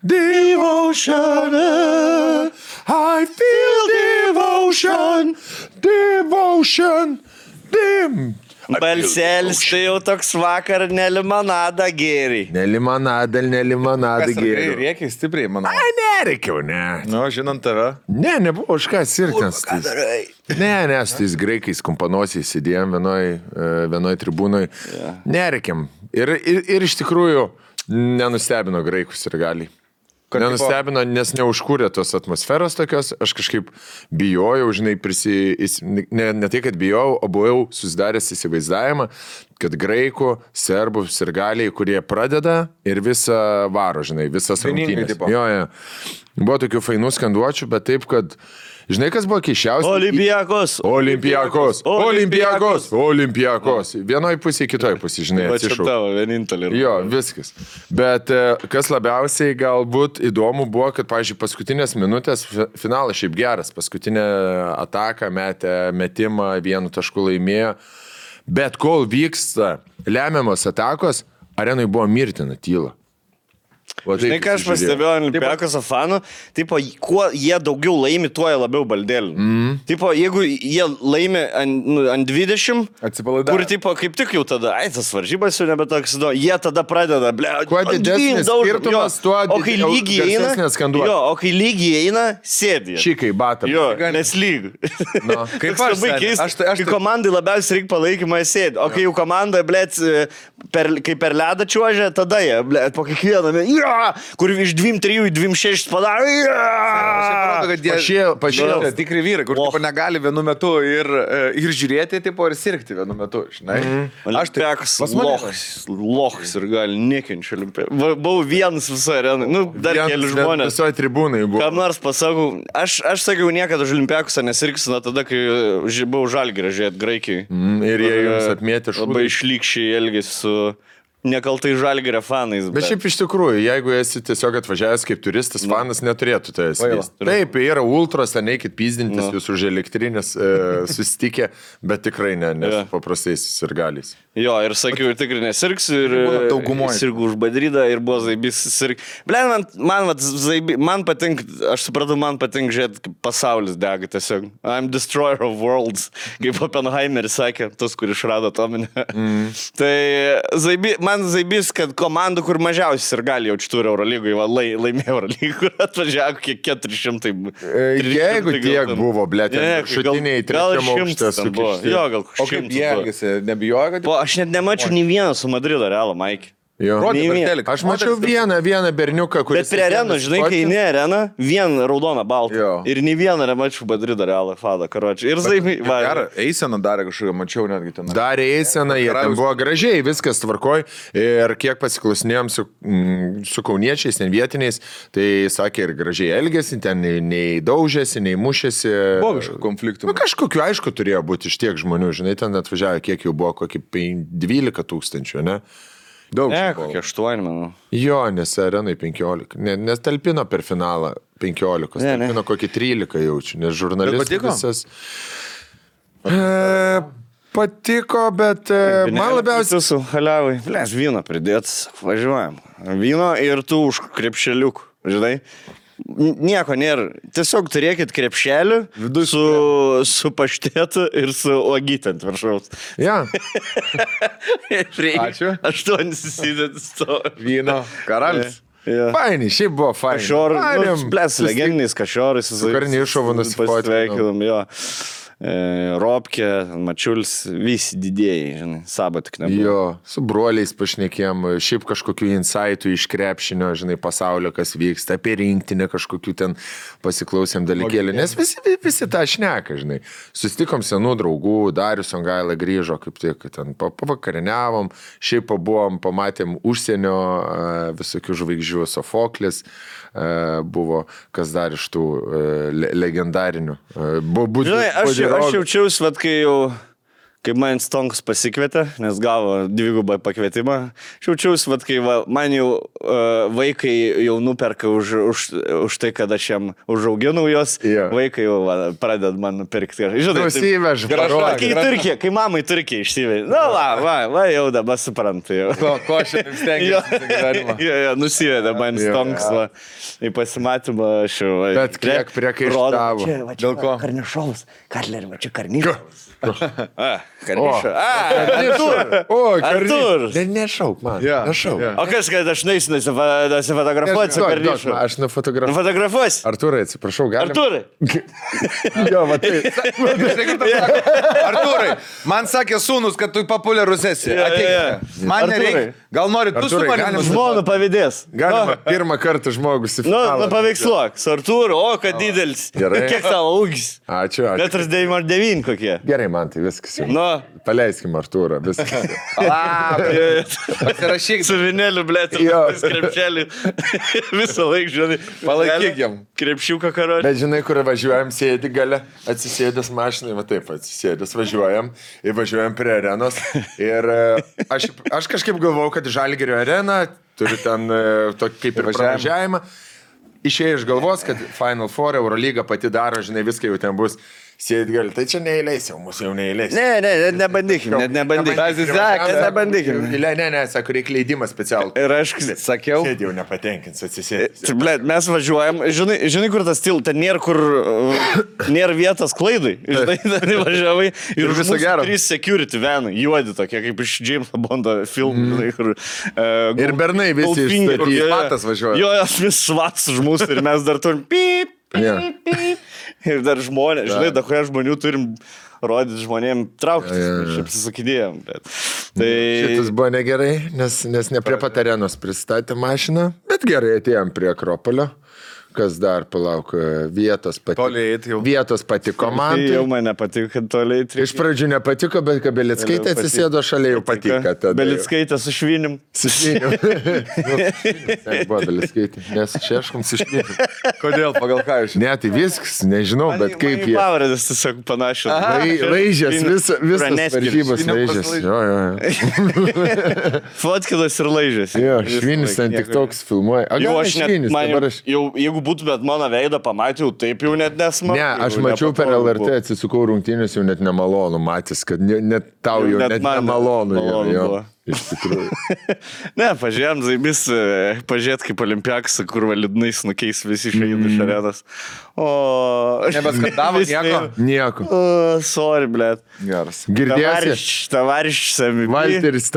Devotion, I feel devotion, devotion, Balselis tai jau toks vakar nelimonadą gėrį. Nelimonadą gėriau. Rėkiai stipriai, manau. Ai, nereikiau, ne. Nu, žinant tave. Ne, nebuvo už ką sirgtis. Ne, su tais graikais kompanosiais sėdėjom vienoj tribūnoj. Yeah. Nereikiam. Ir iš tikrųjų nenustebino graikus ir gali. Nenustebino, nes neužkūrė tos atmosferos tokios, aš kažkaip bijojau, žinai, ne tai, kad bijojau, o buvau susidaręs įsivaizdavimą, kad graikų, serbų, sirgaliai, kurie pradeda ir visą varo, žinai, visas rungtynės. Jo. Buvo tokių fainų skanduočių, bet taip, kad žinai, kas buvo keiščiausia? Olimpiakos. Vienoj pusėje, kitoj pusėje, žinai, atsišau. Tavo vienintelė. Jo, viskas. Bet kas labiausiai galbūt įdomu buvo, kad, pavyzdžiui, paskutinės minutės finalas šiaip geras. Paskutinę ataką metimą 1 tašku laimėjo. Bet kol vyksta lemiamos atakos, arenui buvo mirtina tyla. Žinai, ką aš pastebėjau Olimpiakos fanų, tipo, kuo jie daugiau laimi, tuo jie labiau baldėlina. Tipo, jeigu jie laimi ant 20, kur, tipo, kaip tik jau tada, tas varžybas jau nebe toks, jie tada pradeda, kuo didesnis skirtumas, tuo o kai lygiai eina, sėdi. Šikai batam. Jo, nes lyg. No, kaip aš labai keista. Kai komandai labiausiai reikia palaikymą, sėdi. O kai jau komanda, kai per ledą čiuožia, tada jie, po kiekvieną, kur iš 2-3 į 2-6 padaro. Pašėlė tikri vyrai, kur tipo, negali vienu metu ir žiūrėti, tipo, ir sirgti vienu metu. Aš Olimpiakos lochas ir gali nekenčiu Olimpiakos. Buvau vienas visą areną. Nu, dar keli žmonės. Visoje tribūnai buvo. Kam nors pasakau, aš sakiau niekada už Olimpiakosą nesirgsiu, tada, kai buvau Žalgirį žiūrėti Graikijai. Ir jie jums atmėtė šūdą. Labai išlykščiai elgėsi su nekaltai Žalgirio fanais. Bet šiaip iš tikrųjų, jeigu esi tiesiog atvažiavęs kaip turistas, fanas neturėtų tai esi. Taip, yra ultros, neikit pyzdintis jūs už elektrinės susitikę, bet tikrai ne su paprastais sirgaliais. Jo, ir sakiau, ir tikrai nesirgsiu, ir sirgu už Madridą, ir buvo Zaibys sirg. Man patinka, aš supratau, man patinka žiūrėti, kaip pasaulis dega tiesiog. I'm destroyer of worlds, kaip Oppenheimeris sakė, tas, kur išrado atominę. Tai man Zaibys, kad komandų, kur mažiausiai sirgaliai jaučiu turi Eurolygoje, laimėjo Eurolygoje, kur atvažiavo kiek 400. Jeigu tiek buvo, blėt, šutiniai trečiam aukštą sukišti. Jo, gal 100. O kaip jie elgėsi, nebijojo, kad... Aš net nemačiau nei vieną su Madrido Realo, Maikį. Aš mačiau vieną berniuką, kuris... Bet prie areną, žinai, kai eini areną, vien raudoną baltą. Ir nei vieną nemačiau Madrido Realą, Fadą, karočią. Ir Zaibį... Eiseną darė kažkokią, mačiau netgi ten. Darė eiseną, jie ten buvo gražiai, viskas tvarkoj. Ir kiek pasiklausinėjom su kauniečiais, ten vietiniais, tai sakė ir gražiai elgėsi, ten nei daužėsi, nei mušėsi. Buvo kažkokių konfliktų. Kažkokiu, aišku, turėjo būti iš tiek žmonių, žinai, ten atvažiavo, kiek jau buvo, kokį 12 000, ne? Daug. Kokie 8, manau. Jo, nes arenai 15. Nes talpino per finalą 15. Talpino kokį 13 jaučiu, nes žurnalistas visas... Patiko, bet man labiausiai... Su haliavai. Vyno pridėtas, važiuojam. Vyno ir tu už krepšeliukų, žinai. Nieko nėra. Tiesiog turėkit krepšelį su paštėtu ir su uogyte ant viršaus. Ja. Ačiū. 8 susidėtis to. Vyno karalis. Fainai, šiaip buvo fainai. Kašiorai, legendiniais kašiorais. Su karniai išovu nusifotveikėdam, jo. Robkė, Mačiulis, visi didėjai, žinai, Saba tik nebuvo. Jo, su broliais pašnekėm, šiaip kažkokių insightų iš krepšinio, žinai, pasaulio, kas vyksta, apie rinktinę kažkokių ten pasiklausėm dalykėlį, nes visi tą šneka, žinai. Susitikom senų draugų, Darius Songaila grįžo, kaip tik, ten pavakarieniavom, šiaip pabuvom, pamatėm užsienio visokių žvaigždžių, Sofoklis buvo, kas dar iš tų legendarinių. Žinai, aš jaučiausi, vat, kaip man Stonkus pasikvietė, nes gavo 2 pakvietimą. Šiaučiausi, vat, kai man jau vaikai jau nuperka už tai, kad aš jam užauginau jos, vaikai jau pradeda man nupirkti. Žinai, Nusivež, kai mamai Turkija išsivežė. Va, jau dabar suprantu. Ko aš šiandien stengiuosi. Nusivedė man Stonkus į pasimatymą. Bet kiek priekaištavo. Dėl ko? Karnišovas. Katlerį, va čia Karnišovas. Karnišovas. Artur. Nešauk man. Nešauk. O kas, kad aš neįsiu nusifotografuoti su Karnišovu? Aš nufotografuosiu. Nufotografuosiu? Arturai, atsiprašau, galim? Arturai. Jo, va tai. Arturai, man sakė sūnus, kad tu populiarus esi. Ateik. Man nereikia. Gal nori tu su manim? Žmona pavydės. Galima pirmą kartą žmogus į finalą. Paveiksluok. Su Arturu, o, kad didelis. Gerai. Kiek tavo ūgis? Ačiū. 1,99 kokie. Gerai, man tai viskas jau. Nu. Paleiskim Arturą, viskas. Pasirašyk. Su vineliu, blėt, ir krepšelį. Visą laiką, žinai. Palaikyk jam. Krepšiuką karočią. Bet žinai, kur važiuojam, sėdi gale, atsisėdęs mašinai, va taip, atsisėdęs važiuojam, ir važiuojam prie arenos. Ir aš kažkaip galvojau, kad Žalgirio arena turi ten tokį kaip ir pravažiavimą. Išėjo iš galvos, kad Final Four Eurolyga pati daro, žinai, viską jau ten bus. Sėdit gali, tai čia neįleis jau, mūsų jau neįleis. Nebandykim. Nebandykim. Ne, sako, reikia leidimą specialų. Ir aš sakiau. Sėdėjau nepatenkins, atsisėdęs. Blėt, mes važiuojam, žinai, kur tas til, ten nėra kur, nėra vietos klaidai. Žinai, ten važiavai ir viso gero. 3 security venai, juodi tokie, kaip iš Jameso Bondo filmų. Ir bernai visi išstatyti. Svatas važiuoja. Jo, vis svats už mūsų ir mes dar turim pip. Ir dar žmonės, žinai, da kurie žmonių turim rodyti žmonėm trauktis, mes apsisakinėjom. Tai... Šitas buvo negerai, nes ne prie pat arenos pristatė mašiną, bet gerai atėjom prie Akropolio. Kas dar, palauk, vietos patiko man. Tai jau man nepatiko, kad toliai. Iš pradžių nepatiko, bet kai Belickaitė atsisėdo šalia, jau patiko. Belickaitė su švinim. Su švinim. Buvo Belickaitė, nes šeškom su švinim. Kodėl, pagal ką jūs? Ne, tai viskas, nežinau, bet kaip jie. Pavardės tiesiog panašios. Laižės, visas varžybos laižės. Jo. Fotkilas ir laižės. Jo, švinis ten tik toks filmuoja. Jeigu būtumėt mano veidą pamatėjau, taip jau net nesmagu. Ne, aš mačiau per LRT, atsisukau rungtynės, jau net nemalonu matys, kad net tau jau net nemalonu. Iš tikrųjų. Ne, pažiūrėjom, Zaibis, pažiūrėt kaip Olimpiakas, kur validnais nukeis visi išėjimai iš arenos. O... Nebeskandavo nieko. Sorry, blėt. Geras. Girdėsi? Tavariš Sami. Valteris,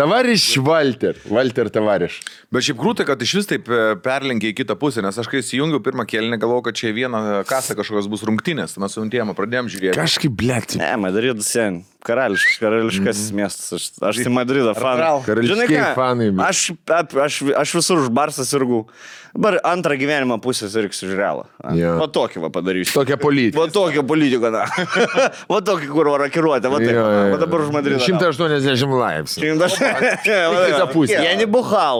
Valter tavariš. Bet šiaip krūtai, kad iš vis taip perlenkė į kitą pusę, nes aš kai įsijungiau pirmą kėlinį, galvojau, kad čia vieną kasą kažkokios bus rungtynės, mes su Untėma pradėjom žiūrėti. Kažkaip, blėt. Ne, Madridas sen. Karališkas miestas. Aš tai Madrido fanas. Karališkiai fanai. Aš visur už Barsą sirgau. Dabar antrą gyvenimą pusę sirgsiu už Realą. Va tokį va padarysiu. Tokią politiką. Va tokią politiką, na. Va tokį, kur rakiruotė. Va taip. Va dabar už Madridą. 180 laipsnių. Kita pusė. Я не бухал.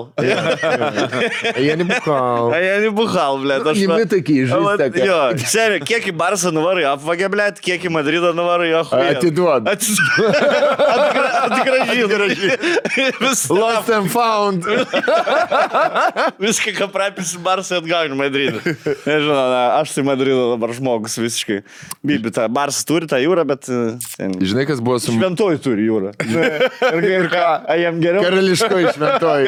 Я не бухал, блядь. Не такие жизнь такая. Jo, seniai, kiek į Barsą nuvarai apvagė, blėt, kiek į Madridą nuvarai apvagė. Atiduod. Atgražy. Lost and found. Viską, ką prapisi Barsą atgauni Madridą. Nežinau, aš tai Madrido dabar žmogus visiškai. Bibi, ta Barsas turi tą jūrą, bet... Žinai, kas buvo su... Šventoji turi jūrą. Ir ką? Jam geriau? Karališkoji šventoji.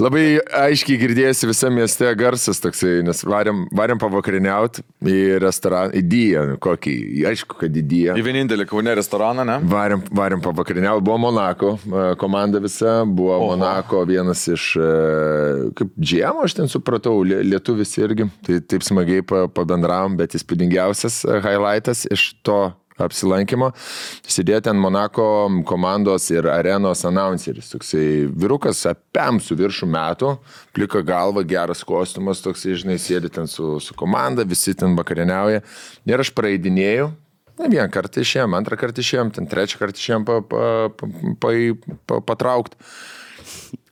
Labai aiškiai girdėjosi visame mieste garsas toksai, nes varėm pavakariniauti į restoraną, į Diją, kokį, aišku, kad į Diją. Į vienintelį Kaune restoraną, ne? Varėm pavakariniauti, buvo Monako komanda visa, buvo Monako vienas iš, kaip džiemo, aš ten supratau, lietuvis irgi, tai taip smagiai pabendravom, bet įspūdingiausias highlightas iš to apsilankimo, sėdėjo ten Monako komandos ir arenos announceris, toksai vyrukas apem su viršų metų, plika galva, geras kostiumas, toksai, žinai, sėdi ten su komanda, visi ten vakarieniauja ir aš praeidinėjau, vieną kartą išėjom, antrą kartą išėjom, ten trečią kartą išėjom patraukti.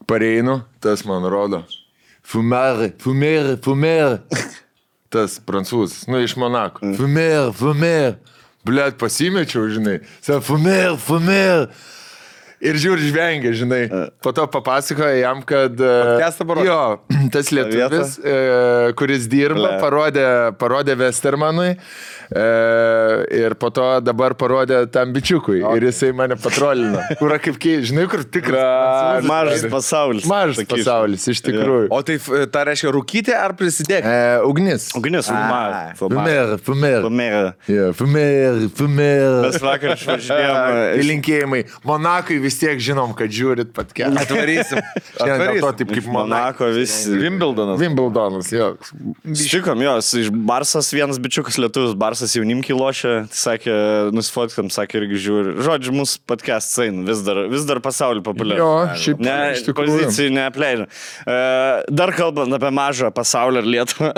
Pareinu, tas man rodo, fumere. Tas prancūzas, iš Monako, fumere. Blet, pasimečiau, žinai. Sako, fumer. Ir žiūri, žvengia, žinai. Po to papasakoja jam, kad... Podcastą parodė? Jo, tas lietuvis, kuris dirba, parodė Westermanui. Ir po to dabar parodė tam bičiukui. Okay. Ir jisai mane patrolino. Kur kaip žinai, kur tikras. Mažas pasaulis. Mažas pasaulis, iš tikrųjų. O tai ta reiškia rūkyti ar prisidėti? Ugnis. Ugnis, Fumer. Mes vakar išvažinėjom. Linkėjimai. Monakai vis tiek žinom, kad žiūrit podcastą. Atvarysim. Dėl to taip kaip Monako visi. Wimbledonas, jo. Štikom, jos, iš Barsas vienas bičiukas lietuvis, Barsas jaunimkiai lošia, sakė, nusifotkiam, sakė irgi žiūri. Žodžiu, mūsų podcastas eina, vis dar pasaulį populiarų. Jo, šiaip iš tikrųjų. Pozicijų neapleidžia. Dar kalbant apie mažą pasaulį ir Lietuvą,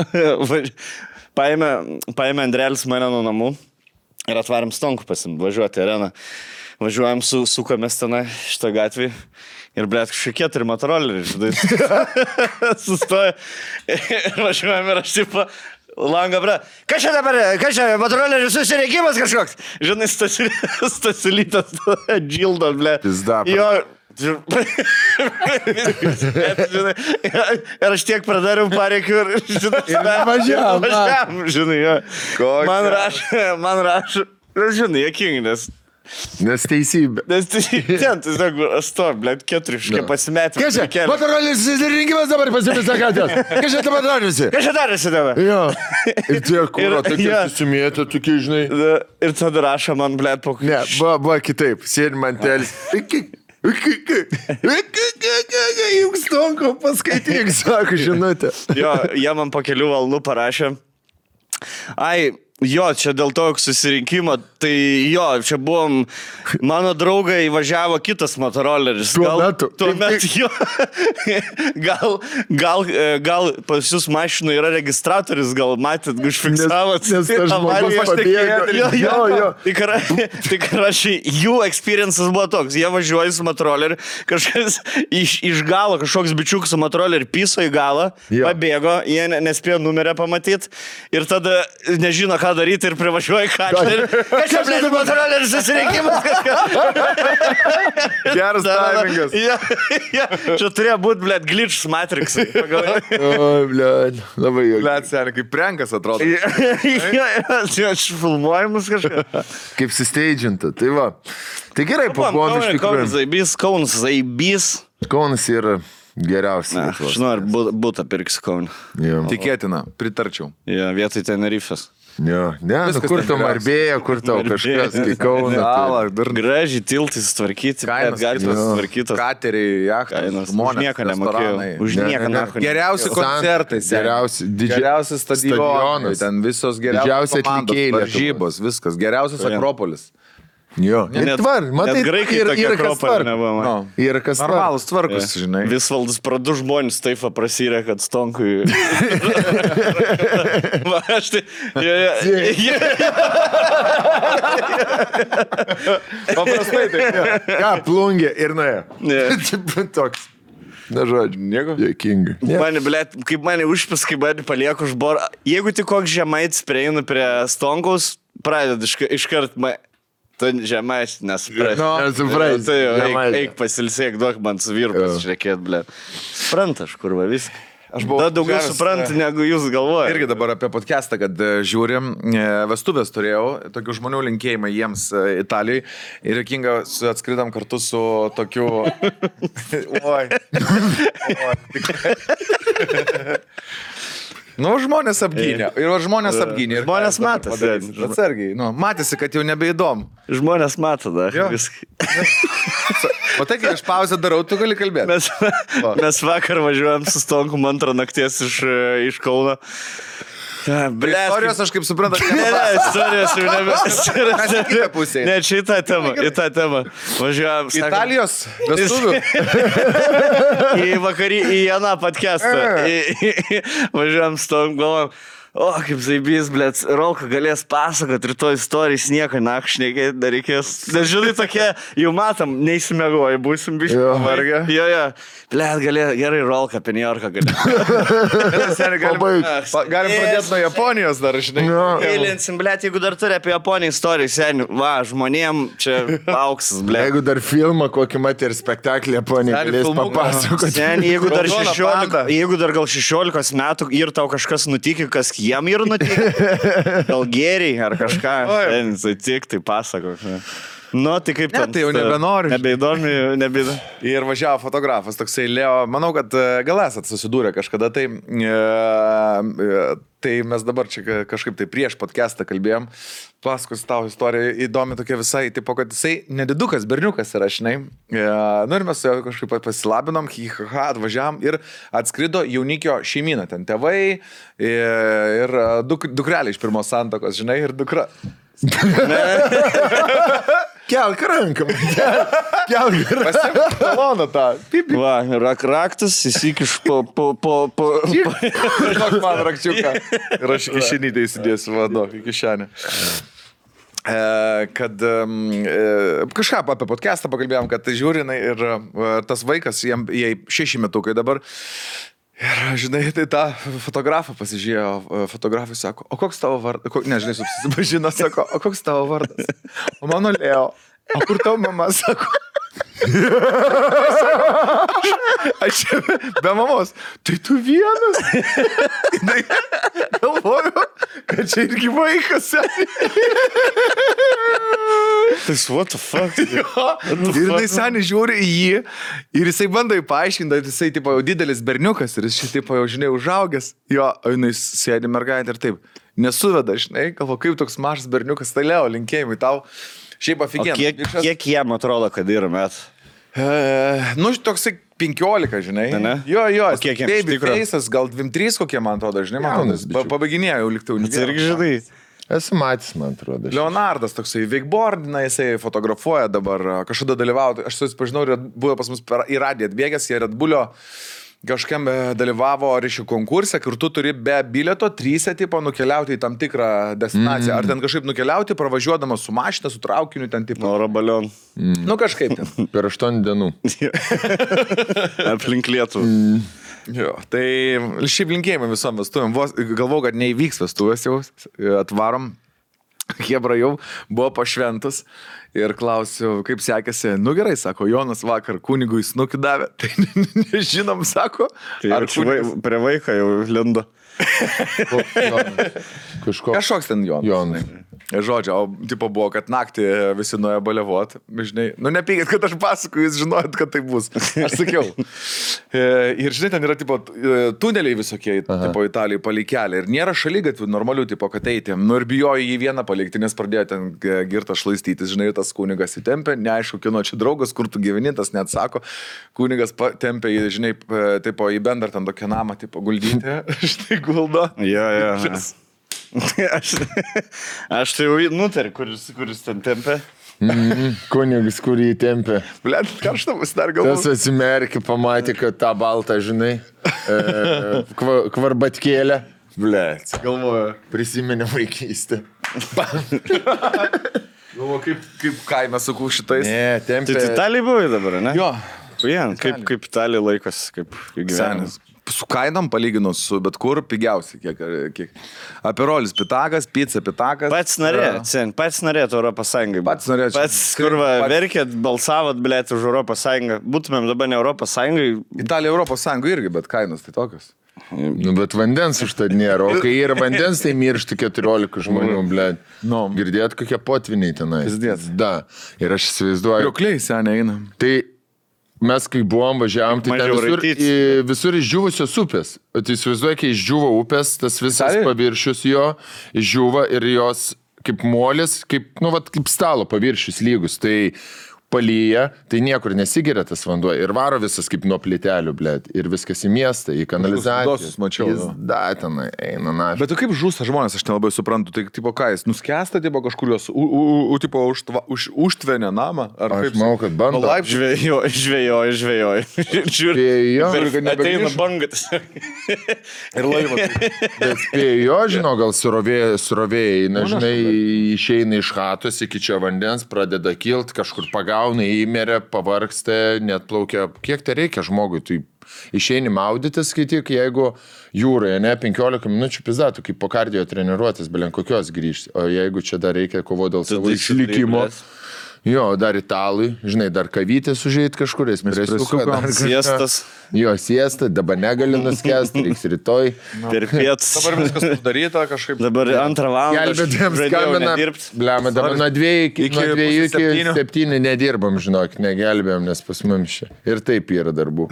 paėmė Andrelis mane nuo namų ir atvarėm Stonkų važiuoti į areną. Važiuojam, sukamės tenai šitą gatvį ir, blėt, kažkokie 4 motoroleriai, žinai. Sustoja ir važiuojam ir aš tipo langą, blėt. Kas čia motorolerių susireikimas kažkoks? Žinai, Stasilytas džildo, blėt. Jo. Ir aš tiek pradariau pareikių ir, žinai, važiavam, žinai, jo. Man rašo, žinai, jokingi, Nes teisybė. Ten, tiesiog, aš to, blėt, 4 pasimetė. Kas čia? Motorolės susirinkimas dabar pasipisa katės. Kas čia dabar darėsi? Kas čia darėsi dabar? Jo. Ir tie kūro, tokie susimėtė, tokie, žinai. Ir tada rašo man, blėt, po... Ne, buvo kitaip. Sėdi man telis. Juk Stonko paskaityk, sako, žinutė. Jo, jie man po kelių valandų parašė. Jo, čia dėl to susirinkimo, tai jo, čia buvom, mano draugai įvažiavo kitas motoroleris. Tuomet jo, gal pas jūs mašinų yra registratorius, gal matėt, užfiksavot. Nes tas žmogus pabėgo. Jo. Tai rašai, jų experiences buvo toks, jie važiuoja su motoroleriu, kažkas iš galo, kažkoks bičiukas su motoroleriu piso į galą, pabėgo, jie nespėjo numerę pamatyti ir tada nežino, ką daryti ir privažiuoja kačerį. Kas čia, blėt, motorolerių susirinkimas kažką? Geras timingas. Čia turėjo būti, blėt, glitch Matrixai. O, blėt, labai jau. Blėt, seniai, kaip prankas atrodo. Aš filmuojamus kažką. Kaip susteidžinta, tai va. Tai gerai, pabuvom iš tikrųjų. Kaunas Zaibys. Kaunas yra geriausias. Aš noriu būtą pirksiu Kauną. Tikėtina, pritarčiau. Vietoj Tenerifės. Jo, ne, kur tau Marbėja, kur tau kažkas, kai Kauną. Gražiai tiltai sutvarkyti, gatvės sutvarkytos. Kateriai, jachtai, žmonės, už nieką nemokėjau. Už nieką nemokėjau. Geriausi koncertai, geriausi stadionai, ten visos geriausios komandos, varžybos, viskas, geriausias Akropolis. Jo, net matai, graikai tokie Akropolį nebuvo. Yra kas normalus tvarkus, žinai. Visvaldas du žmonės taip prasirė, kad Stonkui. Va, aš tai... Paprastai taip. Ką, plungė ir nuėjo. Toks. Na, žodžiu, nieko. Dėkingai. Mane, blėt, kaip mane užpis, kaip mane palieku už borą. Jeigu tik koks žemaitis prieinu prie Stonkaus, pradedu iškart... Tu žemais nesupras. Nesupras. Tai eik pasilsėk, duok man su vyru pasišnekėt, blė. Supranta, aš kurva viską. Da daugiau supranta, negu jūs galvojate. Irgi dabar apie podcastą, kad žiūrim, vestuvės turėjau, tokių žmonių linkėjimai jiems Italijai ir jokinga atskridam kartu su tokiu... Oi. Nu, žmonės apgynė. Ir žmonės apgynė. Žmonės matėsi. Atsargiai. Nu, matėsi, kad jau nebeįdomu. Žmonės mato, da. O tai, kai aš pauzę darau, tu gali kalbėti. Mes vakar važiuojam su Stonku antrą nakties iš Kauno. Istorijos aš kaip suprantu, istorijos jau kitą pusę. Ne, čia į tą temą. Važiuojam. Italijos vestuvių. Į aną podcastą. Važiuojam su tom galvom. O, kaip zaibys, blėt, Rolka galės pasakot rytoj istorijas, nieko nakšnekėti, dar reikės. Nes žinai, tokie, jau matom, neįsimiegoji, būsim biškai pavargę. Jo, blėt, gerai, Rolka apie New Yorką galės. Galim pradėti nuo Japonijos dar, žinai. Eilinsim, blėt, jeigu dar turi apie Japoniją istoriją, seniai, va, žmonėm čia auksas, blėt. Jeigu dar filmą kokį matė ir spektaklį Japonija galės papasakoti. Seniai, jeigu dar gal 16 metų ir tau kažkas nutikė, kas jam ir nutikė, gal geriai ar kažką, tik tai pasako. Nu, tai kaip ten. Tai jau nebenori. Nebeįdomi. Ir važiavo fotografas, toksai Leo, manau, kad gal esat susidūrę kažkada, tai mes dabar čia kažkaip tai prieš podcastą kalbėjom, pasakos tau istoriją įdomi tokia visai, tipo, kad jisai nedidukas, berniukas yra, žinai. Nu ir mes su juo kažkaip pasilabinom, atvažiavom ir atskrido jaunikio šeimyną, ten tėvai ir dukrelė iš pirmos santokos, žinai, ir dukra. Kelk ranką, kelk ranką. Pasimk taloną tą. Va, raktas, įsikiš po... Žinok man rakčiuką. Ir aš į kišenytę įsidėsiu, vado, į kišenę. Kad kažką apie podcastą pakalbėjom, kad tai žiūrinai ir tas vaikas, jai 6 metukai dabar. Ir, žinai, tai tą fotografą pasižiūrėjo, fotografai sako, o koks tavo vardas, nežinai, susipažino, sako, o koks tavo vardas? O mano Leo, o kur tavo mama, sako? Aš be mamos, tai tu vienas? Galvoju, kad čia irgi vaikas. Tai what the fuck? Ir jinai seniai žiūri į jį ir jisai bando paaiškinti, kad jisai tipo, jau didelis berniukas ir jis šitai jau, žinai, užaugęs. Jo, jinai sėdi mergaitė ir taip, nesuveda, žinai, galvo, kaip toks mažas berniukas, tai Leo, linkėjimai tau. Šiaip aфиген. Kiek jam atrodo, kad yra met? Nu, toksai 15, žinai. Ne? Jo, O kiek jam baby iš tikro? face'as, gal 23 kokie, man atrodo, žinai, Jaunas bičiukas. pabaiginėjau liktai Tai irgi žinai. Esu matęs, man atrodo. Leonardas toksai wakeboardina, jisai fotografuoja dabar, kažkada dalyvauti, aš susipažinau ir buvo pas mus į radiją atbėgęs, jie Red Bullio kažkam dalyvavo ryšių konkurse, kur tu turi be bilieto 3 tipo nukeliauti į tam tikrą destinaciją. Ar ten kažkaip nukeliauti, pravažiuodamas su mašina, su traukiniu, ten tipo. Oro balion. Nu kažkaip ten. Per 8 dienų. Aplink Lietuvą. Jo, tai šiaip linkėjimai visom vestuvėm. Galvau, kad neįvyks vestuvės jau, atvarom. Hebra jau buvo pašventas ir klausiu, kaip sekėsi. Nu gerai, sako, Jonas vakar kunigui snukį davė. Tai nežinom, sako. Tai ar prie vaiką jau lindo? Kažkoks ten Jonas. Žodžiu, o tipo buvo, kad naktį visi nuėjo baliavot. Žinai, nu nepykit, kad aš pasakoju, jūs žinojot, kad tai bus. Aš sakiau. Ir žinai, ten yra tipo tuneliai visokie, tipo Italijai palikeliai. Ir nėra šaligatvių normalių, tipo, kad eiti. Nu ir bijojo jį vieną palikti, nes pradėjo ten girtą šlaistytis. Žinai, tas kunigas įtempė, neaišku, kino čia draugas, kur tu gyveni, tas neatsako. Kunigas tempė jį, žinai, tipo, į bendrą ten tokią namą, tipo, guldyti. Štai guldo. Jo. Aš tai jau nutariu, kuris ten tempė. Kunigas, kurį tempė. Blet, karštą dar galvoju. Tas atsimerkė, pamatė, kad tą baltą, žinai, kvarbatkėlę. Blet, Galvoju. prisiminė vaikystę. Galvoju, kaip kaime sakau šitais. Ne, tempė. Tai Italijai buvai dabar, ne? Jo. Kaip Italija laikas, kaip gyvenimas. Su kainom palyginus su bet kur pigiausiai, kiek. Aperolis pitakas, pizza pitakas. Pats norėtų Europos Sąjungai. Pats norėčiau. Pats, kur verkėt, balsavot, blėt, už Europos Sąjungą. Būtumėm dabar ne Europos Sąjungai. Italija Europos Sąjunga irgi, bet kainos tai tokios. Nu, bet vandens užtad nėra. O kai yra vandens, tai miršta 14 žmonių, blėt. Nu. Girdėt, kokie potviniai tenai. Pizdėt. Da. Ir aš įsivaizduoju. Kriokliai seniai eina. Tai mes, kai buvom, važiavom, tai ten Mažiau visur išdžiūvusios upės. Tai įsivaizduoju, kai išdžiūvo upės, tas visas Italijoj? paviršius jo išdžiūva ir jos kaip molis, kaip, nu, vat, kaip stalo paviršius lygus. Tai palyja, tai niekur nesigeria tas vanduo ir varo visas kaip nuo plitelių, blėt, ir viskas į miestą, į kanalizaciją. Dosus mačiau. Jis datenai eina, na. Bet tu kaip žūsta žmonės, aš nelabai suprantu, tai tipo ką, jis nuskęsta, tipo kažkur jos, užtvenė namą, ar Aš kaip? manau, kad bando. Žvejoju. Spėjo, Ateina bangas. Ir laivas. bet spėjo, žinau, gal surovėjai, na, žinai, išeina iš chatos iki čia vandens, pradeda kilt, kažkur pagauna, įmeria, pavargsta, net plaukia. Kiek tai reikia žmogui? Tai išeini maudytis, skaityk, jeigu jūroje, ne, 15 minučių pizdatų, kaip po kardio treniruotis, belen kokios grįžti. O jeigu čia dar reikia kovo dėl savo išlikimo. Jo, dar italai, žinai, dar kavytės užėjti kažkur, espresuką, dar Siestas. Jo, siesta, dabar negali nuskęsti, reiks rytoj. Per pietus. Dabar viskas sudaryta kažkaip. Dabar 2 valandą. Gelbėtėms skambina. Blema, dabar nuo 2 iki 7 nedirbam, žinok, negelbėjom, nes pas mums čia. Ir taip yra darbų.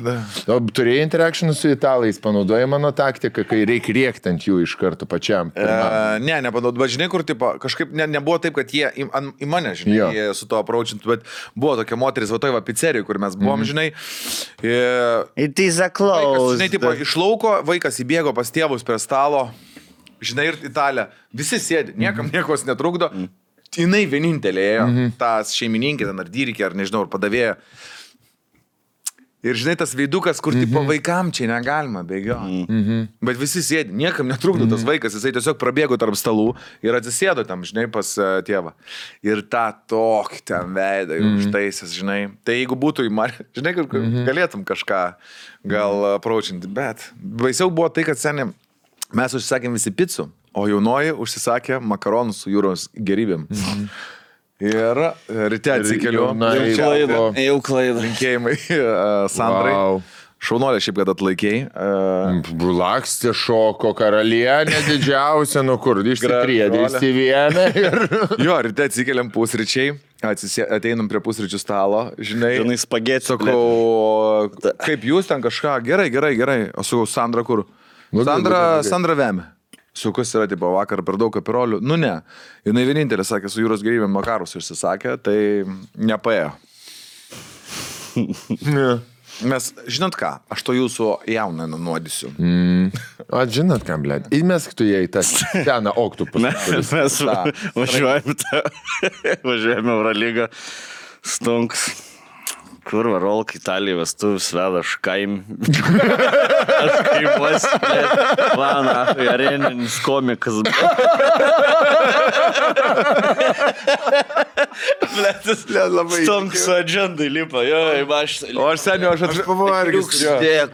O turėjai interakcijų su italais, panaudojai mano taktiką, kai reikia rėkti ant jų iš karto pačiam. Ne, nepanaudojau, bet žinai, kur tipo, kažkaip nebuvo taip, kad jie į mane, žinai, jie su to approachint, bet buvo tokia moteris, va toj va pizzerijoje, kur mes buvom, žinai. It is a Vaikas, close. žinai, tipo, iš lauko vaikas įbėgo pas tėvus prie stalo, žinai, ir Italija, visi sėdi, niekam niekos netrukdo, jinai vienintelė ėjo, tas šeimininkė, ten ar dyrikė, ar nežinau, ar padavėja. Ir žinai, tas veidukas, kur tipo vaikam čia negalima bėgioti. Bet visi sėdi, niekam netrukdo tas vaikas, jisai tiesiog prabėgo tarp stalų ir atsisėdo tam, žinai, pas tėvą. Ir tą tokį ten veidą užtaisęs, žinai. Tai jeigu būtų žinai, galėtum kažką gal approachinti, bet baisiau buvo tai, kad seniai mes užsisakėm visi picų, o jaunoji užsisakė makaronus su jūros gerybėm. Ir ryte atsikeliu. Jau klaida. Linkėjimai Sandrai. Wow. Šaunolė šiaip, kad atlaikėjai. Lakstė šoko karalienė didžiausia, nu kur, išsitriedė, išsivėmė. Jo, ryte atsikeliam pusryčiai. Ateinam prie pusryčių stalo, žinai. Žinai, spagėti. Sakau, kaip jūs ten kažką, gerai. O sakau, Sandra kur? Sandra vemė. Sukus yra, tipo, vakar per daug kapirolių. Nu ne. Jinai vienintelė sakė, su jūros gerybėm makarus išsisakė, tai nepaėjo. Mes, žinot ką, aš to jūsų jauną nunuodysiu. O žinot ką, blėt, įmesk tu jai tą seną oktopusą. Mes važiuojame Eurolygą. Stunks. Kur varolk Italija vestuvis veda, aš kaimuos, vana, areninis komikas. Bletis, Stunks su agendai lipa, jo, į mašinę. O aš seniau, aš pavargęs.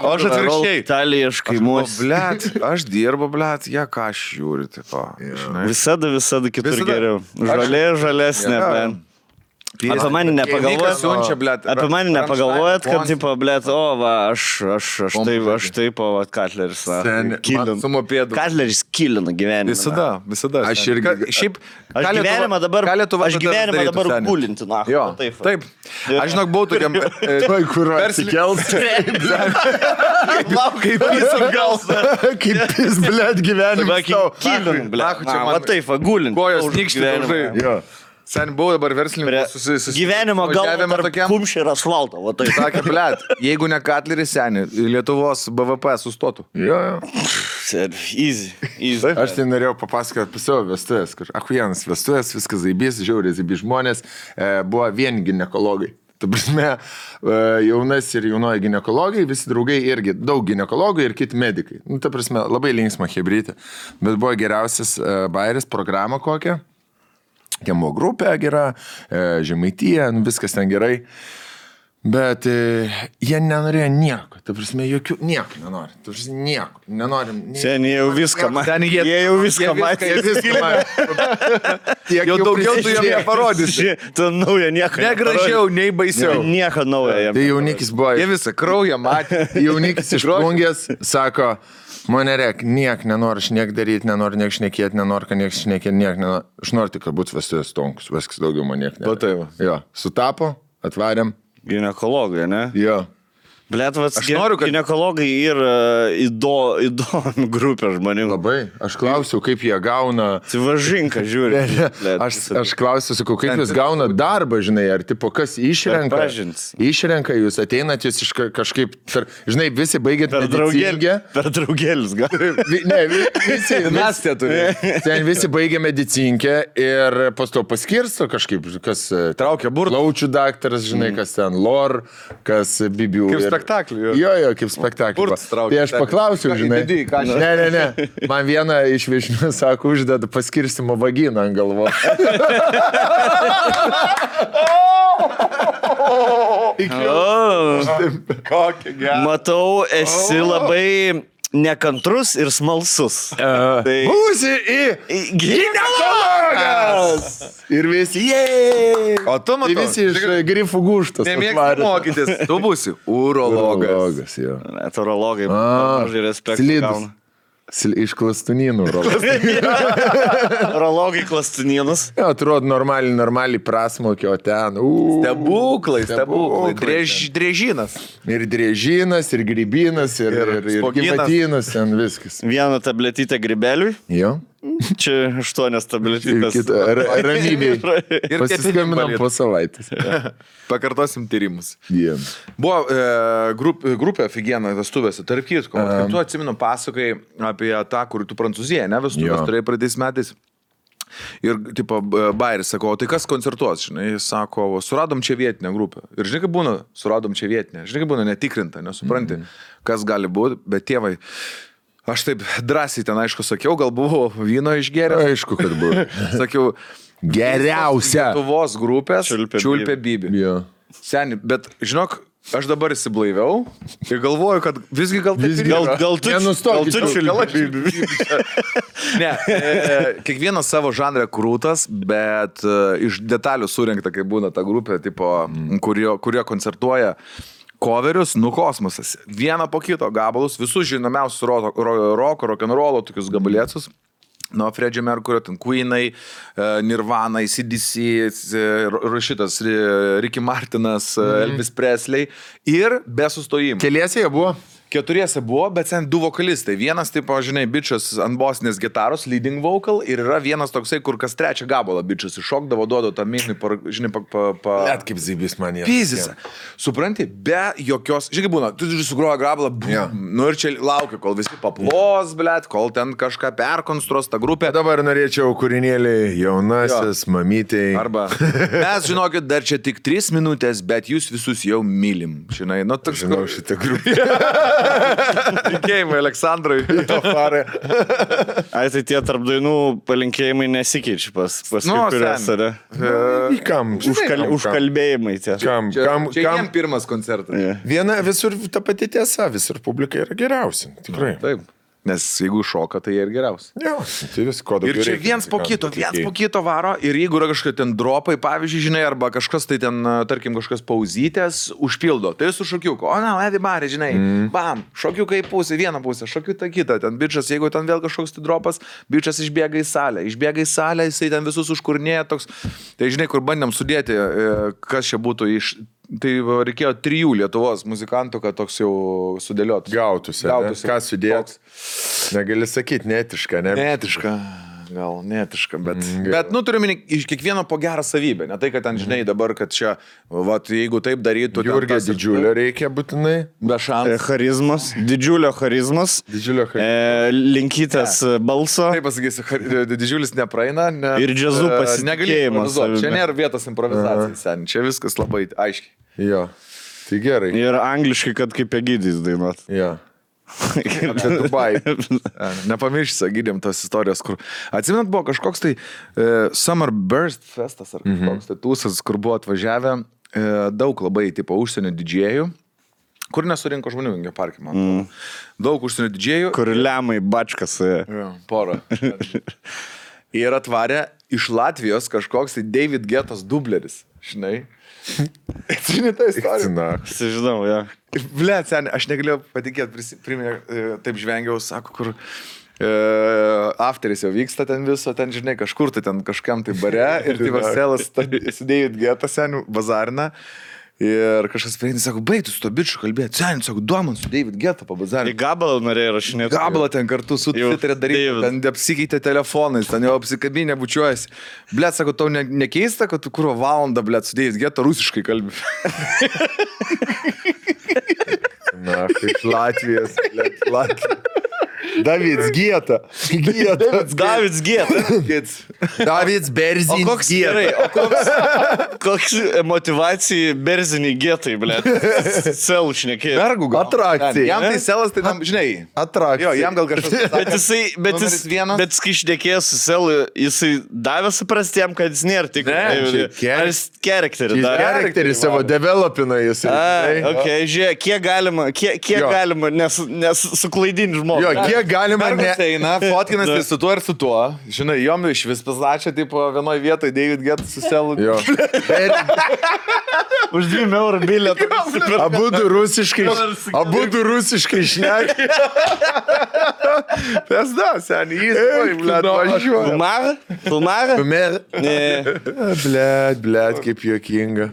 O aš atvirkščiai. Italija, aš kaimuos. Blet, aš dirbu, blet, ką aš žiūriu, tipo. Visada kitur geriau. Žalesnė, man. Apie mane nepagalvojat, kad, tipo, blėt, o, va, aš taip, o, va, Katleris, Katleris kilina gyvenimą. Visada. Aš irgi. Šiaip, Aš gyvenimą dabar gulinti, na. Jo, taip. Aš žinok, buvau tokiam... Tuoj, kur atsikels. Kaip jis atgals. Kaip jis, blėt, gyvenimas. Kilina, blėt. Va, taip, va, gulinti. Kojos nykšti, Jo. Sen buvau dabar verslininkas gyvenimo galva tarp kumščių ir asfalto. Va, taip. Sakė, blėt, jeigu ne Katleris seni, Lietuvos BVP sustotų. Jo. Easy. Aš tai norėjau papasakoti apie savo vestuvės, kur ahujienas vestuvės, viskas zaibys, žiauriai zaibys žmonės, buvo vien ginekologai. Ta prasme, jaunas ir jaunoji ginekologai, visi draugai irgi, daug ginekologų ir kiti medikai. Nu, ta prasme, labai linksma hebrytė, bet buvo geriausias bairis, programa kokia. Kiemo grupė gera, Žemaitija, viskas ten gerai. Bet jie nenorėjo nieko, ta prasme, nieko nenori. Ta prasme, nieko, nenorim. Seniai jau viską matė. Jie jau viską matė. Jau daugiau tu jam neparodysi. Tu naują nieko. Negražiau, nei baisiau. Nieko naujo jam. Tai jaunikis buvo. Jie visą kraują matė. Jaunikis iš plungės sako, mane reik, niek nenori aš niek daryti, nenori niek šnekėti, nenori, kad niek šnekėti, niek nenori. Aš noriu tik, kad būtų vestuvės Stonkus, viskas daugiau man niek nenori. Taip. Jo, sutapo, atvarėm. Ginekologai, ne? Jo. Blet, Aš noriu, kad ginekologai yra įdomi grupė žmonių. Labai. Aš klausiau, kaip jie gauna... Sivažinka, žiūri. Aš klausiu, sakau, kaip jūs gauna darbą, žinai, ar tipo kas išrenka? Išrenka, jūs ateinat, jūs kažkaip, žinai, visi baigėt medicinkę. Per draugėlius, gal? Ne, visi. Mes tie turime. Ten visi baigė medicinkę ir pas to paskirsto kažkaip, kas Traukia burtų. Laučių daktaras, žinai, kas ten lor, kas bibių. Kaip spektaklį. Jo, kaip spektaklį. Burtus traukia. Tai aš paklausiau, žinai. Ką Ne. Man viena iš viešnių sako, uždeda paskirstimo vaginą ant galvos. Kokia gera. Matau, esi labai nekantrus ir smalsus. Tai... Būsi į ginekologas! Ir visi, jei! O tu matai, visi iš grifų gūštas. nemėgsti mokytis, tu būsi urologas. Urologas, jo. Net urologai, mažai respektų gauna. Iš klastunynų urologas. Urologai klastunynus. Jo, atrodo normaliai prasmokio ten. Stebuklai. Drėžinas. Ir drėžinas, ir grybinas, ir spoginas. gyvatynas, ten viskas. Vieną tabletytę grybeliui. Jo. Čia 8 tabletytės. Ramybėj. Ir Pasiskambinam po savaitės. Pakartosim tyrimus. Dien. Buvo grupė Figena vestuvėse, tarp kitko. Tu atsimenu pasakai apie tą, kur tu Prancūziją, ne, vestuvės turėjai pradės metais. Ir, tipo, Bairis sako, o tai kas koncertuos, žinai, jis sako, suradom čia vietinę grupę. Ir žinai, kaip būna, suradom čia vietinę. Žinai, kaip būna netikrinta, nesupranti, kas gali būti, bet tėvai, aš taip drąsiai ten, aišku, sakiau, gal buvo vyno išgėręs. Aišku, kad buvo. Sakiau, Geriausia. Lietuvos grupės Čiulpė Bibi. Jo. Seni, bet žinok, aš dabar įsiblaiviau ir galvoju, kad visgi gal taip ir yra. Gal tu Čiulpė Bibi. Ne, kiekvienas savo žanrą krūtas, bet iš detalių surinkta, kai būna ta grupė, tipo, kurie koncertuoja coverius, kosmosas. Vieną po kito gabalus, visus žinomiausius roko, rock'n'rollo, tokius gabalėcus. Nuo Freddie Mercury, ten Queenai, Nirvana, AC/DC, šitas Ricky Martinas, Elvis Presley ir be sustojimų. Keliese jie buvo? 4 buvo, bet ten 2 vokalistai. Vienas, tipo, žinai, bičias ant bosinės gitaros, leading vocal, ir yra vienas toksai, kur kas trečią gabalą bičias iššokdavo, duodo tą minį, žinai, Net kaip zybis man jie. Pizisa. Supranti, be jokios, žinai, būna, tu sugroja gabalą, nu ir čia laukia, kol visi paplos, blėt, kol ten kažką perkonstruos tą grupę. Dabar norėčiau kūrinėlį jaunasis, mamytei. Arba, mes žinokit, dar čia tik 3 minutės, bet jūs visus jau mylim. Žinai, nu, toks. Žinau šitą grupę. Linkėjimai Aleksandrui. Ai, tai tie tarp dainų palinkėjimai nesikeičia pas kuriuos, ar? Kam? Užkalbėjimai tie. Čia jiem pirmas koncertas. Viena visur ta pati tiesa, visur publika yra geriausia. Tikrai. Taip. Nes jeigu šoka, tai jie ir geriausi. Jo, tai vis ko daugiau. Ir čia viens po kito varo. Ir jeigu yra kažkokie ten dropai, pavyzdžiui, žinai, arba kažkas tai ten, tarkim, kažkas pauzytės, užpildo. Tai su šokiuku. O, na, Edibari, žinai, bam, šokiukai pusė, vieną pusę, šokiuką kitą. Ten bičias, jeigu ten vėl kažkoks tai dropas, bičias išbėga į salę. Išbėga į salę, jisai ten visus užkurnėja toks. Tai žinai, kur bandėm sudėti, kas čia būtų iš... Tai reikėjo 3 Lietuvos muzikantų, kad toks jau sudėliot. Gautųsi. Ką sudėt? Negali sakyti, neetiška, ne? Netiška, bet nu turiu minį iš kiekvieno po gerą savybę. Ne tai, kad ten, žinai, dabar, kad čia, vat, jeigu taip darytų... Jurgio didžiulio reikia būtinai. Be šansų. Charizmas, didžiulio charizmas. Linkytas balso. Taip pasakysiu, didžiulis nepraeina. Ir džiazų pasitikėjimas. Čia nėra vietos improvizacijai, sen. Čia viskas labai aiškiai. Jo, tai gerai. Ir angliškai, kad kaip Egidijus dainuot. Jo. Apie Dubai. Nepamiršti, gydėm tos istorijos, kur... Atsimenat, buvo kažkoks tai Summer Burst festas ar kažkoks tai tūsas, kur buvo atvažiavę daug labai, tipo, užsienio didžėjų, kur nesurinko žmonių Vingio parke, man. Daug užsienio didžėjų. Kur lemai bačkas. Porą. Ir atvarė iš Latvijos kažkoks tai David Guettas dubleris, žinai. Atsimeni tą istoriją? Žinau, ja. Blet, seniai, aš negalėjau patikėti, taip žvengiau, sako, kur afteris jau vyksta ten viso, ten, žinai, kažkur tai ten kažkam tai bare ir tai Marcelas su David Guetta, seniai, bazarina Ir kažkas prieina, sako, baig tu su to bičiu kalbėti. Sen, sako, duoman su David Guetta pabazarė. Į gabalą norėjai rašinėti. Gabalą ten kartu su Twitter'e daryti, ten apsikeitė telefonais, ten jau apsikabinė bučiuojasi. Blet, sako, tau nekeista, kad tu kuro valandą, blet, su David Guetta rusiškai kalbi. Na, kaip Latvijos, blet, Latvijos. Davids Gieta. Davids Gieta. Davids Berzinis O koks gerai, koks motivacija Berzinį Gietai, ble. Selų šnekėjai. Vergų gal. Atrakcija. Jam tai selas, tai tam, žinai. Atrakcija. Jo, jam gal kažkas. Bet kai šnekėjęs su Selu, jisai davė suprasti jam, kad jis nėra tik. Ar jis charakterį davė? Charakterį savo developina jis. Ok, žiūrėk, kiek galima, nes suklaidinti žmogų. Jo, kiek galima eina, fotkinasi su tuo ir su tuo. Žinai, jom iš vis paslačia, tipo, vienoje vietoje David Guetta su Selu. Jo. Už 2 eurų bilietą. Abudu rusiškai šneki. Pesda, seniai, jis, blet, važiuoja. Filmarą? Blet, kaip juokinga.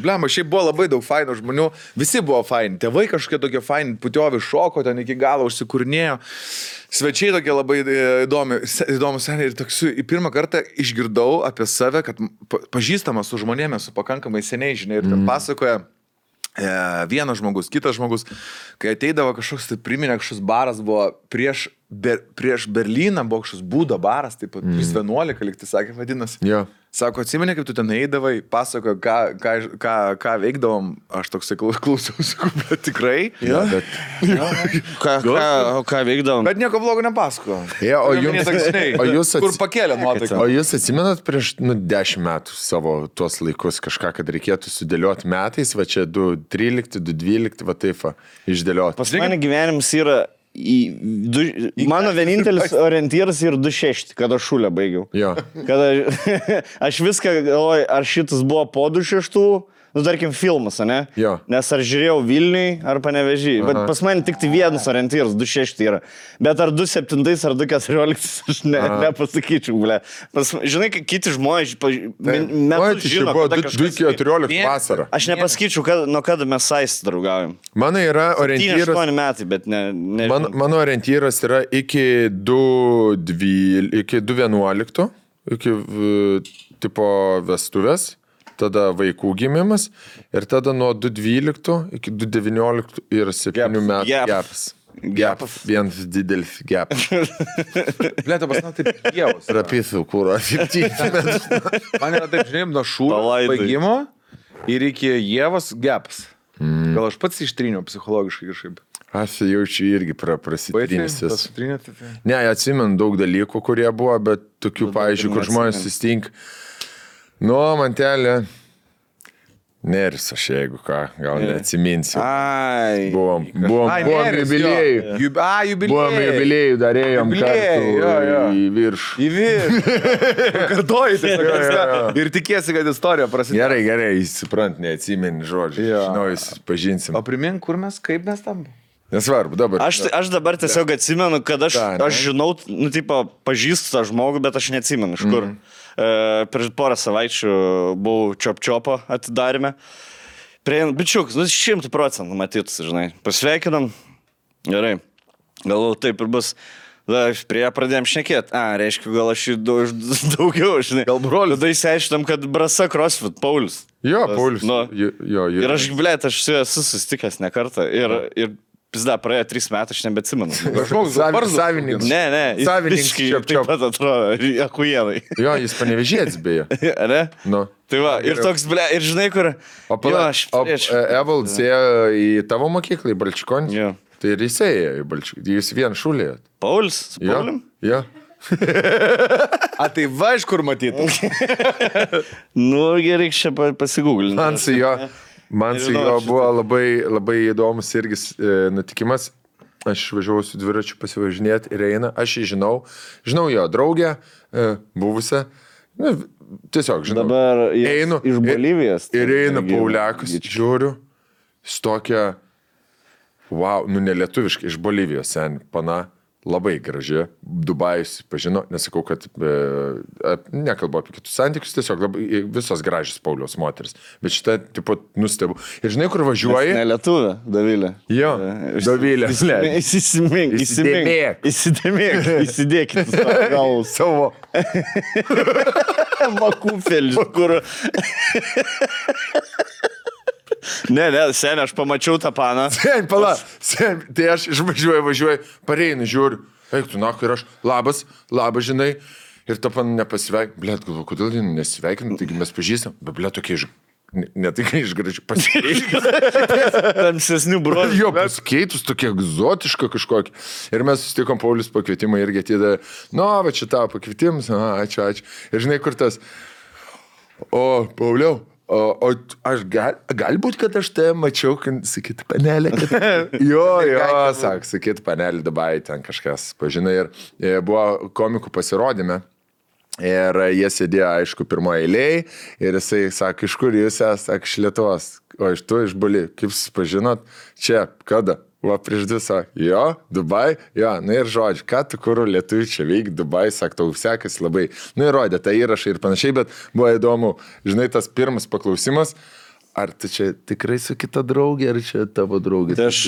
Blema, šiaip buvo labai daug fainų žmonių, visi buvo faini, tėvai kažkokie tokie faini, putiovi šoko, ten iki galo užsikurnėjo, svečiai tokie labai įdomus seniai ir toks, pirmą kartą išgirdau apie save, kad pažįstamas su žmonėmis, su pakankamai seniai, žinai, ir ten pasakoja vienas žmogus, kitas žmogus, kai ateidavo kažkoks, tai priminė kažkoks baras, buvo prieš Berlyną, buvo kažkoks būdo baras, taip pat 11, lyg tai sakė, vadinasi. Jo. Sako, atsimeni, kaip tu ten eidavai, pasakojo, ką veikdavom, aš toksai klausiausi, bet tikrai. Jo, bet... Ką veikdavom? Bet nieko blogo nepasako. Ja, o jūs kur pakėlė nuotaiką. O jūs atsimenat prieš 10 metų savo tuos laikus kažką, kad reikėtų sudėlioti metais, va čia 2.13, 2.12, va taip, išdėlioti. Pas mane gyvenimas yra mano vienintelis orientyras yra 2.6, kada šulę baigiau. Jo. Kada aš viską galvoju, ar šitas buvo po 2.6, nu, tarkim, filmas, ne? Jo. Nes ar žiūrėjau Vilniui, ar Panevėžį. Bet pas mane tik tai vienas orientyras, 2.6 yra. Bet ar 2.7 ar 2.14, aš nepasakyčiau, ble. Žinai, kiti žmonės metus žino, kada kažkas... 2.14 vasarą. Aš nepasakyčiau, nuo kada mes sais draugaujam. Mano yra orientyras... 8 metai, bet ne... Mano orientyras yra iki 2.11, iki tipo vestuvės. Tada vaikų gimimas ir tada nuo 2.12 iki 2.19 ir 7 metų gepas. Vienas didelis gepas. Blėta, pas man taip jėvus. Rapysų kūro, 7 metų. Man yra taip, žinai, nuo šūro baigimo ir iki jėvos gepas. Gal aš pats ištryniau psichologiškai kažkaip. Aš jaučiu irgi prasitrynęs. Tai. Ne, atsimenu daug dalykų, kurie buvo, bet tokių, pavyzdžiui, kur žmonės susitink. Nu, mantelė, neris aš, jeigu ką, gal neatsiminsiu. Buvom jubiliejų. Buvom jubiliejų, darėjom kartu į viršų. Į viršų. Kartuoji tiesiog. Ir tikėsi, kad istorija prasidėjo. Gerai, suprant, neatsimeni žodžių. Žinau, jūs pažinsim. O primink, kur mes, kaip mes tam? Nesvarbu, dabar. Aš dabar tiesiog atsimenu, kad aš žinau, nu, tipo, pažįstu tą žmogų, bet aš neatsimenu, iš kur. Prieš porą savaičių buvau Čop-Čopo atidarime. Bičiuks, 100% matytus, žinai. Pasveikinam. Gerai. Galvoju, taip ir bus. Prie ją pradėjom šnekėti. Reiškia, gal aš daugiau, žinai. Gal broliu. Tada įsiaiškinom, kad Brasa CrossFit, Paulius. Jo, Paulius. Ir aš, blėt, aš su juo esu susitikęs ne kartą. Ir pizda, praėjo 3 metų, aš nebeatsimenu. Savininkas. Ne. Savininkas taip pat atrodo, akujienai. Jo, jis Panevėžietis beje. Ne? Nu. Tai va, ir toks, ble, ir žinai, kur... O Evalds ėjo į tavo mokyklą, į Balčikonį? Jo. Tai ir jis ėjo į Balčikonį. Jūs vien šulėjot. Paulius? Su Paulium? Jo. Tai va, iš kur matyti? Nu, gerai, čia pasigūglinti. Man su jo buvo labai įdomus irgi nutikimas. Aš važiavau su dviračiu pasivažinėti ir eina. Aš jį žinau jo draugę, buvusią. Tiesiog žinau. Dabar einu iš Bolivijos. Ir eina Pauliakas, žiūriu, stokia, wow, nu nelietuviškai, iš Bolivijos, pana. labai graži, Dubajus pažino, nesakau, kad nekalbu apie kitus santykius, tiesiog labai, visos gražios Pauliaus moteris, bet šitą, tipo, nustebu. Ir žinai, kur važiuoji? Ne lietuvė, Dovilė. Jo, Dovilė. Įsidėkit gal Savo. makūfelį, kur... Ne, seniai, aš pamačiau tą paną. Sen, pala, tai aš važiuoju, pareinu, žiūriu, eik tu naku ir aš, labas, žinai, ir ta pan nepasveik, blėt, galvoju, kodėl jį nesveikinam, taigi mes pažįstam, bet blėt, tokie ne tai, kai iš gražių pasikeitus. Tamsesnių bruožų. Jo, pasikeitus, tokie egzotiška kažkokia. Ir mes susitikom Paulius pakvietimą irgi atidavė, va čia tavo pakvietimas, ačiū. Ir žinai, kur tas, Pauliau, o aš galbūt, kad aš tai mačiau, kad sakyti panelė, kad... Jo, sakyti panelė Dubai, ten kažkas pažinai. Ir buvo komikų pasirodyme. Ir jie sėdėjo, aišku, pirmoje eilėje. Ir jisai sako, iš kur jūs esate, sako, iš Lietuvos. O iš tu, iš Bali. Kaip jūs pažinot? Čia, kada? Va, prieš 2 sako, jo, Dubai, jo, ir žodžiu, ką tu kur lietuvių čia veik, Dubai, sako, tau sekasi labai. Ir rodė tą įrašą ir panašiai, bet buvo įdomu, žinai, tas pirmas paklausimas, ar tu čia tikrai su kita draugė, ar čia tavo draugė? Tai aš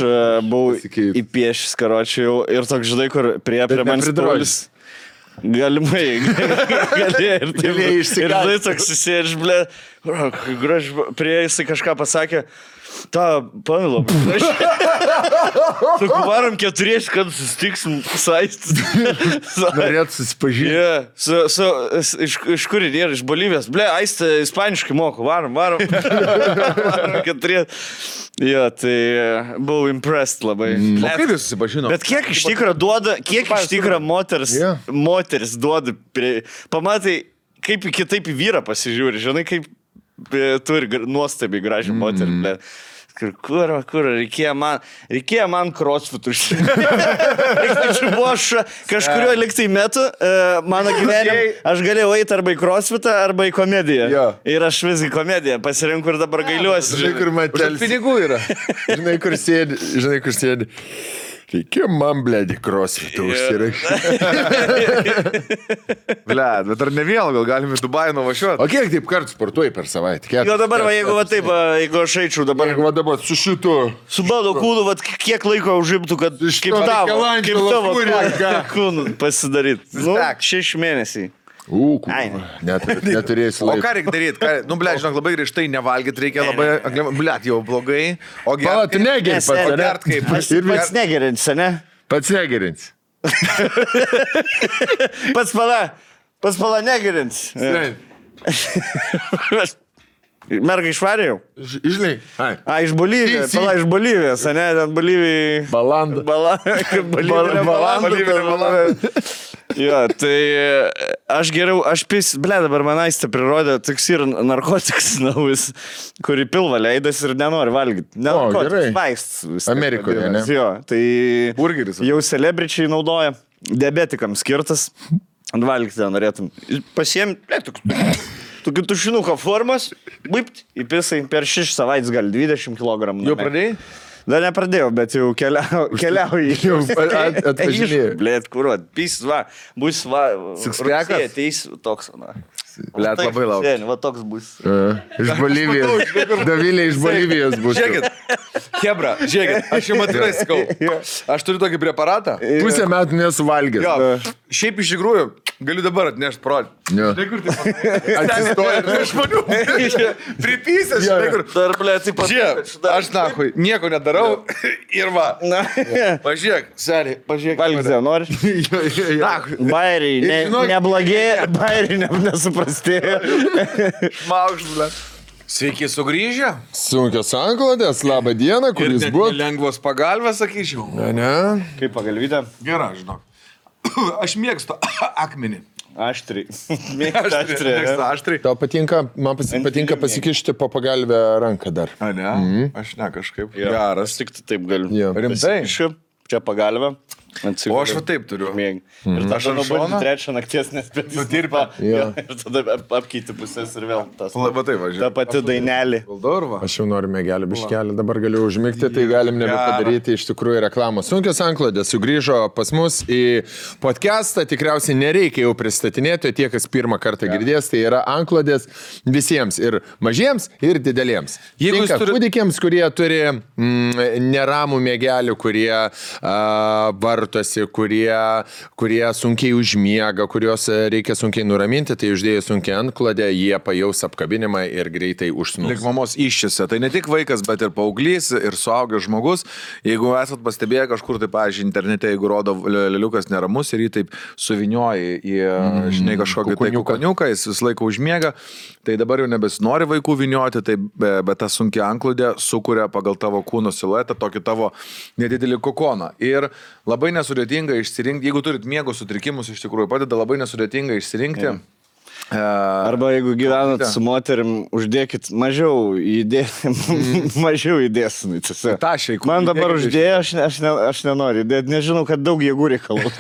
buvau įpiešęs karočių ir toks, žinai, kur prie manęs Paulius. Galimai, galėjai ir taip. Ir žinai, toks susėdž, blė, prie jisai kažką pasakė, ta, Pavilo, varom 4, kad susitiksim saistis. Norėt susipažinti. Iš kur yra, iš Bolivijos. Ble, Aistė ispaniškai moku, varom. Varom 4. Jo, tai buvau impressed labai. O kaip jūs susipažino? Bet kiek iš tikrųjų duoda, moteris duoda, pamatai, kaip kitaip į vyrą pasižiūri, žinai, kaip turi nuostabiai gražią moterį, ble. Kur, reikėjo man crossfitų. Kažkurio liktai metu mano gyvenime aš galėjau eiti arba į crossfitą, arba į komediją. Jo. Ir aš visgi komediją pasirinku ir dabar gailiuosi. Žinai, kur matelis. Pinigų yra. Žinai, kur sėdi. Reikėjo man, blėdį, crossfitą užsirašyti. Blėd, bet ar ne vėl, gal galime į Dubajų nuvažiuoti? O kiek taip kartų sportuoji per savaitę? Jo, dabar, jeigu taip, jeigu aš eičiau dabar... Jeigu dabar su šitu... Su bado kūnu, kiek laiko užimtų, kad kaip tavo kūnų pasidaryti. 6 mėnesiai. Neturėsi laiko. O ką reikia daryti? Nu, blėd, žinok, labai grįžtai nevalgyti reikia labai... Blėd, jau blogai. O Pala, tu negeri pats, ne? Pats negerinsi, ne? Pats negerinsi. Pats pala negerinsi. Merga išvarė jau? Žinai. Iš Bolivijos. Pala iš Bolivijos, ne? Ten Bolivijai... Balanda. Balanda. Jo, tai dabar man Aistė prirodė, toks yra narkotikas naujas, kurį pilvą leidas ir nenori valgyti. Narkotikas, vaistas. Amerikoje, ne? Jo, tai burgeris. Jau celebričiai naudoja, diabetikams skirtas, valgyti norėtum. Pasiemi, tokį tušinuką formos, įpisai per 6 savaitės gal 20 kg. Jau pradėjai? Dar nepradėjau, bet jau keliauju. Jau atvažinėjau. Blėt, kuruot, bus Sixpackas? Ateis toks, Blėt, labai laukia. Va toks bus. Iš Bolivijos. Dovilė iš Bolivijos bus. Žiūrėkit, Hebra, aš jums atvirai sakau, aš turiu tokį preparatą. Pusę metų nesuvalgęs. Jo, šiaip iš tikrųjų, galiu dabar atnešti parodyti. Žinai, kur tai atsistoja ir žmonių. Pripysęs, žinai, kur. Dar, blė, taip pat. Žiūrėk, aš nahui, nieko nedarau ir va. Pažiūrėk, seniai, pažiūrėk. Valgyti, nori? Bairiai, neblogėja, bairiai nesuprastėjo. Šmaukšt, blė. Sveiki sugrįžę. Sunkios anklodės, labą dieną, kur jūs buvote? Lengvos pagalbės, sakyčiau. Ne. Kaip pagalvytė? Gerai, žinok. Aš mėgstu akmenį. Aštriai. Mėgstu aštriai. Tau patinka, man patinka pasikišti po pagalbę ranką dar. A, ne? Aš ne kažkaip. Geras. Tik taip galiu. Jo. Rimtai? Čia pagalbę. O aš va taip turiu. Ir aš ant šono. nubundi 3 nakties nespėti. Nudirba. Ir tada apkeiti pusės ir vėl tas. Va taip, važiuoju. Ta pati dainelė. Valdorva. Aš jau noriu mėgelį biškelį, dabar galiu užmigti, tai galim nebepadaryti iš tikrųjų reklamos. Sunkios anklodės sugrįžo pas mus į podcastą, tikriausiai nereikia jau pristatinėti, tie, kas pirmą kartą girdės, tai yra anklodės visiems, ir mažiems, ir dideliems. Jeigu jūs turite kūdikiams, kurie turi neramų mėgelį, kurie vartosi, kurie sunkiai užmiega, kuriuos reikia sunkiai nuraminti, tai uždėjus sunkiai antklodę, jie pajaus apkabinimą ir greitai užsnūs. Lik mamos iščiose. Tai ne tik vaikas, bet ir paauglys, ir suaugęs žmogus. Jeigu esat pastebėję kažkur, tai, pavyzdžiui, internete, jeigu rodo leliukas neramus ir jį taip suvinioja į, žinai, kažkokį tai kukoniuką, jis visą laiką užmiega, tai dabar jau nebesinori vaikų vinioti, tai, bet ta sunkia anklodė sukuria pagal tavo kūno siluetą tokį tavo nedidelį kokoną. Ir labai nesudėtinga išsirinkti, jeigu turit miego sutrikimus, iš tikrųjų padeda labai nesudėtinga išsirinkti. Arba jeigu gyvenat su moterim, uždėkit mažiau įdėsinai. Man dabar uždėjo, aš nenoriu įdėti, nežinau, kad daug jėgų reikalų.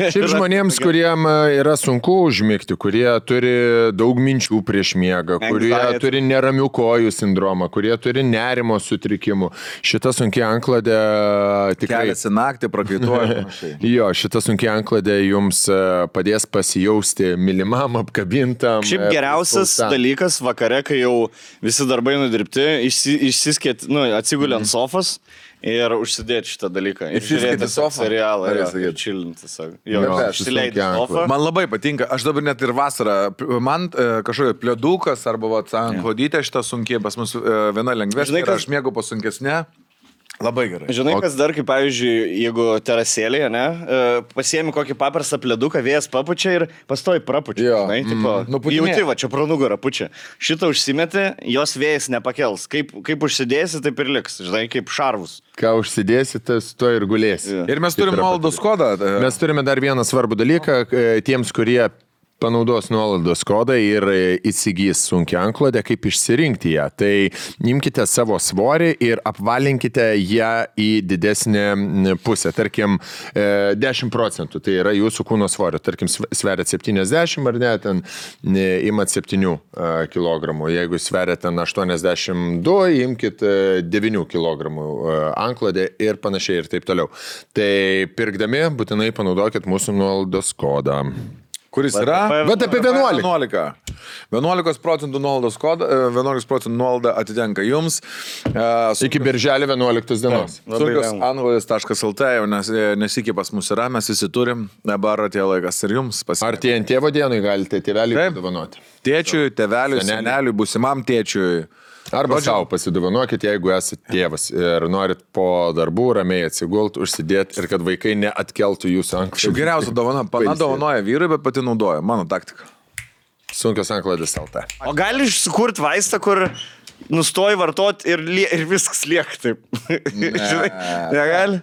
Šiaip žmonėms, kuriem yra sunku užmigti, kurie turi daug minčių prieš miegą, kurie turi neramių kojų sindromą, kurie turi nerimo sutrikimų, šita sunkia anklodė tikrai... Keliasi naktį, prakaituoja. Jo, šita sunkia anklodė jums padės pasijausti mylimam, apkabintam. Šiaip geriausias dalykas vakare, kai jau visi darbai nudirbti, išsiskėt, atsigulė ant sofos ir užsidėti šitą dalyką. Ir žiūrėti serialą ir čilinti. Išsileidti sofą. Man labai patinka, aš dabar net ir vasarą, man kažkokia plėdukas arba antklodytė šitą sunkiai, pas mus viena lengvesnė, aš mėgau pasunkesnė. Labai gerai. Žinai, kas dar, kaip pavyzdžiui, jeigu terasėlėje, pasiemi kokį paprastą pleduką, vėjas papučia ir pastoji prapučia. Jauti, va, čia pro nugarą pučia. Šitą užsimeti, jos vėjas nepakels. Kaip užsidėsi, taip ir liks. Žinai, kaip šarvus. Ką užsidėsi, tas to ir gulėsi. Ir mes turime nuolaidos kodą. Mes turime dar vieną svarbų dalyką. Tiems, kurie panaudos nuolaidos kodą ir įsigys sunkią anklodę, kaip išsirinkti ją. Tai imkite savo svorį ir apvalinkite ją į didesnę pusę. Tarkim, 10%, tai yra jūsų kūno svorio. Tarkim, sveriat 70 ar ne, ten imat 7 kg. Jeigu sveriat ten 82, imkit 9 kg anklodę ir panašiai ir taip toliau. Tai pirkdami būtinai panaudokit mūsų nuolaidos kodą. Kuris yra? Bet apie 11. 11% nuolaidos kodą, 11% nuolaida atitenka jums. Iki birželio 11 dienos. Sunkios.anglodės.lt jau nesikį pas mus yra, mes visi turim, dabar atėjo laikas ir jums pasiekti. Ar tie ant tėvo dienai galite tėvelį padovanoti? Tėčiui, tėveliui, seneliui, būsimam tėčiui. Arba savo pasidovanokit, jeigu esate tėvas ir norit po darbų ramiai atsigult, užsidėti ir kad vaikai neatkeltų jūsų anklodės. Šiaip geriausia dovana, pana dovanoja vyrui, bet pati naudoja, mano taktika. Sunkios anklodės LT. O gali sukurti vaistą, kur nustoji vartoti ir viskas lieka taip. Žinai, negali?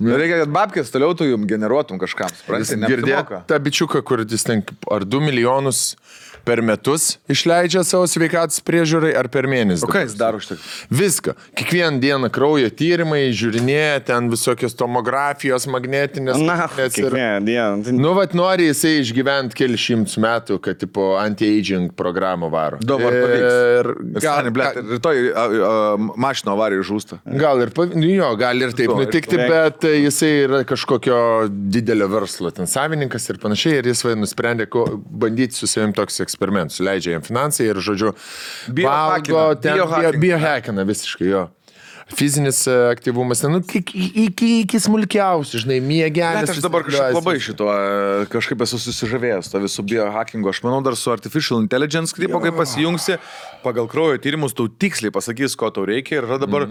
Reikia, kad babkės toliau tu jums generuotum kažkam. Girdėk tą bičiuką, kur jis ten ar 2 milijonus per metus išleidžia savo sveikatos priežiūrai ar per mėnesį. O ką jis daro už tai? Viską. Kiekvieną dieną kraujo tyrimai, žiūrinėja, ten visokios tomografijos, magnetinės. Kiekvieną dieną. Nu, vat nori jisai išgyventi keli šimtus metų, kad tipo anti-aging programą varo. Dabar pavyks. Rytoj mašino avarijų žūsta. Gal ir taip nutikti, bet jisai yra kažkokio didelio verslo ten savininkas ir panašiai, ir jis nusprendė bandyti su savim toks eksperimentus. Leidžia jam finansai ir, žodžiu, biohackina visiškai, jo. Fizinis aktyvumas, iki smulkiausių, žinai, miegelis. Aš dabar kažkaip labai šito, kažkaip esu susižavėjęs to visų biohackingo. Aš manau, dar su Artificial Intelligence, kaip pasijungsi, pagal kraujo tyrimus, tau tiksliai pasakys, ko tau reikia, ir dabar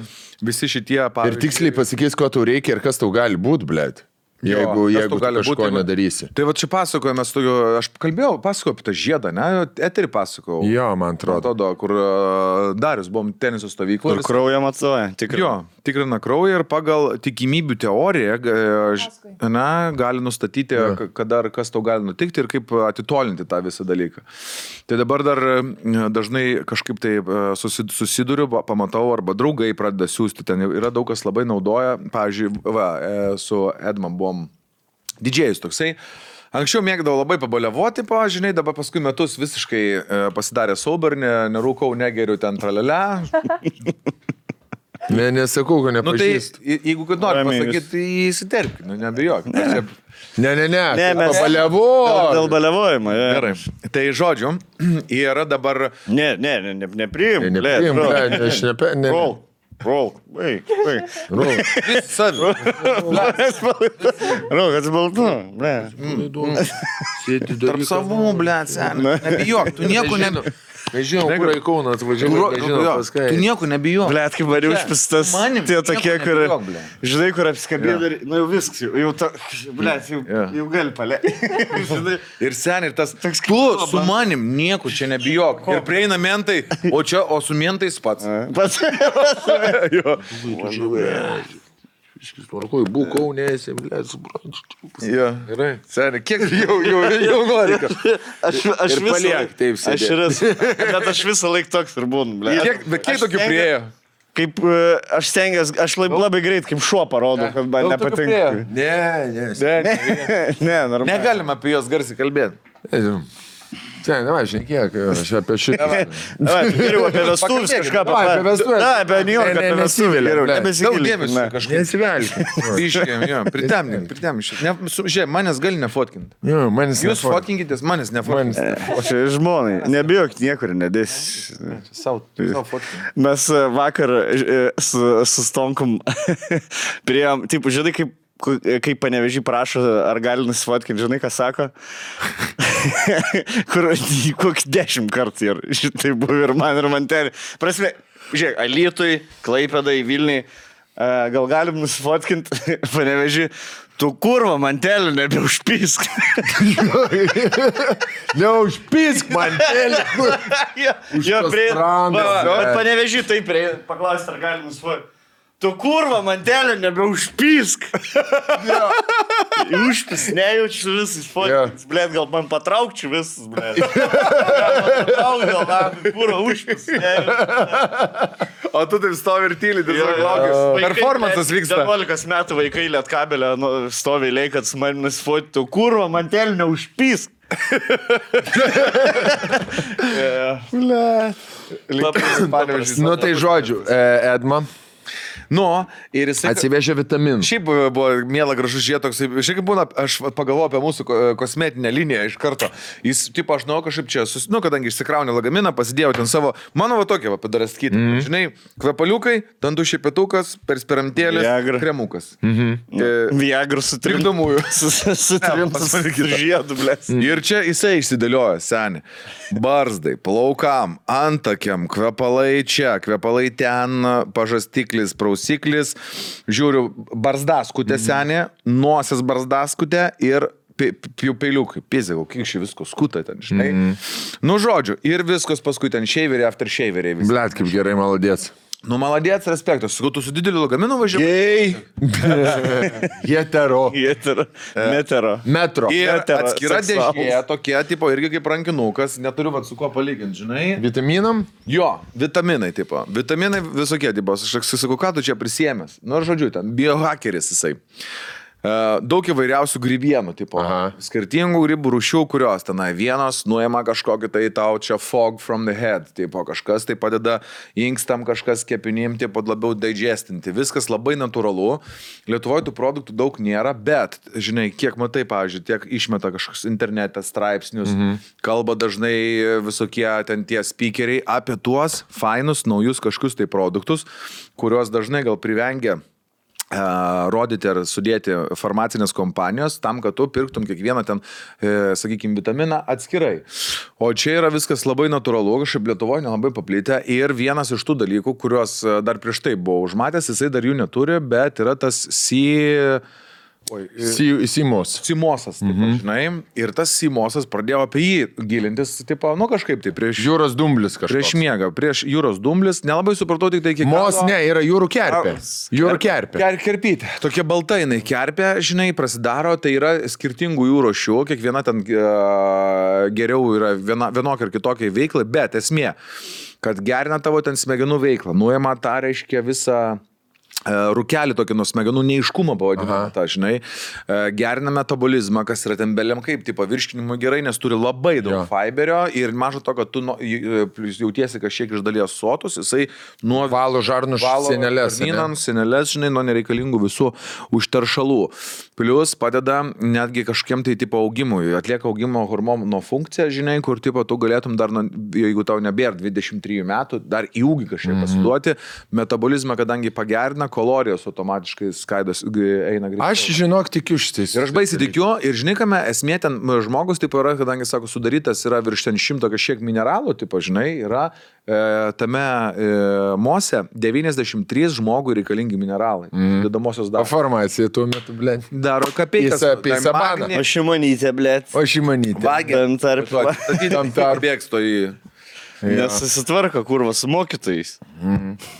visi šitie, pavyzdžiui... Ir tiksliai pasakys, ko tau reikia ir kas tau gali būti, blėt. Jeigu tu kažko nedarysi. Tai va čia pasakojame, aš pasakojau apie tą žiedą, ne? Eterį pasakojau. Jo, man atrodo. Kur Darius, buvom teniso stovykloje. Kur kraują matuoja, tikrina kraują ir pagal tikimybių teoriją gali nustatyti, kas tau gali nutikti ir kaip atitolinti tą visą dalyką. Tai dabar dar dažnai kažkaip tai susiduriu, pamatau, arba draugai pradeda siūsti. Ten yra daug kas labai naudoja. Pavyzdžiui, su Edman buvom Didžėjus toksai. Anksčiau mėgdavau labai pabaliavoti, žinai, dabar paskui metus visiškai pasidarė sober, nerūkau, negeriu ten tralelę. Nesakau, kad Nu tai, nepažįstu. jeigu kad nori pasakyti, tai įsiterpk, nebijok. Ne, mes- pabaliavo. Dėl baliavojimo, jo. Gerai. Tai žodžiu, yra dabar... Nepriim. Nepriim, aš ne. Roll. Wait. Savi. Roll, atsibaltu. Tarp savų, blėt, seniai. Nebijok, tu nieko nebijok. Mes žinom, kur į Kauną atvažiavai, nežinom pas ką. Tu nieko nebijok. Blet, kaip variu užpistas. Manim, Tie tokie, nieko kur... nebijok, blet. Žinai, kur apsikabė ir... Nu jau viskas, jau to... Blet, jau gali palė. Ir seniai, ir tas... Tu su manim nieko čia nebijok. Ir prieina mentai, o su mentais pats. Pats. Jo. Tvarkoj, būk Kaunėse, blėt, suprantu. Jo. Gerai. Seniai, kiek jau nori kažką. Aš Ir paliek taip Aš sėdėt. ir esu. Bet aš visą laiką toks ir būnu, blet. Kiek tokių priejo? Kaip aš stengiuosi, aš labai greit kaip šuo parodau, kad man Daug tokių nepatinka. Ne. Ne, normaliai. Negalima apie juos garsiai kalbėti. Sen, ne, žiūrėk, aš apie šitą. Geriau apie vestuvės kažką Davai, apie vestuves. Na, apie New York, apie vestuvės. nesiveli, Geriau, blet. Daug nebesigilink. dėmesio kažkaip. Nesivelk. Biškiam, jo, pritemink. Žiūrėk, manęs gali nefotkinti. Jo, manis Jūs fotkinkitės, manęs nefotkinti. Čia žmonai, nebijok niekur nedės. Sau fotkinti. Mes vakar su Stonkum priėjom, taip, žinai, kaip Panevėžį prašo, ar gali nusifotkinti, žinai, ką sako? Kur kokį 10 kartų ir šitai buvo ir man ten. Prasme, žiūrėk, Alytui, Klaipėdai, Vilniui, gal galim nusifotkinti Panevėžį, tu kurva mantelį nebeužpisk. Neužpisk man telį. Jo, prie... sprandas, Bet Panevėžį taip prie... Paklausti, ar galim nusifotkinti. Tu kurva mantelį nebeužpisk. Užpis, nejaučiu visais fotkins. Blet, gal man patraukčiau visus, blet. Patrauk, gal man kurva užpis, nejaučiu. O tu taip stovi ir tyli, tiesiog laukiu. Performances vyksta. 11 metų vaikai Lietkabelio stovi eilėj, kad su manim nusifotkintų. Kurva mantelį neužpisk. Blet. Nu tai žodžiu, Edma Nu, ir jisai... atsivežė vitaminų. Šiaip buvo miela gražus žiūrėt toks, šiaip kaip būna, aš pagalvoju apie mūsų kosmetinę liniją iš karto. Jis, tipo, aš žinau kažkaip čia, kadangi išsikraunė lagaminą, pasidėjau ten savo, mano va tokia, padaręs kitą. Žinai, kvepaliukai, dantų šepitukas, perspiramtėlis, kremukas. Viagrų su trim. Trikdomųjų. Su trim žiedu, blės. Ir čia jisai išsidėlioja, seniai. Barzdai, plaukam, antakiam, kvepalai čia, kvepalai ten, pažastiklis, prausiklis. Žiūriu, barzdaskutė senė, nosies barzdaskutė ir peiliukai. Pizėgau, kiek šį visko skuta ten, žinai. Nu, žodžiu, ir viskas paskui ten šeiveriai, after šeiveriai. Blet, kaip gerai, maladėts. Nu, maladėts, respektas. Sakau, tu su dideliu lagaminu važiavai. Gei. Hetero. Metero. Metro. Ir Hetero, atskira seksualūs. dėžė, tokia, tipo, irgi kaip rankinukas, neturiu vat su kuo palyginti, žinai. Vitaminam? Jo, vitaminai, tipo. Vitaminai visokie, tipo. Aš sakau, ką tu čia prisiemęs? Nu, žodžiu, ten biohackeris jisai. Daug įvairiausių grybienų, tipo. Aha. Skirtingų grybų rūšių, kurios tenai vienos nuima kažkokį tai tau čia fog from the head, tipo, kažkas tai padeda inkstam, kažkas kepinim, tipo, labiau digestinti. Viskas labai natūralu. Lietuvoje tų produktų daug nėra, bet, žinai, kiek matai, pavyzdžiui, tiek išmeta kažkoks internete straipsnius, kalba dažnai visokie ten tie speakeriai apie tuos fainus, naujus kažkokius tai produktus, kuriuos dažnai gal privengia rodyti ar sudėti farmacinės kompanijos tam, kad tu pirktum kiekvieną ten, sakykime, vitaminą atskirai. O čia yra viskas labai natūralu, kažkaip Lietuvoje nelabai paplitę ir vienas iš tų dalykų, kuriuos dar prieš tai buvau užmatęs, jisai dar jų neturi, bet yra tas Simosas, tipo, žinai, ir tas Simosas pradėjo apie jį gilintis, tipo, nu kažkaip tai prieš... Jūros dumblis kažkas. Prieš miegą, prieš jūros dumblis, nelabai supratau tik tai kiek... Mos, ne, yra jūrų kerpė. Jūrų kerpė. Kerpytė. Tokia balta jinai kerpė, žinai, prasidaro, tai yra skirtingų jų rūšių, kiekviena ten geriau yra vienokia ar kitokia veikla, bet esmė, kad gerina tavo ten smegenų veiklą, nuima tą, reiškia, visą rūkelį tokį nuo smegenų neiškumą pavadinamą, tą, žinai, gerina metabolizmą, kas yra ten beliam kaip, tipo virškinimo gerai, nes turi labai daug fiberio ir mažo to, kad tu jautiesi kažkiek iš dalies sotus, jisai nuo valo žarnų sienelės, žinai, nuo nereikalingų visų užteršalų. Plius padeda netgi kažkiem tai tipo augimui, atlieka augimo hormono funkciją, žinai, kur tipo tu galėtum dar, jeigu tau nebėra 23 metų, dar į ūgį kažkiek pasiduoti, metabolizmą, kadangi pagerina, kalorijos automatiškai skaidos eina greičiau. Aš žinok tikiu šitais. Ir aš baisiai tikiu, ir žinai, kame esmė ten žmogus, tipo yra, kadangi, sako, sudarytas yra virš ten 100 kažkiek mineralų, tipo, žinai, yra tame mose 93 žmogui reikalingi mineralai. Dedamosios daros. Formacija tuo metu, blėt. Daro kapeikas. Sabaną. O Šimonytė, blėt. O Šimonytė. Tam tarp. Bėgs to į... Nesusitvarka, kurva, su mokytojais.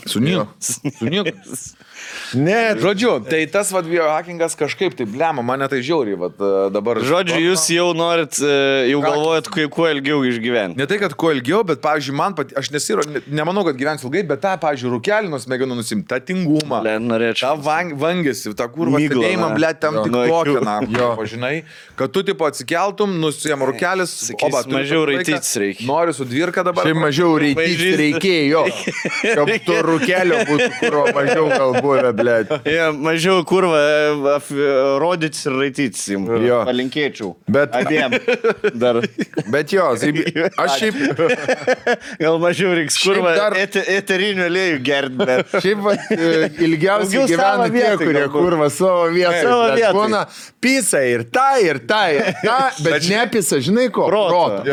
Su nieko. Ne, žodžiu, tai tas vad biohackingas kažkaip, tai blema, mane tai žiauriai, vad dabar. Žodžiu, jūs jau norit, jau galvojat, kuo ilgiau išgyventi. Ne tai, kad kuo ilgiau, bet, pavyzdžiui, man aš nemanau, kad gyvensiu ilgai, bet tą, pavyzdžiui, rūkelį nuo smegenų nusimti, tą tingumą, tą vangėsi, tą kurvą stebėjimą, blėt, tam tik tokią, žinai, kad tu, tipo, atsikeltum, nusijam rūkelis, oba, mažiau raitytis reikia. Nori su dvirka dabar. Tai mažiau raitytis reikėjo, kad tu rūkelio būtų, kur mažiau galbūt, blėt. Ja, mažiau kurva rodytis ir raitytis jums. Palinkėčiau. Bet abiem. Dar. Bet jo, aš šiaip... Gal mažiau reiks kurva eterinių aliejų gerti, bet... Šiaip ilgiausiai gyvena tie, kurie kurva savo vietą. Būna pisa ir ta, bet nepisa, žinai ko? Proto.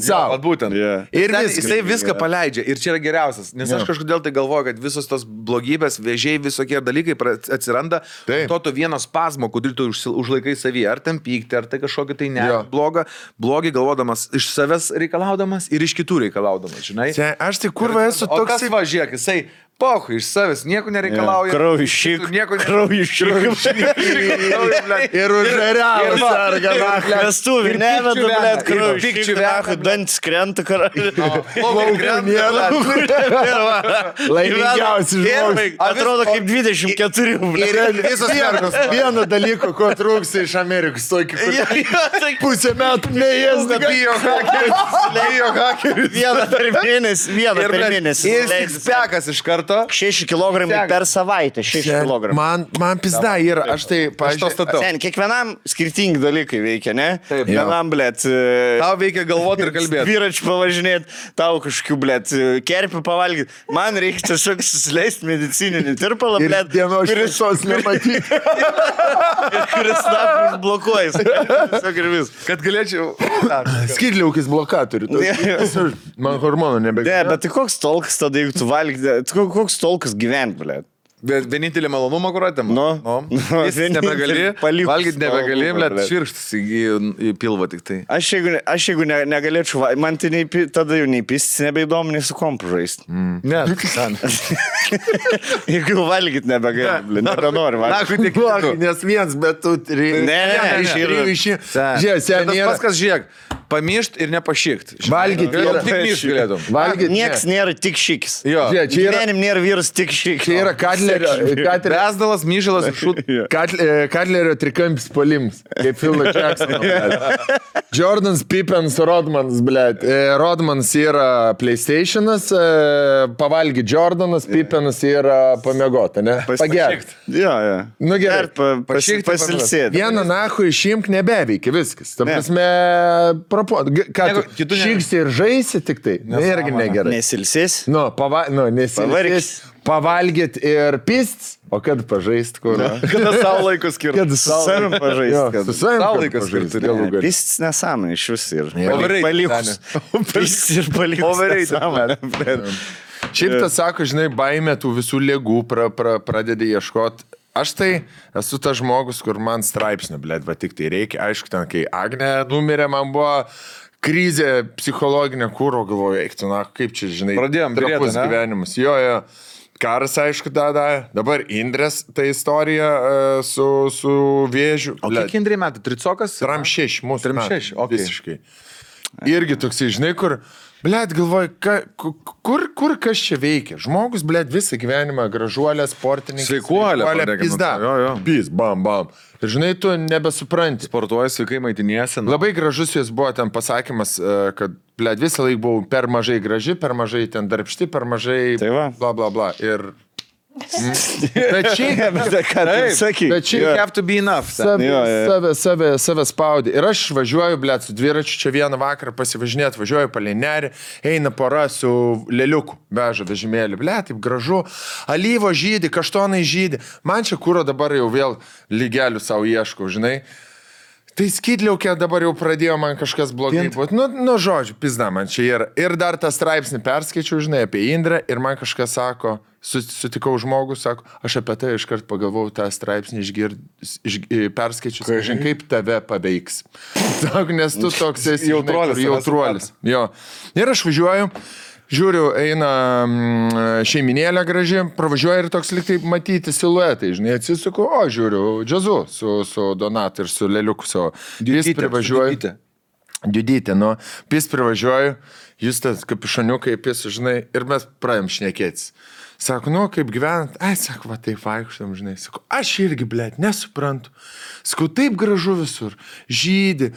Savo. Būtent. Ir jisai viską paleidžia. Ir čia yra geriausias. Nes aš kažkodėl tai galvoju, kad visos tos blogybės, vėžiai, visokie dalykai atsiranda, to vieno spazmo, kurį tu užlaikai savyje, ar ten pykti, ar tai kažkokį tai ne, blogį galvodamas, iš savęs reikalaudamas ir iš kitų reikalaudamas, žinai. Aš tai kurva esu toks... O kas važiuok, jisai... Pohu, iš savęs nieko nereikalauja. Kraujišyk. Ir užveriavus arga. Vestuvį, neveda, blėt, kraujišyk. Dantis krenta, karaliu. Laimingiausi žmogus. Atrodo kaip 24. Ir visos mergos. Vieno dalyko, ko trūksta iš Amerikos. Pusę metų neėsda. Bijo hakeris. Vieną per mėnesį. Ir sixpackas iš karto. 6 kg per savaitę, 6 kg. Man pizda yra, aš tai pažiūrėjau. Sen, kiekvienam skirtingi dalykai veikia, ne? Taip. Vienam, blėt, tau veikia galvoti ir kalbėti. Dviračių pavažinėti, tau kažkokių, blėt, kerpių pavalgyti. Man reikia tiesiog susileisti medicininį tirpalą, blėt. Ir dienos šviesos nematyti. Kuris snapis blokuojas. Tiesiog ir vis. Kad galėčiau... Skydliaukis blokatorių. Man hormonų nebegali. Ne, bet tai koks tolkas tada, jeigu tu valgyti, koks tolkas gyventi, blėt? Bet vienintelį malonumą, kur atėmė. Jis nebegali, valgyti nebegali, bet švirkštas į pilvą tik tai. Aš jeigu negalėčiau, man tai tada jau nei pistis nebeįdomu, nei su kompu žaisti. Ne, jeigu valgyti nebegali, nebenori valgyti. Nes viens, bet tu... Ne, paskas žiūrėk, pamišt ir nepašykt. Valgyti yra... Tik myšt galėtum. Nieks nėra tik šikis. Gyvenim nėra vyras tik šikis. Čia yra Besdalas, myžalas ir šūt. Katlerio trikampis polims, kaip Philo Jacksono. Jordans, Pippens, Rodmans, blėt. Rodmans yra PlayStation'as, pavalgy Jordanas, Pippenas yra pamiegota, ne? Pagerti. Jo. Nu gerai. Pasilsėti. Vieną nahu išimk nebeveikia, viskas. Ta prasme, ką tu šyksi ir žaisi tik tai? Irgi negerai. Nesilsės? Nesilsės. Pavalgyt ir pist, o kad pažaist, kur? Kada savo laikų skirti? Kad su savim pažaist. Su savim savo laiką skirti. Pistis nesąmonė iš vis ir palikus. Pistis ir palikus nesąmonė. Šiaip tas sako, žinai, baimė tų visų ligų pradedi ieškoti. Aš tai esu tas žmogus, kur man straipsnio, blėt, va tik tai reikia. Aišku, ten, kai Agnė numirė, man buvo... Krizė psichologinė, kūro galvoju, eiktų, na, kaip čia, žinai, pradėjom trapus gyvenimas. Jo. Karas, aišku, dabar Indrės ta istorija su vėžiu. O kiek Indrė metų? Tricokas? 36, mūsų 36, okay. Visiškai. Irgi toksai, žinai, kur Blet, galvoju, kur kas čia veikia? Žmogus, blet, visą gyvenimą gražuolė, sportininkas. Sveikuolė, pizda. Pis, bam. Ir žinai, tu nebesupranti. Sportuoji, sveikai maitiniesi. Labai gražus jis buvo ten pasakymas, kad, blet, visą laiką buvau per mažai graži, per mažai ten darbšti, per mažai bla bla bla. Ir... Bet šiaip, you have to be enough. Save spaudė. Ir aš važiuoju, blet, su dviračiu čia vieną vakarą pasivažinėti, važiuoju palei nerį, eina pora su lėliuku, veža vežimėlį, blet, taip gražu, alyvo žydi, kaštonai žydi. Man čia kūro dabar jau vėl lygelių savo ieškau, žinai. Tai skydliaukė dabar jau pradėjo man kažkas blogai būti. Nu, žodžiu, pizda man čia yra. Ir dar tą straipsnį perskaičiau, žinai, apie Indrę ir man kažkas sako, sutikau žmogus, sako, aš apie tai iškart pagalvojau tą straipsnį perskaičius, žinai, kaip tave paveiks. Sako, nes tu toks esi jautruolis. Jo. Ir aš važiuoju. Žiūriu, eina šeiminėlė graži, pravažiuoja ir toks liktai matyti siluetai, žinai, atsisuku, žiūriu, džiazu su Donatu ir su Leliuku savo. Jis privažiuoja. Diudytė, nu, jis privažiuoja, jūs tas kapišoniukai, jis, žinai, ir mes pradėjom šnekėtis. Sako, nu, kaip gyvenat? Sako, va, taip vaikštam, žinai. Sako, aš irgi, blet, nesuprantu. Sako, taip gražu visur, žydi.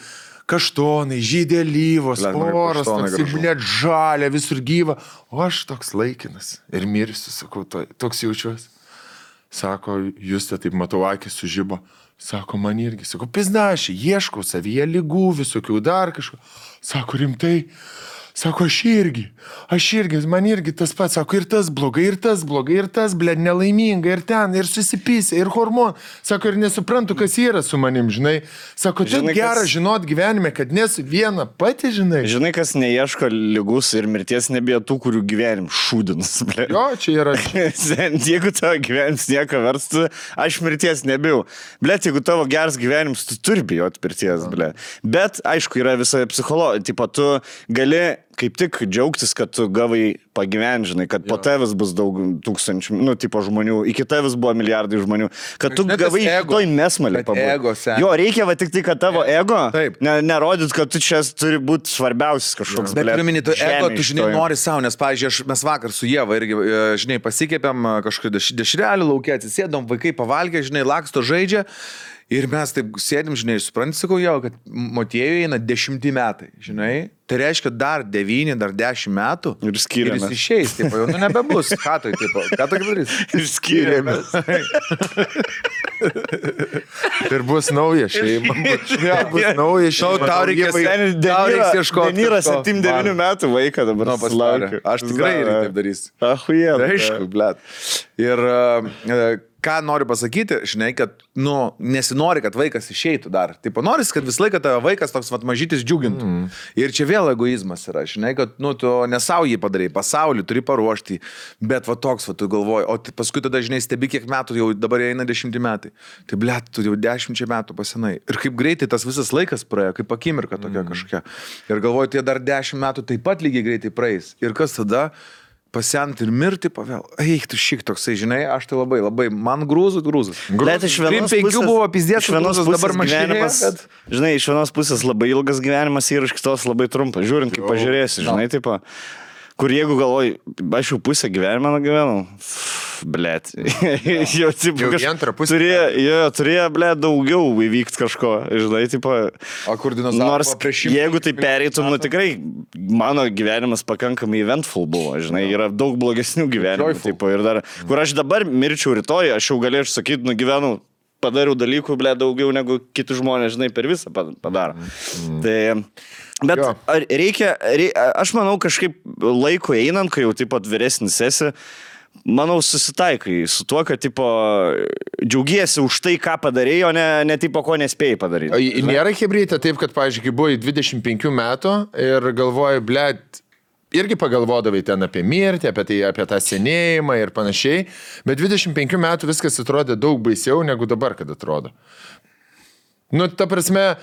Kaštonai, žydė alyvos, poros, blet, žalia, visur gyva. O aš toks laikinas ir mirsiu, sakau, toks jaučiuosi. Sako, jūs taip matau, akis sužibo. Sako, man irgi. Sako, pizda, aš ieškau savyje lygų, visokių dar kažko. Sako, rimtai. Sako, aš irgi, man irgi tas pats, sako, ir tas blogai, bled, nelaiminga, ir ten, ir susipysė, ir hormon. Sako, ir nesuprantu, kas yra su manim, žinai. Sako, taip gera žinot gyvenime, kad nesu viena pati, žinai. Žinai, kas neieško lygus ir mirties nebijo tų, kurių gyvenim šūdinas, bled. Jo, čia yra. Jeigu tavo gyvenims nieko verstų, aš mirties nebijau. Bled, jeigu tavo geras gyvenims, tu turi bijoti mirties, bled. Bet, aišku, yra visa psichologija, tipo, tu gali kaip tik džiaugtis, kad tu gavai pagyventi, žinai, kad po tavęs bus daug tūkstančių, nu, tipo žmonių, iki tavęs buvo milijardai žmonių, kad tu gavai toj mesmalį pabūti. Jo, reikia va tik tai, kad tavo ego nerodyt, kad tu čia turi būti svarbiausias kažkoks. Bet turiu minėti, tu ego, tu žinai, nori savo, nes, pavyzdžiui, mes vakar su Ieva irgi, žinai, pasikėpėm kažkokį dešrelį laukia, atsisėdom, vaikai pavalgė, žinai, laksto žaidžia. Ir mes taip sėdim, žinai, supranti, sakau jau, kad Motiejui eina 10 metai, žinai. Tai reiškia dar 9, dar 10 metų. Ir skiriamės. Ir jis išeis, taip, jau, nu nebebus. Ką tu darys? Ir skiriamės. Ir bus nauja šeima. Bus nauja šeima. Tau reikės ieškoti. Denira 7-9 metų vaiką dabar pasilaukia. Aš tikrai taip darysiu. Ahuje. Aišku, blet. Ir ką noriu pasakyti, žinai, kad, nu, nesinori, kad vaikas išeitų dar. Taip, noris, kad visą laiką tavo vaikas toks mažytis džiugintų. Ir čia vėl egoizmas yra, žinai, kad, nu, tu ne savo jį padarai, pasaulį turi paruošti, bet va toks, va tu galvoji, o paskui tada, žinai, stebi, kiek metų jau dabar eina 10 metai. Tai, blet, tu jau 10 metų pasenai. Ir kaip greitai tas visas laikas praėjo, kaip akimirka tokia kažkokia. Ir galvoju, tie dar 10 metų taip pat lygiai greitai praeis. Ir kas tada? Pasent ir mirti pavel. Eik, tu šik toksai, žinai, aš tai labai, man grūzus. Bet iš vienos pusės buvo pizdės, iš vienos pusės dabar gyvenimas, žinai, iš vienos pusės labai ilgas gyvenimas ir iš kitos labai trumpas, žiūrint, kaip pažiūrėsi, žinai, taip, kur jeigu galvoji, aš jau pusę gyvenimą nugyvenau, blet, jau turėjo, blet, daugiau įvykti kažko, žinai, tipo, nors jeigu tai pereitum, nu tikrai, mano gyvenimas pakankamai eventful buvo, žinai, yra daug blogesnių gyvenimų, tipo, ir dar, kur aš dabar mirčiau rytoj, aš jau galėčiau sakyti, nugyvenau, padariau dalykų, blet, daugiau negu kiti žmonės, žinai, per visą padaro. Tai... Bet reikia, aš manau, kažkaip laiko einant, kai jau taip pat vyresnis esi, manau, susitaikai su tuo, kad tipo, džiaugiesi už tai, ką padarėjai, o ne tipo, ko nespėjai padaryti. Nėra hebrytė taip, kad, pavyzdžiui, kai buvai 25 metų ir galvoji, blėt, irgi pagalvodavai ten apie mirtį, apie tą senėjimą ir panašiai, bet 25 metų viskas atrodė daug baisiau negu dabar, kad atrodo. Nu, ta prasme,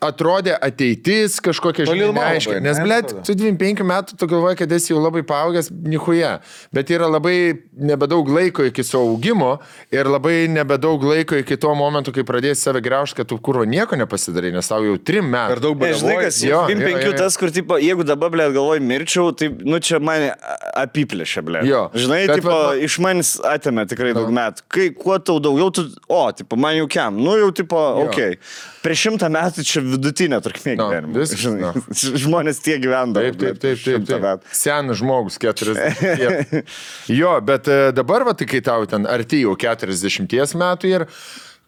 atrodė ateitis kažkokia, žinai, neaiškiai. Nes, blėt, tu 25 metų tu galvoji, kad esi jau labai paaugęs, nichuja. Bet yra labai nebedaug laiko iki savo augimo ir labai nebedaug laiko iki to momento, kai pradėsi save graužti, kad tu kurvo nieko nepasidarai, nes tau jau 3 metų. Per daug Bet žinai, kas, 25 tas, kur, tipo, jeigu dabar, blėt, galvoju, mirčiau, tai, nu, čia mane apiplėšė, blėt. Žinai, tipo, iš manis atėmė tikrai daug metų. Kai kuo tau daugiau, tu, tipo, man jau kiam, nu, jau, tipo, okei. Prieš 100 metų čia vidutinė trukmė gyvenimo. Žmonės tiek gyvendavo. Taip. Senas žmogus, 40. Jo, bet dabar, va, tai kai tau ten arti jau 40 metų ir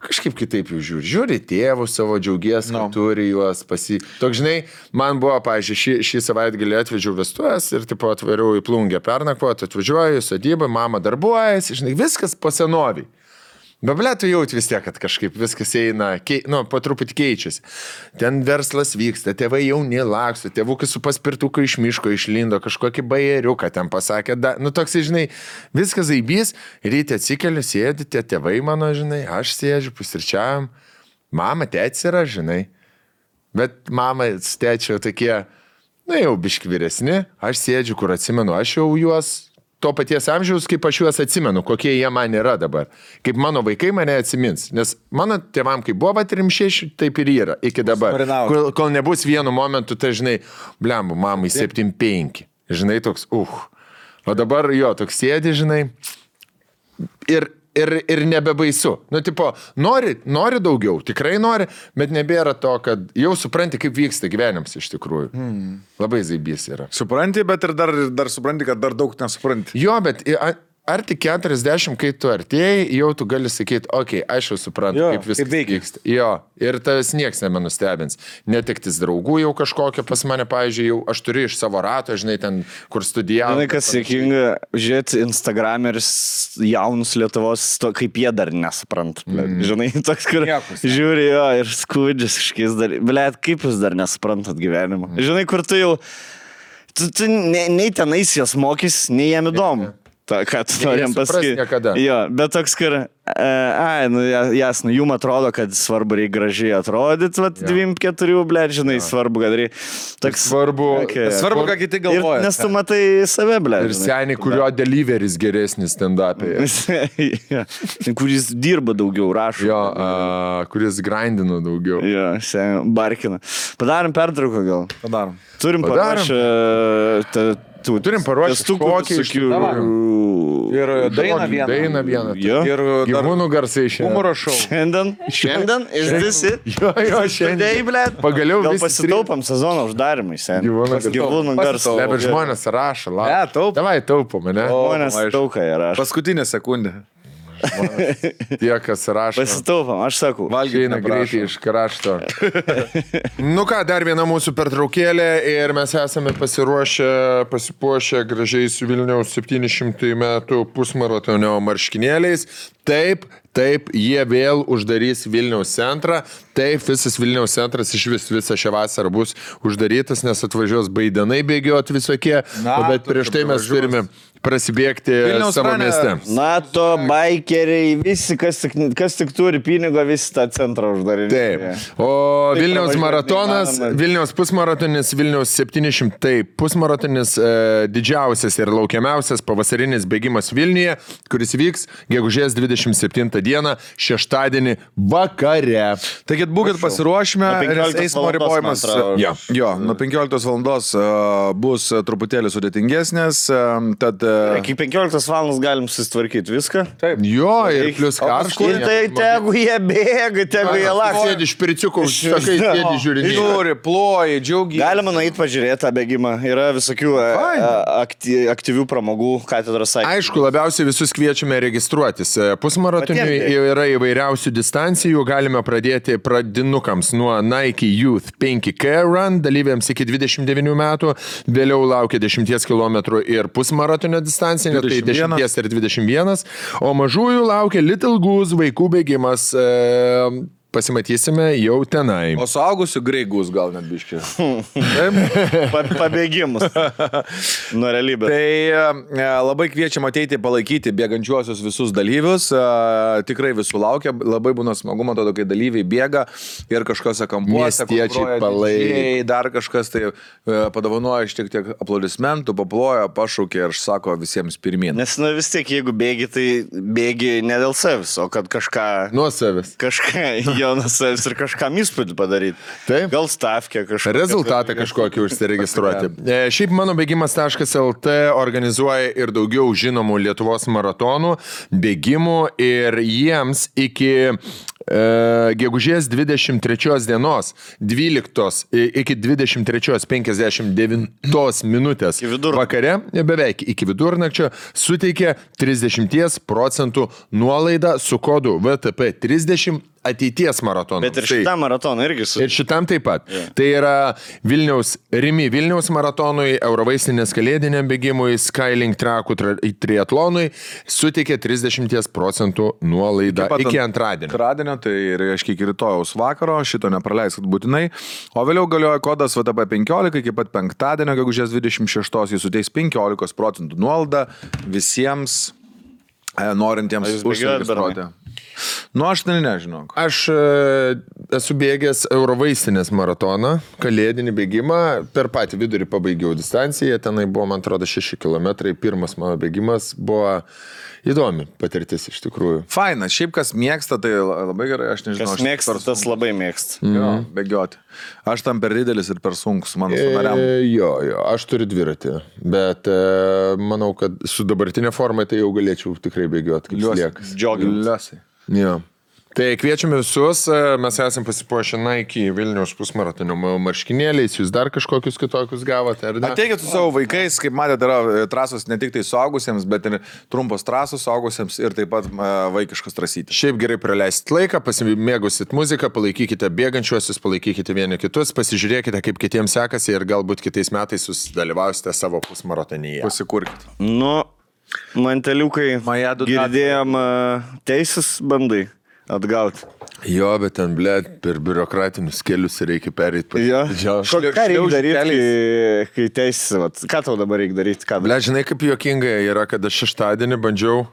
kažkaip kitaip jau žiūri tėvus savo, džiaugies, kad turi juos Toks, žinai, man buvo, pavyzdžiui, šį savaitgalį atvežiau vestuvės ir tipo atvariau į Plungę pernakvoti, atvažiuoju į sodybą, mama darbuojasi, žinai, viskas po senoviai. Bet, ble, tu jauti vis tiek, kad kažkaip viskas eina, po truputį keičiasi. Ten verslas vyksta, tėvai jauni laksto, tėvukai su paspirtuku iš miško išlindo, kažkokį bajeriuką ten pasakė, toks, žinai, viskas zaibys, ryte atsikeliu, sėdi, tie tėvai mano, žinai, aš sėdžiu, pusryčiavim, mama, tėtis yra, žinai. Bet mama, tėčio tokie, jau biški vyresni, aš sėdžiu, kur atsimenu, aš jau juos to paties amžiaus, kaip aš juos atsimenu, kokie jie man yra dabar. Kaip mano vaikai mane atsimins. Nes mano tėvam, kaip buvo 36, taip ir yra iki dabar. Kol nebus vienu momentu, tai žinai, blembu, mamai 75. Žinai, toks, O dabar jo, toks sėdi, žinai, ir nebebaisu. Nu, tipo, nori daugiau, tikrai nori, bet nebėra to, kad jau supranti, kaip vyksta gyvenimas iš tikrųjų. Labai zaibys yra. Supranti, bet ir dar supranti, kad dar daug nesupranti. Jo, bet ar tik 40, kai tu artėjai, jau tu gali sakyti, aš jau suprantu, kaip viskas vyksta. Jo, ir tavęs nieks nemenustebins. Netektis draugų jau kažkokia pas mane, pavyzdžiui, jau aš turiu iš savo rato, žinai, ten, kur studijavau. Žinai, kas sėkinga, žiūrėti Instagrameris jaunus Lietuvos, kaip jie dar nesupranta. Žinai, toks, kur žiūri jo ir skudžias kažkiais dar. Blet, kaip jūs dar nesuprantat gyvenimą. Žinai, kur tu jau, tu nei tenais jas mokys, nei jam įdomu. Ką tu norim pasakyti. Jo, bet toks, kur, jasnu, jum atrodo, kad svarbu reikia gražiai atrodyti, 24, blėt, žinai, svarbu, kad reikia. Svarbu, ką kiti galvoja. Nes tu matai save, blėt. Ir seniai, kurio deliveris geresnis stand-up'e. Kuris dirba daugiau, rašo. Jo, kuris grindino daugiau. Jo, seniai, barkina. Padarom pertrauką gal. Padarom. Turim paruošę. Turim paruošti kokį ir dainą vieną. Jo. Ir gyvūnų garsai šiandien. Humoro šou. Šiandien išdisi. Jo, šiandien. Pagaliau gal pasitaupam sezono uždarimai, seniai. Gyvūnų garsai. Bet žmonės rašo, Davai taupom, ne? Žmonės taukai rašo. Paskutinė sekundė. Tie, kas rašo. Pasitaupam, aš sakau. Valgyti greitai iš krašto. Nu ką, dar viena mūsų pertraukėlė ir mes esame pasipuošę gražiai su Vilniaus 700 metų pusmaratonio marškinėliais. Taip, jie vėl uždarys Vilniaus centrą. Taip, visas Vilniaus centras visą šią vasarą bus uždarytas, nes atvažiuos baidenai bėgioti visokie. Bet prieš tai mes turime prasibėgti savo mieste. NATO, baikeriai, visi, kas tik turi pinigo, visi tą centrą uždarys. Taip. O Vilniaus maratonas, Vilniaus pusmaratonis, Vilniaus 700 pusmaratonis, didžiausias ir laukiamiausias pavasarinis bėgimas Vilniuje, kuris vyks gegužės 27 dieną, šeštadienį vakare. Taigi būkit pasiruošime, eismo ribojimas. Jo, nuo 15 valandos bus truputėlį sudėtingesnės, tad iki 15 valandos galim susitvarkyti viską. Taip. Jo, ir plus karštai. Ir tai tegu jie bėga, tegu jie laks. Sėdi iš piriciukų, sakai, sėdi žiūrinį. Žiūri, ploji, džiaugiai. Galima nueiti pažiūrėti tą bėgimą. Yra visokių aktyvių pramogų katedros aikštėje. Aišku, labiausiai visus kviečiame registruotis. Pusmaratoniui yra įvairiausių distancijų. Galime pradėti pradinukams nuo Nike Youth 5K Run, dalyviams iki 29 metų. Vėliau laukia 10 km ir pusmaratonio distancija, tai 10 ir 21, o mažųjų laukia Little Goose vaikų bėgimas pasimatysime jau tenai. O suaugusių greigus gal net biški. Pabėgimus nuo realybės. Tai labai kviečiam ateiti palaikyti bėgančiuosius visus dalyvius. Tikrai visų laukia. Labai būna smagu, man atrodo, kai dalyviai bėga ir kažkose kampuose. Miestiečiai palaiko. Dar kažkas tai padovanoja šiek tiek aplodismentų, paploja, pašaukė ir sako visiems pirmyn. Nes vis tiek, jeigu bėgi, tai bėgi ne dėl savęs, o kad kažką... Nuo savęs. Kažką jo nuo savęs ir kažkam įspūdį padaryti. Taip. Gal stavkę kažką. Rezultatą kažkokį užsiregistruoti. Šiaip mano bėgimas.lt organizuoja ir daugiau žinomų Lietuvos maratonų, bėgimų ir jiems iki gegužės 23 dienos 12 iki 23:59 minutės vakare, beveik iki vidurnakčio, suteikė 30% nuolaidą su kodu VTP30 ateities maratonų. Bet ir šitam maratonui irgi su... Ir šitam taip pat. Yeah. Tai yra Vilniaus maratonui, Eurovaistinės kalėdiniam bėgimui, Skylink trakų triatlonui suteikė 30% nuolaidą iki antradienio. Antradienio, tai reiškia iki rytojaus vakaro, šito nepraleiskit būtinai. O vėliau galioja kodas VTP15, iki pat penktadienio, gegužės 26, jis suteiks 15% nuolaidą visiems norintiems užsiregistruoti. Nu, aš nežinau. Aš esu bėgęs Eurovaistinės maratoną, kalėdinį bėgimą, per patį vidurį pabaigiau distanciją, tenai buvo, man atrodo, 6 km, pirmas mano bėgimas buvo įdomi patirtis iš tikrųjų. Fainas, šiaip kas mėgsta, tai labai gerai, aš nežinau. Kas mėgsta, tas labai mėgsta. Jo, bėgioti. Aš tam per didelis ir per sunkus, mano sąnariam. Jo, aš turiu dviratį, bet manau, kad su dabartinė forma tai jau galėčiau tikrai bėgioti, kaip sliekas. Liuosai. Jo. Tai kviečiame visus, mes esam pasipuošę Nike Vilniaus pusmaratonio marškinėliais, jūs dar kažkokius kitokius gavote, ar ne? Ateikit su savo vaikais, kaip matėte, yra trasos ne tik tai suaugusiems, bet ir trumpos trasos suaugusiems ir taip pat vaikiškas trasytis. Šiaip gerai praleisit laiką, pasimėgusit muziką, palaikykite bėgančiuosius, palaikykite vieni kitus, pasižiūrėkite, kaip kitiems sekasi ir galbūt kitais metais jūs dalyvausite savo pusmaratonyje. Pasikurkit. Nu, manteliukai, girdėjom teisės bandai atgauti. Jo, bet ten, blėt, per biurokratinius kelius reikia pereiti. Jo. Ką reikia daryti, kai teisės, ką tau dabar reikia daryti? Blėt, žinai, kaip juokingai yra, kad aš šeštadienį bandžiau,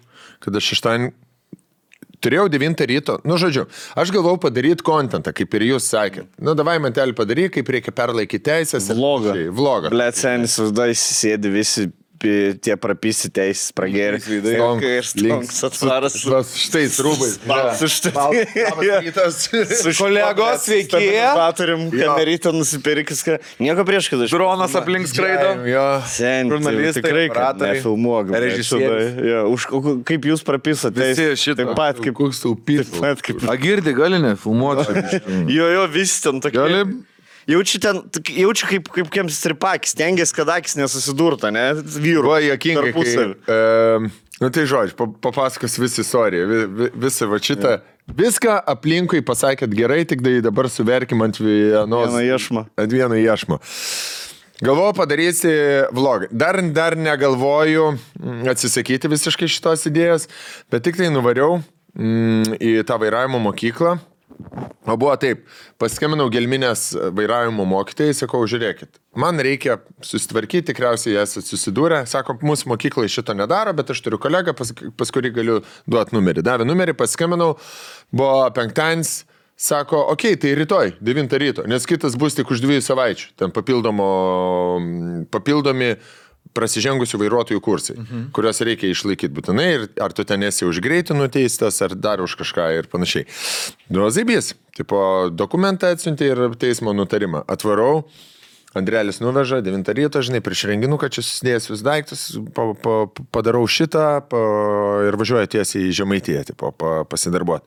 turėjau 9 ryto, nu žodžiu, aš galvau padaryti kontentą, kaip ir jūs sakėt. Nu, davai mantelį padaryk, kaip reikia perlaikyti teisės. Vlogą. Blėt, senis, uždai sėdi visi tie prapisi teisės pragerė. Ir stonks atvaras. Štai rūbai. Su kolegos sveiki. Turim kamerytą nusipirkis. Nieko prieš, kad aš... Dronas aplink skraido. Žurnalistai, tikrai, kad nefilmuok. Režisierius. Kaip jūs prapisat teisės? Taip pat kaip... Koks taupys. Agirdi, gali nefilmuoti. Jo, visi ten tokie. Gali... Jaučiu kaip kiems stripakis, stengiasi, kad akis nesusidurta, ne? Vyrų. Va, jokingai, nu tai žodžiu, papasakos visą istoriją, visą va šitą. Viską aplinkui pasakėt gerai, tik dabar suverkim ant vieno iešmo. Galvoju padarysi vlogą. Dar negalvoju atsisakyti visiškai šitos idėjos, bet tik tai nuvariau į tą vairavimo mokyklą. O buvo taip, paskambinau Gelminės vairavimo mokytojai, sakau, žiūrėkit, man reikia susitvarkyti, tikriausiai esate susidūrę, sako, mūsų mokyklai šito nedaro, bet aš turiu kolegą, pas kurį galiu duoti numerį. Davė numerį, paskambinau, buvo penktadienis, sako, okei, tai rytoj, 9 ryto, nes kitas bus tik už 2 savaičių, ten papildomi prasižengusių vairuotojų kursai, kuriuos reikia išlaikyti būtinai ir ar tu ten esi už greitį nuteistas, ar dar už kažką ir panašiai. Zaibys, tipo, dokumentą atsiuntė ir teismo nutarimą. Atvarau, Andrelis nuveža, 9 ryto, žinai, prieš renginuką čia susidėjęs vis daiktus, padarau šitą ir važiuoju tiesiai į Žemaitiją, tipo, pasidarbuoti.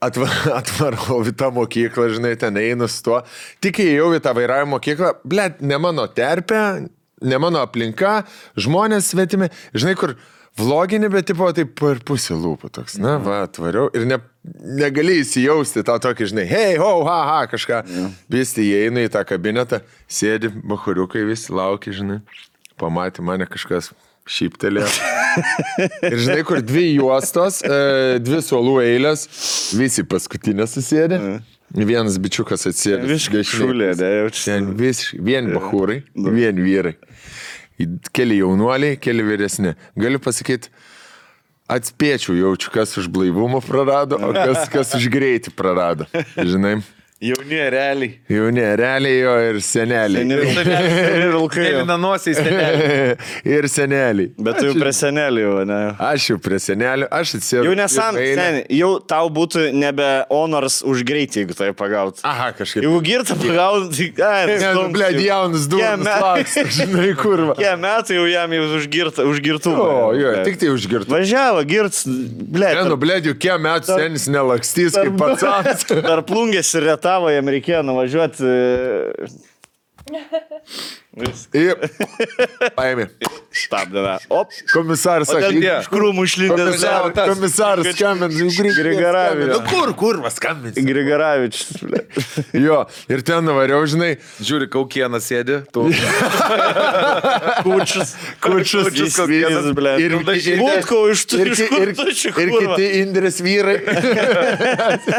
Atvarau į tą mokyklą, žinai, ten einu su tuo. Tik įėjau į tą vairavimo mokyklą, blėt, ne mano terpė, ne mano aplinka, žmonės svetimi, žinai, kur vlogini, bet tipo taip per pusę lūpų toks, na, va, atvariau ir negali įsijausti tą tokį, žinai, hei, ho, ha, kažką. Visi įeina į tą kabinetą, sėdi, bachuriukai visi laukia, žinai, pamatė mane kažkas, šyptelėjo. Ir žinai, kur 2 juostos, 2 suolų eilės, visi paskutinė susėdė. Vienas bičiukas atsėdė. Visiškai šulė, ne, jaučiu. Vien bahūrai, vien vyrai. Keli jaunuoliai, keli vyresni. Galiu pasakyti, atspėčiau jaučiu, kas už blaivumą prarado, o kas už greitį prarado. Žinai? Jauni realiai. Jauni realiai jo ir seneliai. Ir vilkai. Nanuosiai seneliai. Ir seneliai. Bet tu jau prie senelių, ne? Aš jau prie senelių, aš atsėdau. Jau seniai, jau tau būtų nebe honors už greitį, jeigu tai pagaut. Aha, kažkaip. Jeigu girtą pagaut, tai... Blėd, jaunas duonas laksta, žinai, kurva. Kie metai jau jam jau už girtų. O, jo, tik tai už girtų. Važiavo, girts, blėd. Blėd, jau kie metų senis nelakstys kaip pats. Dar plungės ir retavo, jam reikėjo nuvažiuoti. Ir paėmė. Stabdėme. Op. Komisaras sakė, Iš krūmų išlindęs. komisaras skambins. Grigaravičius. Kur skambins? Grigaravičius. Jo, ir ten nuvariau, žinai. Žiūri, kaukieną sėdi. Tu. Kučius. Kaukienas, blė. Ir Būtko iš kurtučių. Ir kiti Indrės vyrai.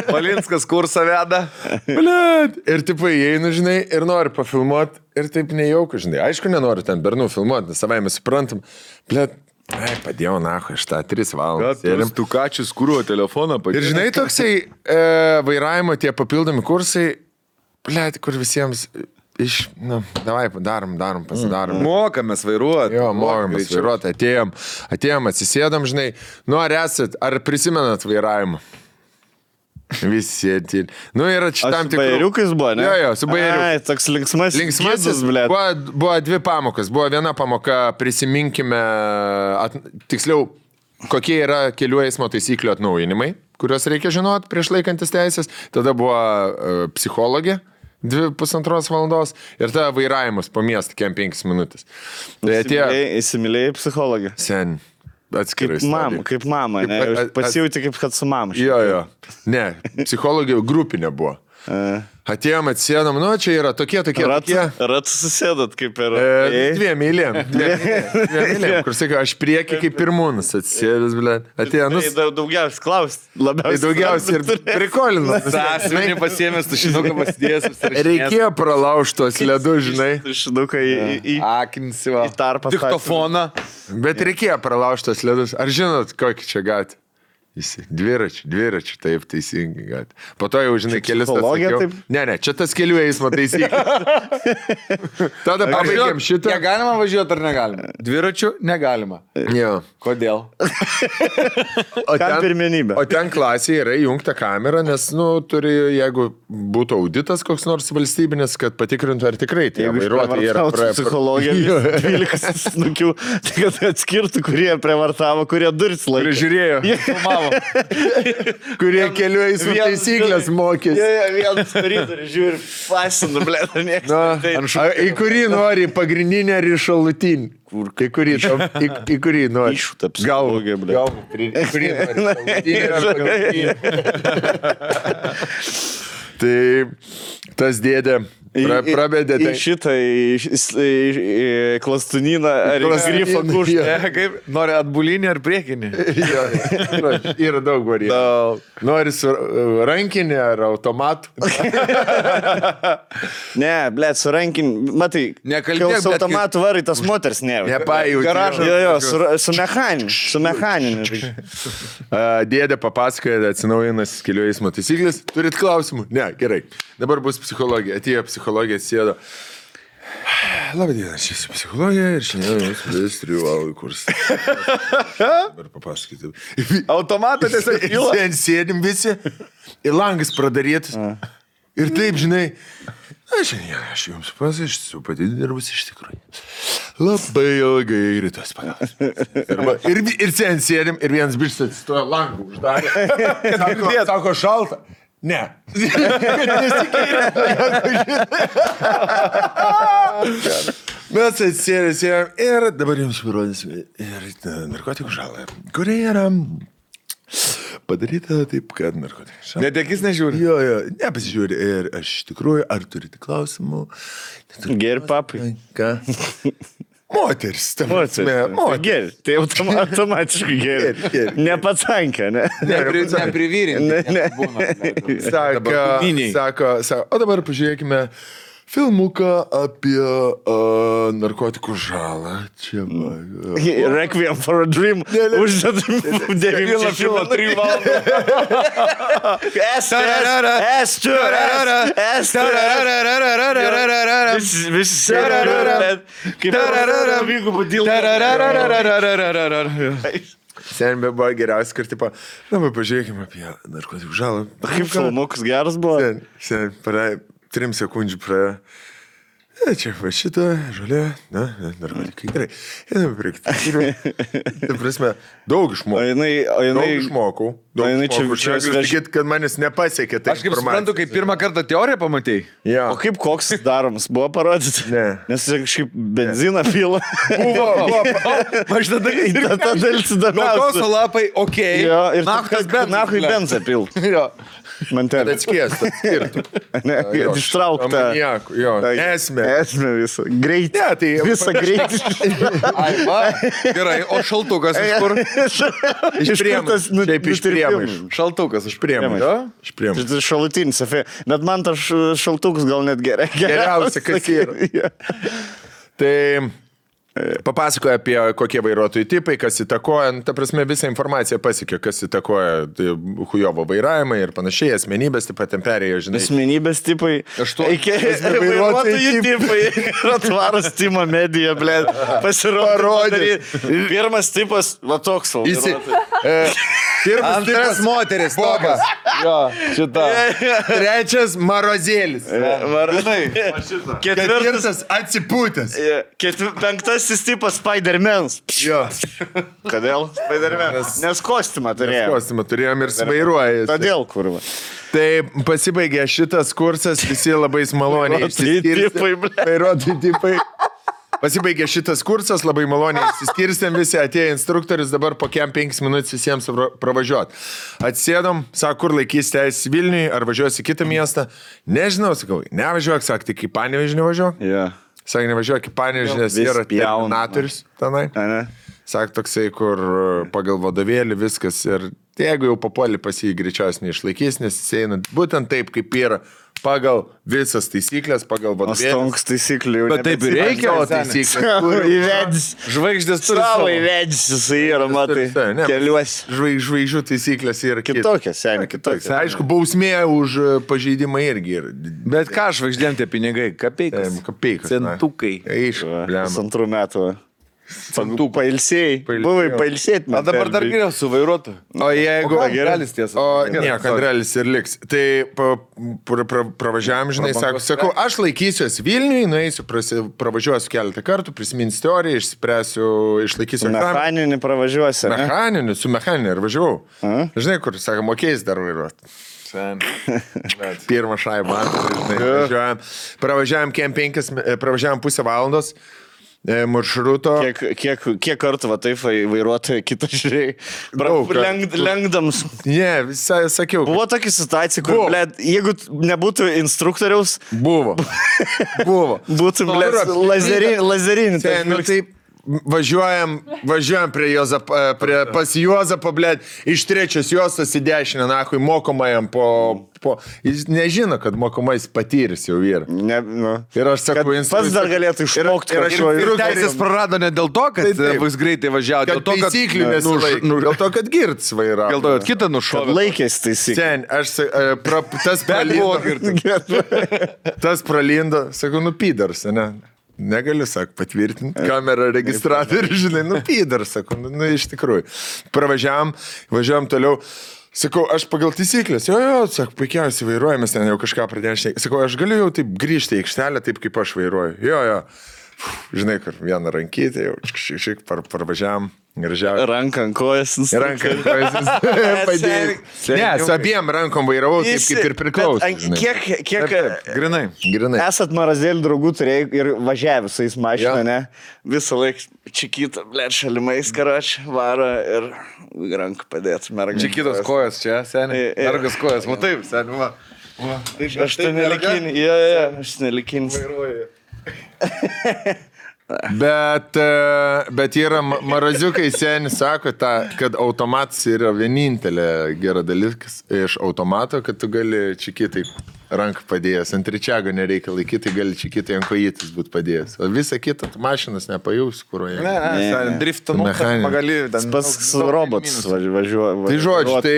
Palinskas kursą veda. Blėd. Ir tipo įeinu, žinai, ir nori pafilmuoti. Ir taip nejauku, žinai. Aišku, nenoriu ten bernų filmuoti, nes savai mes suprantam. Blėd. Padėjau, nahu, aš tą 3 valandas. Ir tu kačius kūruo telefoną padėjau. Ir žinai, toksai vairavimo tie papildomi kursai, blėd, kur visiems davai, darom, pasidarom. Mokamės vairuoti. Jo, mokamės vairuoti, atėjom, atsisėdam, žinai, ar esat, ar prisimenat vairavimą? Visi sėdi. Ir šitam tikrų... Bajeriukais buvo, ne? Jo, su bajeriukais. Ai, toks linksmasis, blėt. Buvo 2 pamokas. Buvo viena pamoka, prisiminkime, tiksliau, kokie yra kelių eismo taisyklių atnaujinimai, kuriuos reikia žinoti prieš laikantis teisės. Tada buvo psichologė. 2,5 valandos ir tada vairavimas po miestą, kem 5 minutės. Tai Įsimylėjai psichologę. Sen. Atskirai. Kaip mama, ne? Pasijauti kaip kad su mama. Jo. Ne, psichologija grupinė buvo. Atėjom, atsėdom, čia yra tokie. Ratus susėdat kaip ir... 2 eilėm. Kur sakai, aš prieki kaip pirmūnas atsėdęs, blė. Atėjo, daugiausiai klaust, labiausiai. Daugiausiai ir prikolino. Sąsmenį pasiėmęs, tušinuką pasidėjęs. Reikėjo pralaužti tos ledus, žinai. Tušinuką į tarpą. Diktofoną. Bet reikėjo pralaužti tos ledus. Ar žinot, kokį čia gatį? Dviračių, taip, teisingai gat. Po to jau, žinai, kelis tas sakiau. Ne, čia tas kelių eismo taisyklė. Tada pabaigėm šitą. Negalima važiuoti ar negalima? Dviračių negalima. Jo. Kodėl? Kam pirmenybė? O ten klasėje yra įjungta kamera, nes, turi, jeigu būtų auditas koks nors valstybinis, kad patikrintų, ar tikrai tie vairuotojai yra psichologija. 12 snukių, tai kad atskirtų, kurie prievartavo, kurie duris laikė. Kurie žiūrėjo. Kurie kelių eismo taisyklės mokėsi. Vienas koridorių žiūri, fasinu, blė, niekas. Į kurį nori, pagrindinį ar į šalutinį? Į kurį nori? Iššūta psichologija, blė. Į kurį nori, šalutinį ar pagrindinį. Tai tas dėdė prabėdė. Į šitą klastuniną ar grifą kuštą. Nori atbulinį ar priekinį? Yra daug variantų. Nori su rankinį ar automatu? Ne, blėt, su rankinį. Matai, kai su automatu varai, tas moters ne. Nepajauti. Jo, su mechaniniu. Dėdė papasakoja, atsinaujinas kelių eismo taisyklės. Turit klausimų? Ne, gerai. Dabar bus psichologija. Atėjo psichologija, atsėdo. Labą dieną, aš esu psichologija ir šiandien jums pradės 3 valandų kursą. Dabar papasakyti. Automatą tiesiog įla. Ten sėdim visi, ir langas pradarytas. Ir taip, žinai, aš jums pasakysiu, pati dirbus iš tikrųjų. Labai ilgai rytas pagas. Ir ten sėdim, ir vienas bištas atsistojo langų uždarė. Sako, šalta. Ne. Mes atsėdėm ir dabar jums parodysime narkotikų žalą, kurie yra padaryta taip, kad narkotikų žalą. Net akis nežiūri? Jo, nepasižiūri. Ir aš iš tikrųjų, ar turite klausimų? Geri papai. Ką? Moteris, ta prasme, moteris. Geri, tai automatiškai geri. Nepatsankė, ne? Neprivyrinti. Sako, o dabar pažiūrėkime filmuką apie narkotikų žalą. Čia va. Requiem for a Dream. Uždedam 9 filmą 3 valandą. Visi Sen buvo geriausia, kad tipo, dabar pažiūrėkime apie narkotikų žalą. Kaip filmukas geras buvo? Sen, 3 sekundžių praėjo. Čia va šitą, žolė, narkotikai, gerai. Einame priekti. Ta prasme, daug išmokau. Daug išmokau. Sakyti, kad manis nepasiekė. Aš kaip suprantu, kai pirmą kartą teoriją pamatėjai. Ja. O kaip koks daromas? Buvo parodyti? Ne. Nes kažkaip benziną pila. Buvo. Aš tada dalis įdomiausia. Kokoso lapai, okei. Jo, ir nahui benzą pil. Jo. Mantelė. Atskiestas, skirtų. Ištraukta. Jo, esmė. Esmė visą. Greitį. Ne, tai Visą greitį. Gerai, o šaltukas iš kur? iš priemonių. Šiaip iš priemonių. Šaltukas iš priemonių. Iš priemonių. Tai šalutinis efektas. Bet man tas šaltukas gal net Geriausia, kas yra. Tai papasakoja apie kokie vairuotojų tipai, kas įtakoja, ta prasme visą informaciją pasiekė, kas įtakoja hujovo vairavimą ir panašiai, asmenybės taip pat ten perėjo, žinai. Asmenybės tipai. Vairuotojų tipai. Atvaras Timo Medija, blė. Pasirodė. Pirmas tipas, va toks. Antras moteris, Bobas. Jo, šitą. Trečias Marozėlis. Ketvirtas atsipūtęs. Penktasis tipas Spider-Man's. Jo. Kodėl Spider-Man's? Nes kostiumą turėjom. Kostiumą turėjom ir svairuoja. Todėl, kurva. Tai pasibaigė šitas kursas, visi labai maloniai vairuotojų tipai. Pasibaigė šitas kursas, labai maloniai išsiskirstėm, visi atėjo instruktorius, dabar po 5 minutės visiems pravažiuot. Atsėdom, sako, kur laikys teisės Vilniui, ar važiuosi į kitą miestą. Nežinau, sakau, nevažiuok, sako, tik į Panevėžį nevažiuok. Yeah. Sako, nevažiuok į Panevėžį, nes yra terminatorius tenai. Sako, toksai, kur pagal vadovėlį viskas ir jeigu jau papuoli pas jį greičiausiai neišlaikys, nes jis eina būtent taip, kaip yra pagal visas taisyklės, pagal vadovėlį. Stonks taisyklių. Bet taip ir reikia, o taisyklės. Įvedis. Žvaigždės turi savo. Įvedis jisai yra, matai, keliuosi. Žvaigždžių taisyklės yra kitokios, seniai, kitokios. Aišku, bausmė už pažeidimą irgi yra. Bet ką žvaigždėm tie pinigai? Kapeikas. Centukai. Aišku, 2 metų. Tu pailsėjai. Buvai pailsėti. O dabar dar geriau su vairuotoju. O jeigu... Andrelis tiesa. O ne, Andrelis ir liks. Tai pravažiavam, žinai, sakau, aš laikysiuos Vilniui, nueisiu, pravažiuosiu keletą kartų, prisiminsiu teoriją, išspręsiu, išlaikysiu. Mechaninį pravažiuosi. Mechaninį, su mechaninį ir važiavau. Žinai, kur, sako, mokėjus dar vairuoti. Pirmą šaibą, žinai, pravažiavam 5 valandos. Maršruto. Kiek kartų va taip vairuotojai kitą žiūrėjai? Lenkdams. Ne, visai sakiau. Buvo tokia situacija, kur, blėd, jeigu nebūtų instruktoriaus... Buvo. Būtų, blėd, lazerinį. Taip, važiuojam pas Juozapą, blėd, iš 3 juostos į dešinę, nahui, mokomajam jis nežino, kad mokomais patyrys jau yra. Ir aš sakau, pats dar galėtų išmokti. Ir teisės prarado ne dėl to, kad bus greitai važiavo, dėl to, kad taisyklių nesilaikė. Dėl to, kad girts vairavo. Dėl to, kad kitą nušovė. Laikės taisyklių. Sen, aš tas pralindo, sakau, pydars, ne? Negaliu, sako, patvirtinti. Kamera registratorių, žinai, pydar, sako, iš tikrųjų. Važiavam toliau. Sakau, aš pagal taisyklės, jo, sako, puikiausiai vairuojamas, ten jau kažką pradėjau šnekėti. Sakau, aš galiu jau taip grįžti į aikštelę, taip kaip aš vairuoju. Jo. Žinai, kur vieną rankytę, jau šiek parvažiavam. Ranką ant kojas. Padėjai. Ne, su abiem rankom vairavau, taip kaip ir priklauso. Kiek Grinai. Esat Marozėlių draugų turėjai ir važiavę visais mašiną, ne? Visą laiką čikitą, blėt, šalimais karač, varo ir ranką padėt. Čikitos kojas čia, seniai. Mergas kojas, matai, seniai, va. Aš tai nelikinį. Aš nelikinį. Bet yra maraziukai seni, sako, kad automatas yra vienintelė gera dalykas iš automato, kad tu gali čikitai ranką padėjęs. Ant ričiago nereikia laikyti, gali čikitai ant kojitis būti padėjęs. O visą kitą mašinas nepajaus, kuroje. Ne, driftą pagali. Pas robotus važiuoja. Tai žodžiu, tai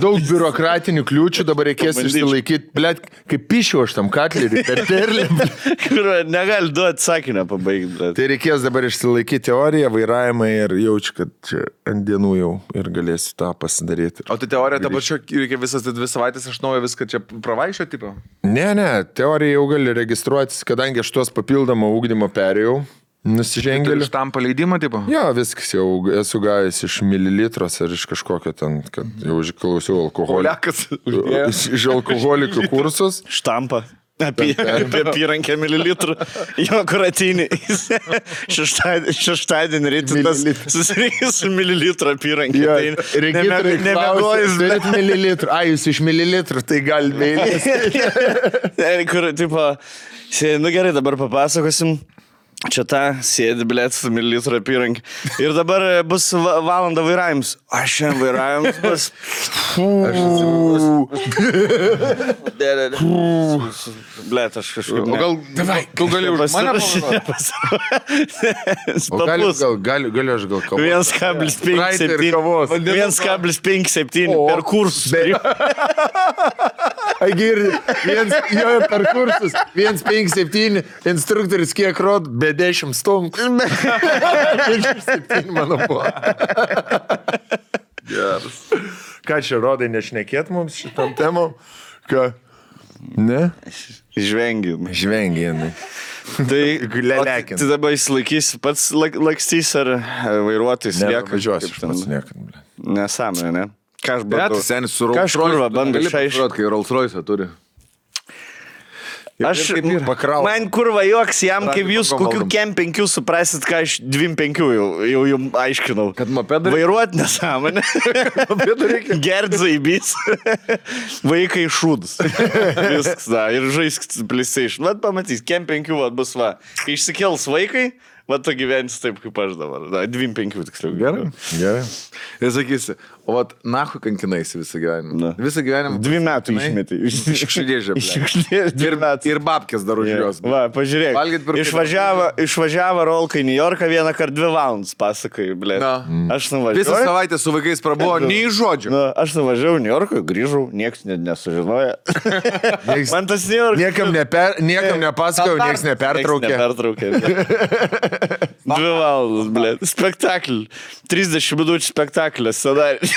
daug biurokratinių kliūčių dabar reikės išsilaikyti. Blet, kaip pišiu aš tam katlerį per terlį. Kur negali duoti sakinę pabaigti. Tai reikės dabar išsilaikyti teoriją, vairavimą ir jaučiu, kad čia ant dienų jau ir galėsiu tą pasidaryti. O tai teorija dabar čia reikia visas 2 savaitės iš naujo viską čia pravaišio tipo? Ne, teorija jau gali registruotis, kadangi aš tuos papildomą ūkdymo perėjau. Nusižengėliu. Iš tam paleidimo tipo? Jo, viskas jau esu gavęs iš mililitros ar iš kažkokio ten, kad jau išklausiau iš alkoholikų kursus. Štampa. Apie apyrankę mililitrų. Jo, kur ateini. Šeštadienį rytas susirinkęs su mililitrų apyrankė. Nemegojus. Turit mililitrų. Jūs iš mililitrų, tai gal vėlės. Kur, tipo, gerai, dabar papasakosim. Čia ta sėdi, blėt, su mililitrų apyrankė. Ir dabar bus valanda vairavimus. Aš šiandien vairavimus bus. Blėt, aš kažkaip... O gal... Tu gali už mane Galiu aš gal kavos. 1,57 per kursus. Jo, per kursus. 1,57 instruktorius kiek rod, be 10 stumkų. 1,7 mano buvo. Geras. Ką čia rodai nešnekėt mums šitam temom? Ką? Ne? Žvengiam. Tai dabar įsilaikys pats lakstys ar vairuotis lieka? Važiuosiu, aš pats niekad. Nesąmonė, ne? Ką aš bandau? Bet senis su Rolls Royce. Bandau išaiškinti, kai Rolls Royce turi. Man kurva joks jam, kaip jūs kokių kem 5 suprasit, ką aš 2,5 jau jums aiškinau. Kad mopedą vairuot nesąmonę. Gert zaibys. Vaikai šūdus. Viskas, da. Ir žaisk PlayStation. Vat pamatys, kem 5 bus va. Kai išsikels vaikai, va tu gyvensi taip, kaip aš dabar. 2,5 tiksliau. Gerai. Ir sakysi, o vat nahu kankinaisi visą gyvenimą. Visą gyvenimą. 2 metų išmetė. Iškšlėžė. Ir babkės dar už jos. Va, pažiūrėk. Išvažiavo Rolka į New Yorką 1x2 valandas, pasakai, blė. Aš nuvažiavau. Visą savaitę su vaikais prabuvo, nei žodžio. Aš nuvažiavau į New Yorką, grįžau, niekas nesužinoja. Man tas New York. Niekam nepasakojau, niekas nepertraukė. 2 valandas, blė. Spektaklį. 30 minučių spektaklį. Scenarij.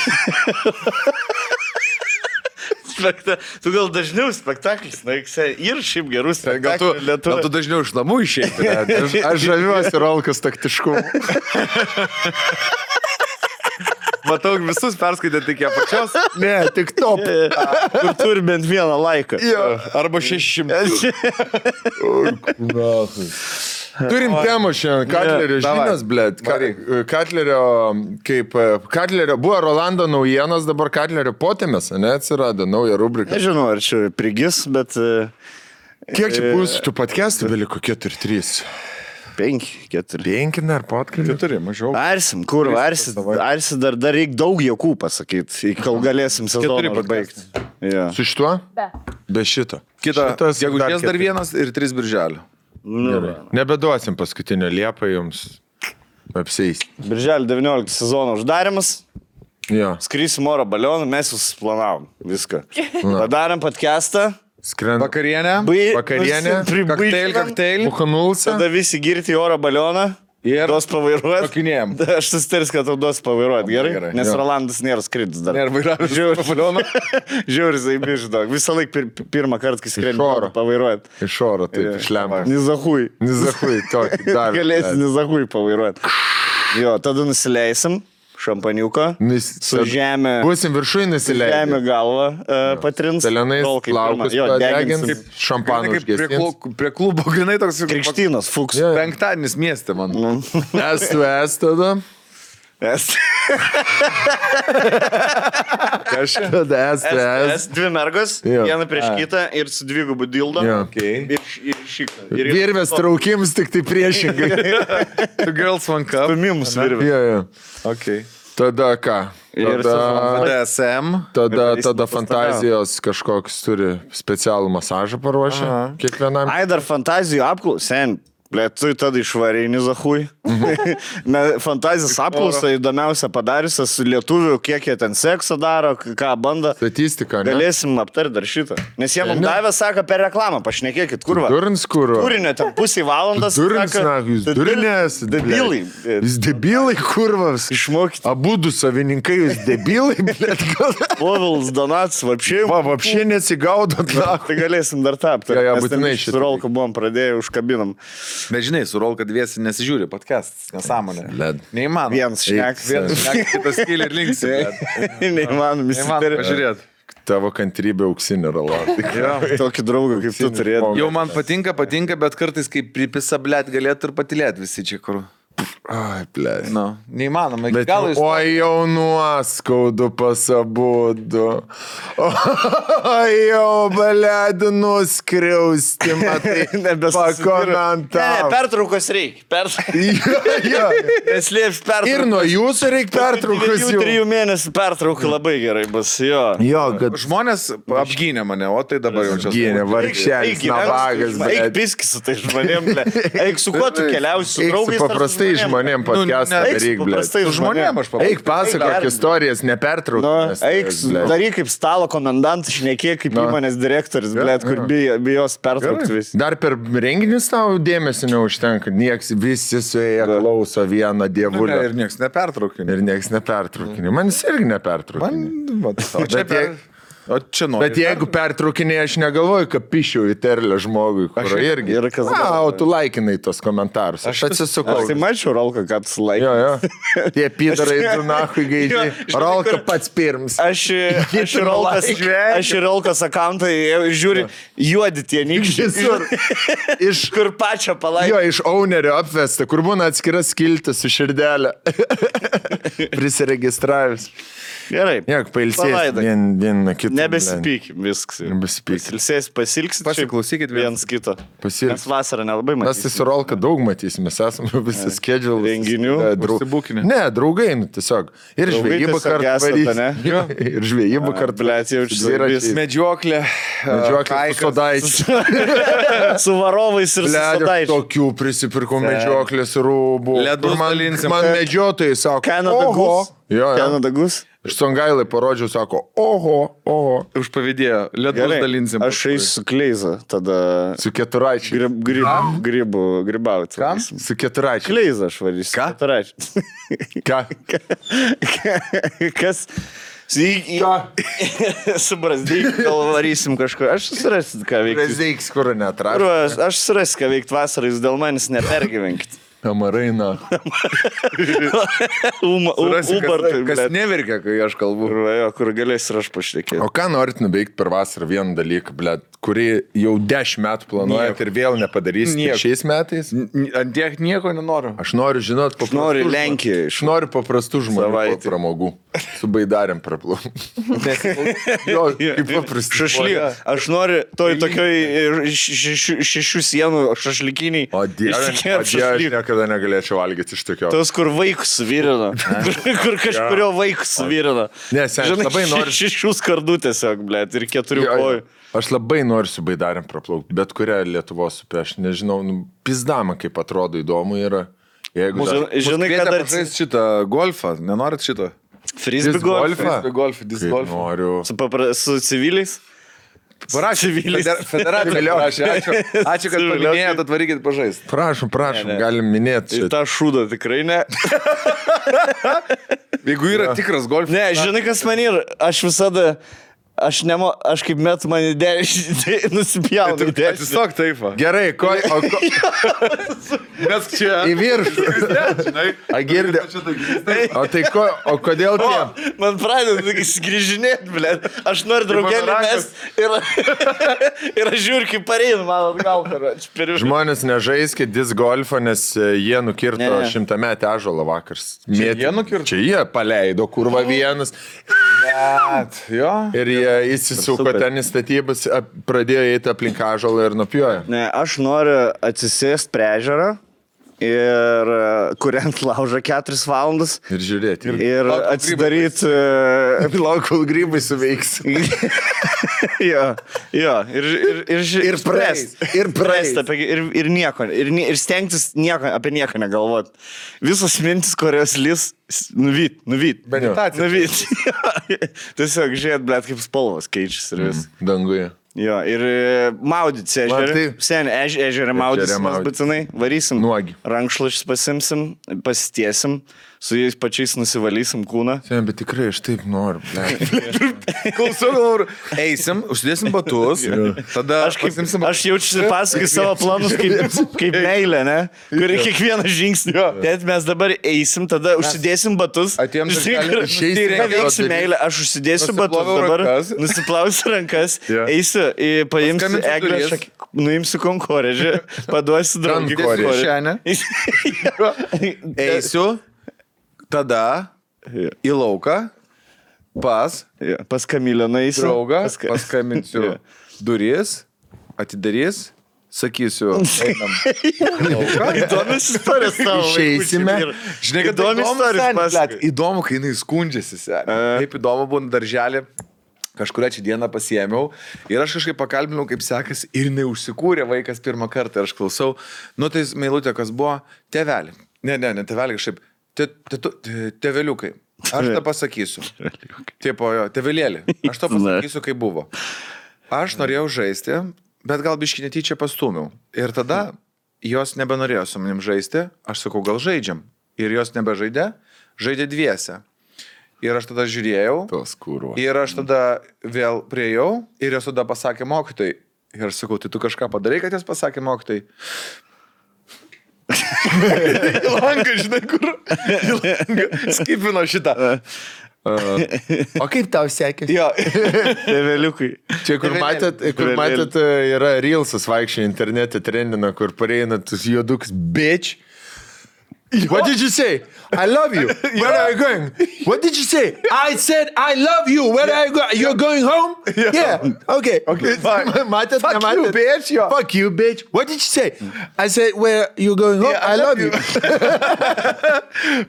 Tu gal dažniau spektaklis, ir šiaip gerus spektaklių. Gal tu dažniau iš namų išeiti. Aš žaviuosi Rolkos taktiškumu. Matau, visus perskaitė tik ją pačios. Ne, tik top. Kur turi bent vieną laiką. Arba 600. Turim temą šiandien. Katlerio žinias, blėt. Katlerio buvo Rolando naujienos, dabar Katlerio potėmės, ne, atsirado nauja rubrika. Nežinau, ar čia prigis, bet... Kiek čia bus tų podcastų beliko? 4-3? 5, 4. 5 dar podcast? 4, mažiau. Arsim, kur, arsi dar reikia daug jokų pasakyti, kol galėsim sezoną baigti. Su šituo? Be šito. Kitas, jeigu ties dar 1 ir 3 birželio. Nebeduosim paskutinio Liepą jums apseis. Birželio 19 sezono uždarimas. Skrysim oro balioną, mes jūs planavom viską. Padarėm podcastą. Vakarienę. Kakteilį. Bukanulsą. Tada visi girti oro balioną. Ir duos pavairuoti. Pakinėjom. Aš susitaris, kad tau duos pavairuoti, gerai? Nes Rolandas nėra skridis dar. Nėra vairavęs balioną. Žiūri, zaibiš, daug. Visą laiką pirmą kartą, kai skredi pavairuoti. Iš oro, taip, išlemą. Nizahui, tokį. Galėsi nizahui pavairuoti. Jo, tada nusileisim. Šampaniuką, su žemė. Būsim viršui nusileidę. Žemė galva patrins. Pelenais plaukus padegins, šampaną užgesins. Prie klubo grinai toks... Krikštynas, fuks. Penktadienis mieste, man. S tada. Tada STS. Dvi mergos, Jo. viena prieš kitą ir su dvigubu dildo. Jo. Okay. Ir šitą. Virvės traukims tik tai priešingai. Two girls, one cup. Stumimus virvė. Jo, jo. Okay. Tada ką? Ir DSM. Tada fantazijos kažkoks turi specialų masažą paruošę kiekvienam. Ai, dar fantazijų apklausę. Ble, tu tada išvareini zahui. Fantazijos apklausą įdomiausia padariusias lietuvių, kiek jie ten seksą daro, ką bando. Statistika, ne? Galėsim aptarti dar šitą. Nes jie mums davė, sako, per reklamą, pašnekėkit, kurva. Durins, kurva. Turinio ten pusį valandas. Durins, jūs durinės. Debilai. Jūs debilai, kurvas. Išmokyti. Abudu savininkai, jūs debilai, blėt, gal. Povilas Donats, vapšiai. Vapšiai nesigaudot, na. Tai galėsim dar tapti. Jo, būtinai šitą. Su Rolku buvom pradėję, užkabinam. Bet žinai, su Rolka dviesi nesižiūri podcast, nesąmonė. Led. Neįmanoma. Vienas šnek. Vienas šnek, kitas kyli ir linksi. Neįmanom, Neįmanoma pažiūrėti. Tavo kantrybė auksinė rala. Tokį draugą kaip tu turėtum. Jau man patinka, bet kartais kaip pripisa, blėt, galėtų ir patilėti visi čia kur. Ai, blėt. Nu, neįmanoma. Bet oi jau nuoskaudu pasabudu. Oi jau balėdų nuskriausti, matai, pakomentavo. Pertraukos reikia. Neslėps pertraukos. Ir nuo jūsų reikia pertraukos. 3 mėnesių pertrauka labai gerai bus, jo. Jo, kad žmonės apgynė mane, o tai dabar jau čia. gynė, vargšelis, navagas, Eik blėt. piskis su tai žmonėm, ble. Eik su kuo tu keliausi, su Eik draugais. su paprastai žmonėm podcastą Eik su daryk, blėt. paprastai Žmonėm aš paprastai. Eik pasakok istorijas, nepertrauk. Nu, eik, daryk kaip stalo komendantas, šnekėk kaip įmonės direktorius, blėt, kur bijos pertraukti vis. Dar per renginius tau dėmesio neužtenka. Nieks visi suėję klauso vieną dievulę. Ir nieks nepertraukė. Ir nieks nepertraukinė. Man jis irgi nepertraukinė. O čia nori. Bet jeigu pertraukinė, aš negalvoju, kad pišiau į terlę žmogui, kur irgi. Ir kas O tu laikinai tos komentarus. Aš atsisukau. Aš tai mačiau, Rolka, kad tu laikai. Jo, jo. Tie pidarai tu nahui gaidžiai. Rolka pats pirms. Aš į Rolkos akantą žiūri, juodi tie nykščiai. Iš Kur pačią palaikė. Jo, iš ownerio apvesta, kur būna atskiras skiltis su širdelė. Prisiregistravęs. Gerai. Jok, pailsės vieną kitą. Nebesipykim, viskas. Nebesipykim. Pasilgsit. Pasiklausykit viens kito. Pasilgsit. Mes vasarą nelabai Mes tai matysime. su Rolka daug matysime, mes esame visą schedule. Renginių. Užsibukinę. Ne, draugai, nu, tiesiog. Ir Draugai žvejybą tiesiog kartu esate, varys. ne? Jo, ir žvejybą kartu. Blet, jaučiu Dviračiais. Medžioklė. Medžioklė su sodaičiu. Su varovais ir su Blet, sodaičiu. tokių prisipirkau medžioklės rūbų. Ledus Kur dalinsim. man medžiotojai sako, Canada oho. Goose. Jo, jo. Canada Goose. Iš Songailai parodžiau, sako, oho. Užpavydėjo. Ledus Gerai, dalinsim. aš eisiu su Kleiza, tada Su keturaičiai. grybauti. Kam? Su keturaičiai. Kleiza aš varysiu. Ką? Ką? Kas? Su Brazdyk gal varysim kažko. Aš susirasiu, ką veikti. Prezeiks, kur neatrašau. Aš susirasiu, ką veikti vasarą, jūs dėl manęs nepergyvenkit. Amaraina. Kas neverkia, kai aš kalbu. Kur galės ir aš pašnekėti. O ką norit nuveikti per vasarą vieną dalyką, blėt, kurį jau 10 metų planuojat ir vėl nepadarysite šiais metais? Ant tiek nieko nenoriu. Aš noriu žinot paprastų Noriu žmonių. Lenkiją. Aš noriu paprastų žmonių Savaitę. pramogų. Su baidarėm praplauk. Jo, kaip paprastai. Šašlyk. Aš noriu toj tokioj 6 sienų šašlikiniai. O dieve, aš niekada negalėčiau valgyti iš tokio. Tos, kur vaikus suvirino. Kur kažkurio vaikus suvirino. Ne, sen, aš labai noriu. 6 skardų tiesiog, blėt, ir 4 kojų. Aš labai noriu su baidarėm praplaukti, bet kurią Lietuvos upę. Aš nežinau, pizdama, kaip atrodo įdomu yra. Jeigu Žinai, kad dar žais šitą golfą, nenorit šito? frisbee golf. Disc golf. Noriu. Su civiliais. Parašė, federacija parašė. Ačiū, kad paminėjot, atvarykit pažaisti. Prašom, galim minėti. Ir tą šūdą tikrai ne. Jeigu yra tikras golfas. Ne, žinai, kas man yra. Aš visada aš kaip metu man į dešinį nusipjaunu į dešinį. Tiesiog taip. Gerai, Mes čia. į viršų. Žinai. A girdė. O kodėl tie? Man pradeda skrižinėti, blėt. Aš noriu draugelį mest ir aš žiūriu, kaip pareinu, man atgal. Žmonės nežaiskit disc golfą, nes jie nukirto Ne. 100 metį ąžuolą vakars. jie nukirto? Čia jie paleido, kurva vienas. Jo. Ir jie įsisuko Super. ten į statybas, pradėjo eiti aplink ąžuolą ir nupjojo. Ne, aš noriu atsisėsti prie ežero ir kuriant laužą 4 valandas Ir žiūrėti. ir atsidaryti... Lauk, kol grybai suveiks. Jo, ir praeis, ir praeis. ir nieko, ir stengtis apie nieką negalvot. Visos mintis, kurios lis, nuvyt. Meditacija. Nuvyt. Tiesiog žiūrėt, blėt, kaip spalvos keičiasi ir vis. Danguje. Jo, ir maudyti ežerį. taip. Sen ežerį maudyti, mes maudytis. būtinai varysim. Nuogi. Rankšluočius pasimsim, pasitiesim, su jais pačiais nusivalysim kūną. Sen, bet tikrai aš taip noriu. Klausau, galvoju, eisim, užsidėsim batus, tada Aš jaučiu pasakai savo planus kaip meilė, ne? Kuri kiekvieną žingsnį. Bet mes dabar eisim, tada užsidėsim batus. Atėjom Žinai, išeisim, tai ką veiksiu daryt. meilę, aš užsidėsiu batus Nusiploviau dabar, rankas. nusiplausiu rankas, Jo. eisiu, paimsiu Paskambinsiu eglę, duris. nuimsiu konkorėžį, paduosiu draugį. Konkorėžį. eisiu, tada į lauką, pas Pas Kamilę nueisiu. draugą, Jo. paskambinsiu duris, atidarys, sakysiu, einam. Įdomios istorijos tavo. Išeisime. Žinai, kad Įdomi istorija seni, pasakoji. blet, įdomu, kai jinai skundžiasi. Seni. Kaip įdomu būna darželį. Kažkurią čia dieną pasiėmiau ir aš kažkaip pakalbinau, kaip sekasi, ir jinai užsikūrė vaikas pirmą kartą ir aš klausau, nu tai meilutė, kas buvo, tėvelį. Ne, tėvelį kažkaip, tėveliukai. Aš tą pasakysiu. Tipo, jo, tėvelėlį. Aš tą pasakysiu, kaip buvo. Aš norėjau žaisti, bet gal biškį netyčia pastumiau. Ir tada jos nebenorėjo su manim žaisti, aš sakau, gal žaidžiam. Ir jos nebežaidė, žaidė dviese. Ir aš tada žiūrėjau. Tos kurvo. Ir aš tada vėl priejau ir jos tada pasakė mokytojai. Ir aš sakau, tai tu kažką padarai, kad jos pasakė mokytojai. Į langą, žinai, kur. Į langą. Skipino šitą. O kaip tau sekėsi? Jo. Tėveliukai. Čia, kur matėt, yra Reelsas vaikščiai internete trendina, kur pareina tus juoduks bitch. What did you say? I love you. Where are you going? What did you say? I said I love you. Where are you going? You're going home? Yeah. Okay. fine. Matėt, Fuck nematėt? you, bitch, jo. Fuck you, bitch. What did you say? I said, where you going home? Yeah, I love you.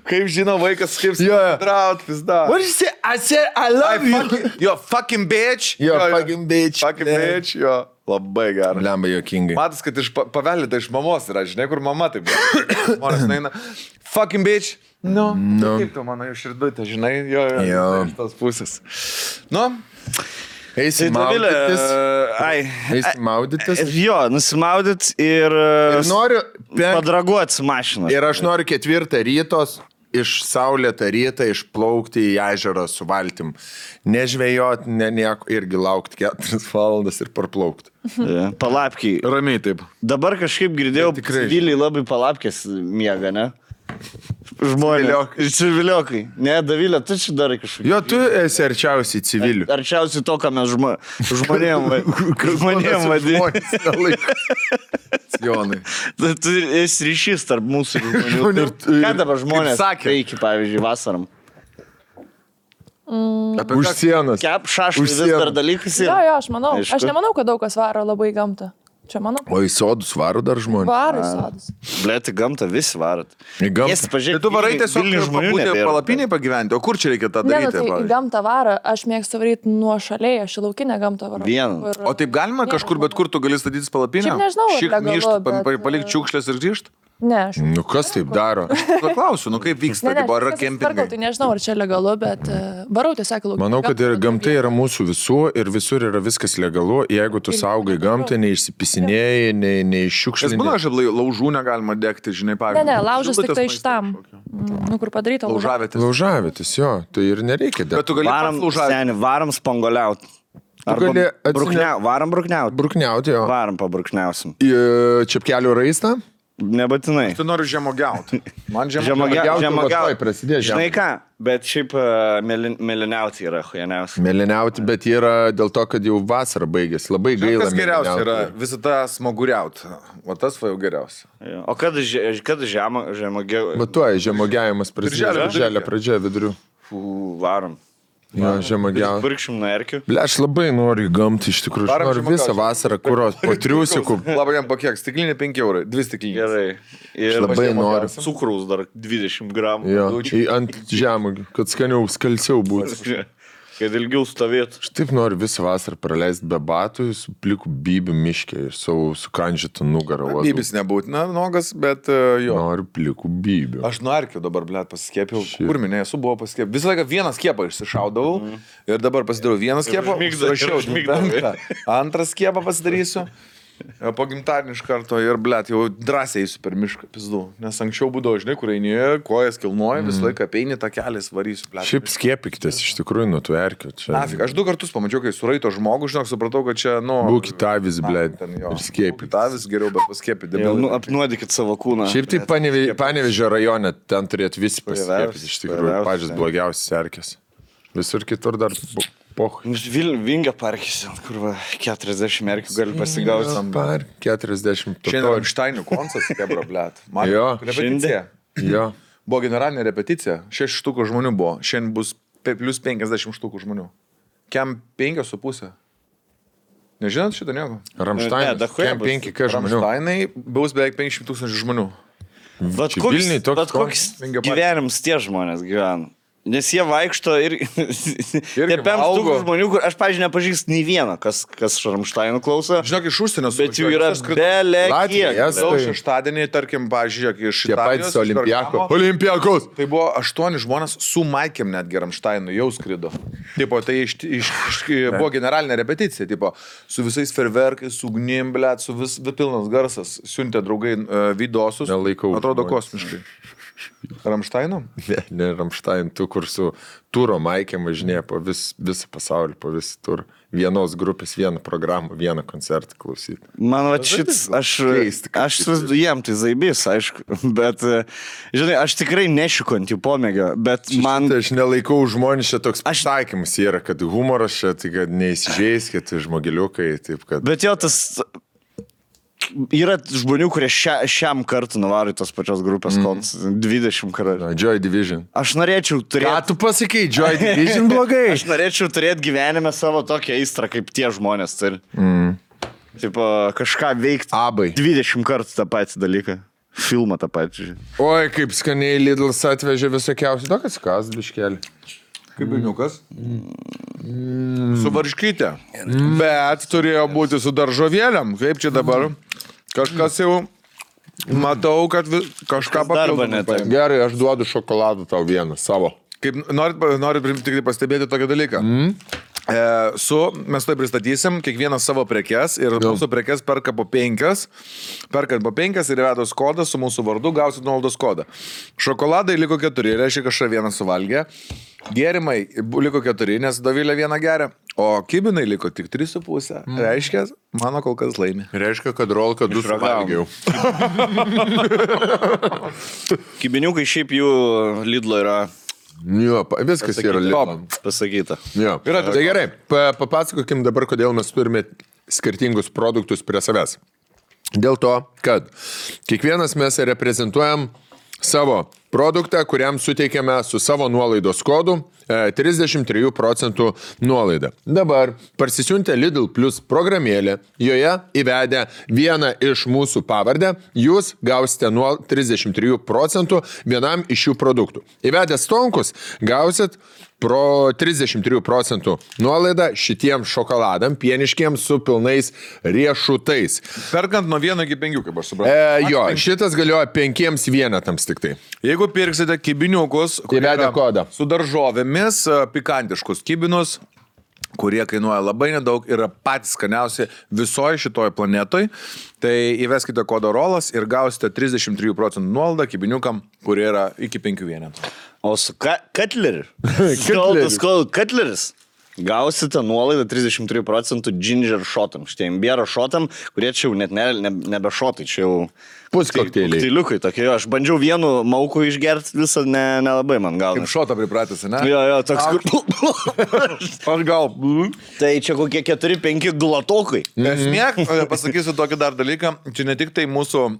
Kaip žino vaikas, kaip Jo. draut, pizda. What did you say? I said, I love you. Jo, fucking bitch. Jo, fucking bitch. Fucking bitch, jo. Labai gerai. Lemba jokingai. Matas, kad iš paveldėta iš mamos yra, žinai, kur mama taip. Žmonės neina. Fucking bitch. No. Kaip tu mano širdutė, žinai, jo. Iš tos pusės. Nu. Eisim maudytis. Eisim maudytis. Jo, nusimaudyt ir Noriu padraguoti su mašina. Ir aš noriu 4 rytos iš saulėtą rytą išplaukti į ežerą su valtim. Nežvejot, nieko, irgi laukti 4 valandas ir parplaukti. Palapkiai. Ramiai taip. Dabar kažkaip girdėjau, tikrai. civiliai labai palapkės miega, ne? Žmonės. Civiliokai. Ne, Davilė, tu čia darai kažkokį. Jo, tu esi arčiausiai civilių. Arčiausiai to, ką mes žmonėm vadiname. Jonai. Tu esi ryšys tarp mūsų ir žmonių. Ką dabar žmonės veikia, pavyzdžiui, vasaram? Už sienos. Kep šaškai Už vis dar sienos. dalykas Jo, yra. aš manau. Aišku. Aš nemanau, kad daug kas varo labai į gamtą. Čia manau. O į sodus varo dar žmonės. Varo į sodus. Blėti gamtą visi varat. Į gamtą. Tai tu varai tiesiog pabūti palapiniai pagyventi, o kur čia reikia tą Ne, nu, daryti? tai į pavyzdžiui? gamtą varo, aš mėgstu varyti nuo šaliai, aš į laukinę gamtą varau. Vieną. Kur- O taip galima kažkur, bet kur tu gali statytis palapinę? Šiaip nežinau, ar Šik legalu, grįžt, bet- palikti šiukšlės ir grįžt? Ne, aš. Nu kas taip daro? Paklausiu, nu kaip vyksta, Ne, tipo, ar yra aš tvarkau, kempingai? tai nežinau, ar čia legalu, bet varau tiesiog į laukinę. Manau, kad ir gamtą, gamta yra mūsų visų ir visur yra viskas legalu. Jeigu tu saugai gamtą, neišsipisinėjai, Nes būna, neiššiukšlinai. aš laužų negalima degti, žinai, Ne, pavyzdžiui. ne, laužas tik Šilutės tai maistas šitam. kažkokio. Nu, kur padaryta laužas. Laužavėtės. Laužavėtis, jo, tai ir nereikia Bet dėti. tu gali pats Varam, laužavėtis. seni, varam spangoliauti. gali Varom brukniauti. brukniauti jo. Varom pabrukniausim. Čepkelių raistą. Nebūtinai. Tu nori žemogiauti. Man Žemogiauti Žemogiauti. prasidės. Žinai ką, bet šiaip mėlyniauti yra hujaniausi. Mėlyniauti, bet yra dėl to, kad jau vasara baigėsi. Labai gaila. Kas geriausia mėlyniauti. yra visada smaguriauti. O tas va jau geriausia. O kada žemogiau? Matuoja, žemogiavimas prasidės. Birželio Birželio pradžioje vidurių. Varom. Jo, žemogiavimas. Pirkšim nuo erkių. Ble, aš labai noriu į gamtą, iš tikrųjų. Aš Varom noriu žemogiauti. visą vasarą kuros po triusikų. Labai jam pakiek, stiklinė 5 eurai, 2 stiklinės. Gerai. Ir Labai noriu. cukraus dar 20 gramų. Jo, ant žemogių, kad skaniau, skalsiau būtų. Kad ilgiau stovėtų. Aš taip noriu visą vasarą praleisti be batų, su pliku bybių miškė ir savo sukandžytą nugarą. Bybis nebūtina nogas, bet jo. Noriu plikų bybių. Aš nuo erkių dabar, blėt, pasiskėpiau. Kur minėjau, esu buvo pasiskėpęs. Visą laiką vieną skiepą išsišaudavau ir dabar pasidariau vieną skiepą. Užmigdavai. Antrą skiepą pasidarysiu. Po gimtadienį iš karto ir, blėt, jau drąsiai eisiu per mišką, pizdu. Nes anksčiau būdavo, žinai, kur eini, kojas kilnoja, visą laiką apeini tą kelią, varysiu, blėt. Šiaip skiepykitės, iš tikrųjų, nuo tų erkių. Nafik, aš 2 kartus pamačiau, kai suraito žmogų, žinok, supratau, kad čia, nu... Būkit avis, ble, ir skiepykit. Avis geriau, bet paskiepyti. Apnuodykit savo kūną. Šiaip tai Panevėžio rajone, ten turėtų visi pasiskiepyti, iš tikrųjų, pačios blogiausias erkės. Visur kitur dar poch. Vingio parkis, kur va, 40 erkių gali pasigauti. 40. Šiandien Ramštainių koncas, kebra, blėt. Jo. Repeticija. Jo. Buvo generalinė repeticija, 6 štukų žmonių buvo, šiandien bus plus 50 štukų žmonių. Kiam 5,5. Nežinot šitą nieko? Ramštainas, kem 5 žmonių. Ramštainai bus beveik 500 000 žmonių. Bet Vilniuj toks koks Vingio parke. gyvenimas tie žmonės gyvena. Nes jie vaikšto ir Irgi tepėms valgo. tų žmonių, kur aš, pažiūrėjau, nepažįstu nei vieną, kas Ramštainų klauso. Žinok, iš užsienio Bet jų yra belė Latvija, kiek. Estai. Daug šeštadienį, tarkim, pažiūrėk, iš Tie patys Olimpiakos. Tai buvo 8 žmonės su Maikėm netgi Ramštainu jau skrido. Tipo, tai buvo generalinė repeticija, tipo, su visais ferverkais, su ugnim, blėt, su vis pilnas garsas. Siuntė draugai vidosus. Nelaikau Atrodo žmonės. kosmiškai. Ramštainu? Ne Ramštain, tu kur su turo maikėm važinėja po visą pasaulį, po visą turą. Vienos grupės, vieną programą, vieną koncertą klausyti. Man va šits, aš jiem tai zaibys, aišku, bet, žinai, aš tikrai nešiku ant jų pomėgio, bet man... Aš nelaikau žmonės, čia toks pasakymas yra, kad humoras čia, tai kad neįsižeiskit žmogeliukai, taip kad... Bet jo, tas... Yra žmonių, kurie šiam kartu nuvaro į tos pačios grupės koncus 20 kartų. Joy Division. Aš norėčiau turėti... Ką tu pasakai, Joy Division blogai? Aš norėčiau turėti gyvenime savo tokią aistrą, kaip tie žmonės turi. Taip, kažką veikti. Abai. 20 kartų tą patį dalyką. Filmą tą patį. Oi, kaip skaniai Lidlas atvežė visokiausių. Tokas kas, biškelį. Kaip berniukas. Su varškytė. Bet turėjo būti su daržovėliam. Kaip čia dabar? Kažkas jau matau, kad kažką papildomą. Gerai, aš duodu šokoladą tau vieną, savo. Kaip norit tik pastebėti tokį dalyką. Mes tai pristatysim kiekvieną savo prekes ir mūsų prekes perka po 5. Perkant po 5 ir įvedus kodą su mūsų vardu gausit nuolaidos kodą. Šokoladai liko 4, reiškia kažką vieną suvalgė. Gėrimai liko 4, nes Dovilė vieną geria. O kibinai liko tik 3,5. Reiškia, mano kol kas laimi. Reiškia, kad rolka 2 suvalgiau. Kibiniukai šiaip jų Lidlo yra Jo, viskas yra Lidlo. pasakyta. Jo. Tai gerai, papasakokim dabar, kodėl mes turime skirtingus produktus prie savęs. Dėl to, kad kiekvienas mes reprezentuojam savo produktą, kuriam suteikiame su savo nuolaidos kodu 33% nuolaidą. Dabar parsisiuntę Lidl Plus programėlę, joje įvedę vieną iš mūsų pavardę, jūs gausite 33% vienam iš šių produktų. Įvedę Stonkus gausit pro 33% nuolaidą šitiems šokoladam, pieniškiems su pilnais riešutais. Perkant nuo 1 iki 5, kaip aš supratau. Jo, šitas galioja 5 vienetams tik tai. Jeigu pirksite kibiniukus, Įvedę kodą. Su daržovėmis, pikantiškus kibinus, kurie kainuoja labai nedaug, yra patys skaniausi visoje šitoje planetoje, tai įveskite kodą ROLAS ir gausite 33% nuolaidą kibiniukam, kurie yra iki 5 vienetų. O su Katleriu? Katleris. Katleris. Gausite nuolaidą 33% ginger shotam, šitie imbėro shotam, kurie čia jau net nebe shotai, čia jau Puskokteiliai. kokteiliukai tokie. Aš bandžiau vienu mauku išgerti, visą nelabai man gal. Kaip šotą pripratęs, ne? Jo, toks kur... Aš gal. Tai čia kokie 4-5 glatokai. Esmė, pasakysiu tokį dar dalyką, čia ne tik tai mūsų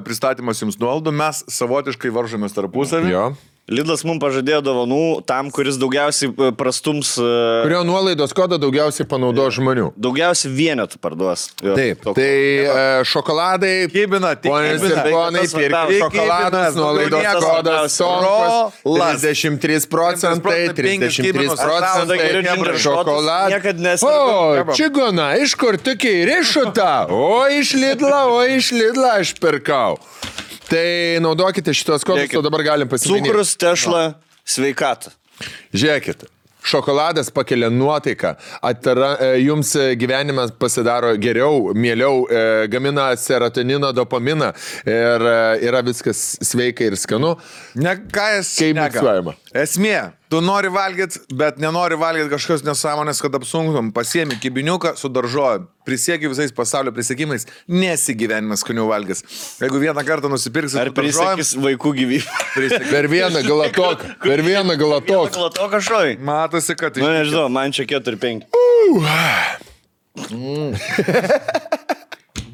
pristatymas jums nuolaidų, mes savotiškai varžomės tarpusavį. Jo. Lidlas mums pažadėjo dovanų tam, kuris daugiausiai prastums... Kurio nuolaidos kodą daugiausiai panaudo žmonių. Daugiausiai vienetų parduos. Jo, Taip, toks. tai šokoladai, Kibina, tik ponės ir kibina. ponai, Tas pirkite svarbiausia. šokoladus, nuolaidos Kibinas, kodas svarbiausia. Sonkas, 33%, Geriau ginger shotus niekad nesirgau. O, čigona, iš kur tokiai rišuta? O, iš Lidla aš pirkau. Tai naudokite šitos kodus, o dabar galim pasiminti. Cukrus, tešla, sveikata. Žiūrėkit, šokoladas pakelia nuotaiką, jums gyvenimas pasidaro geriau, mieliau, gamina serotonino, dopaminą ir yra viskas sveika ir skanu. Ne, ką jis Kaip miksuojama? Esmė, tu nori valgyti, bet nenori valgyti kažkokios nesąmonės, kad apsunkum. Pasiemi kibiniuką su daržovėm. Prisiekiu visais pasaulio prisiekimais, nesigyvenimas skaniau valgys. Jeigu vieną kartą nusipirksi Ar prisiekis vaikų gyvybę? Per vieną galatoką. Glatoką šoj. Matosi, kad Nu, nežinau, man čia 4-5.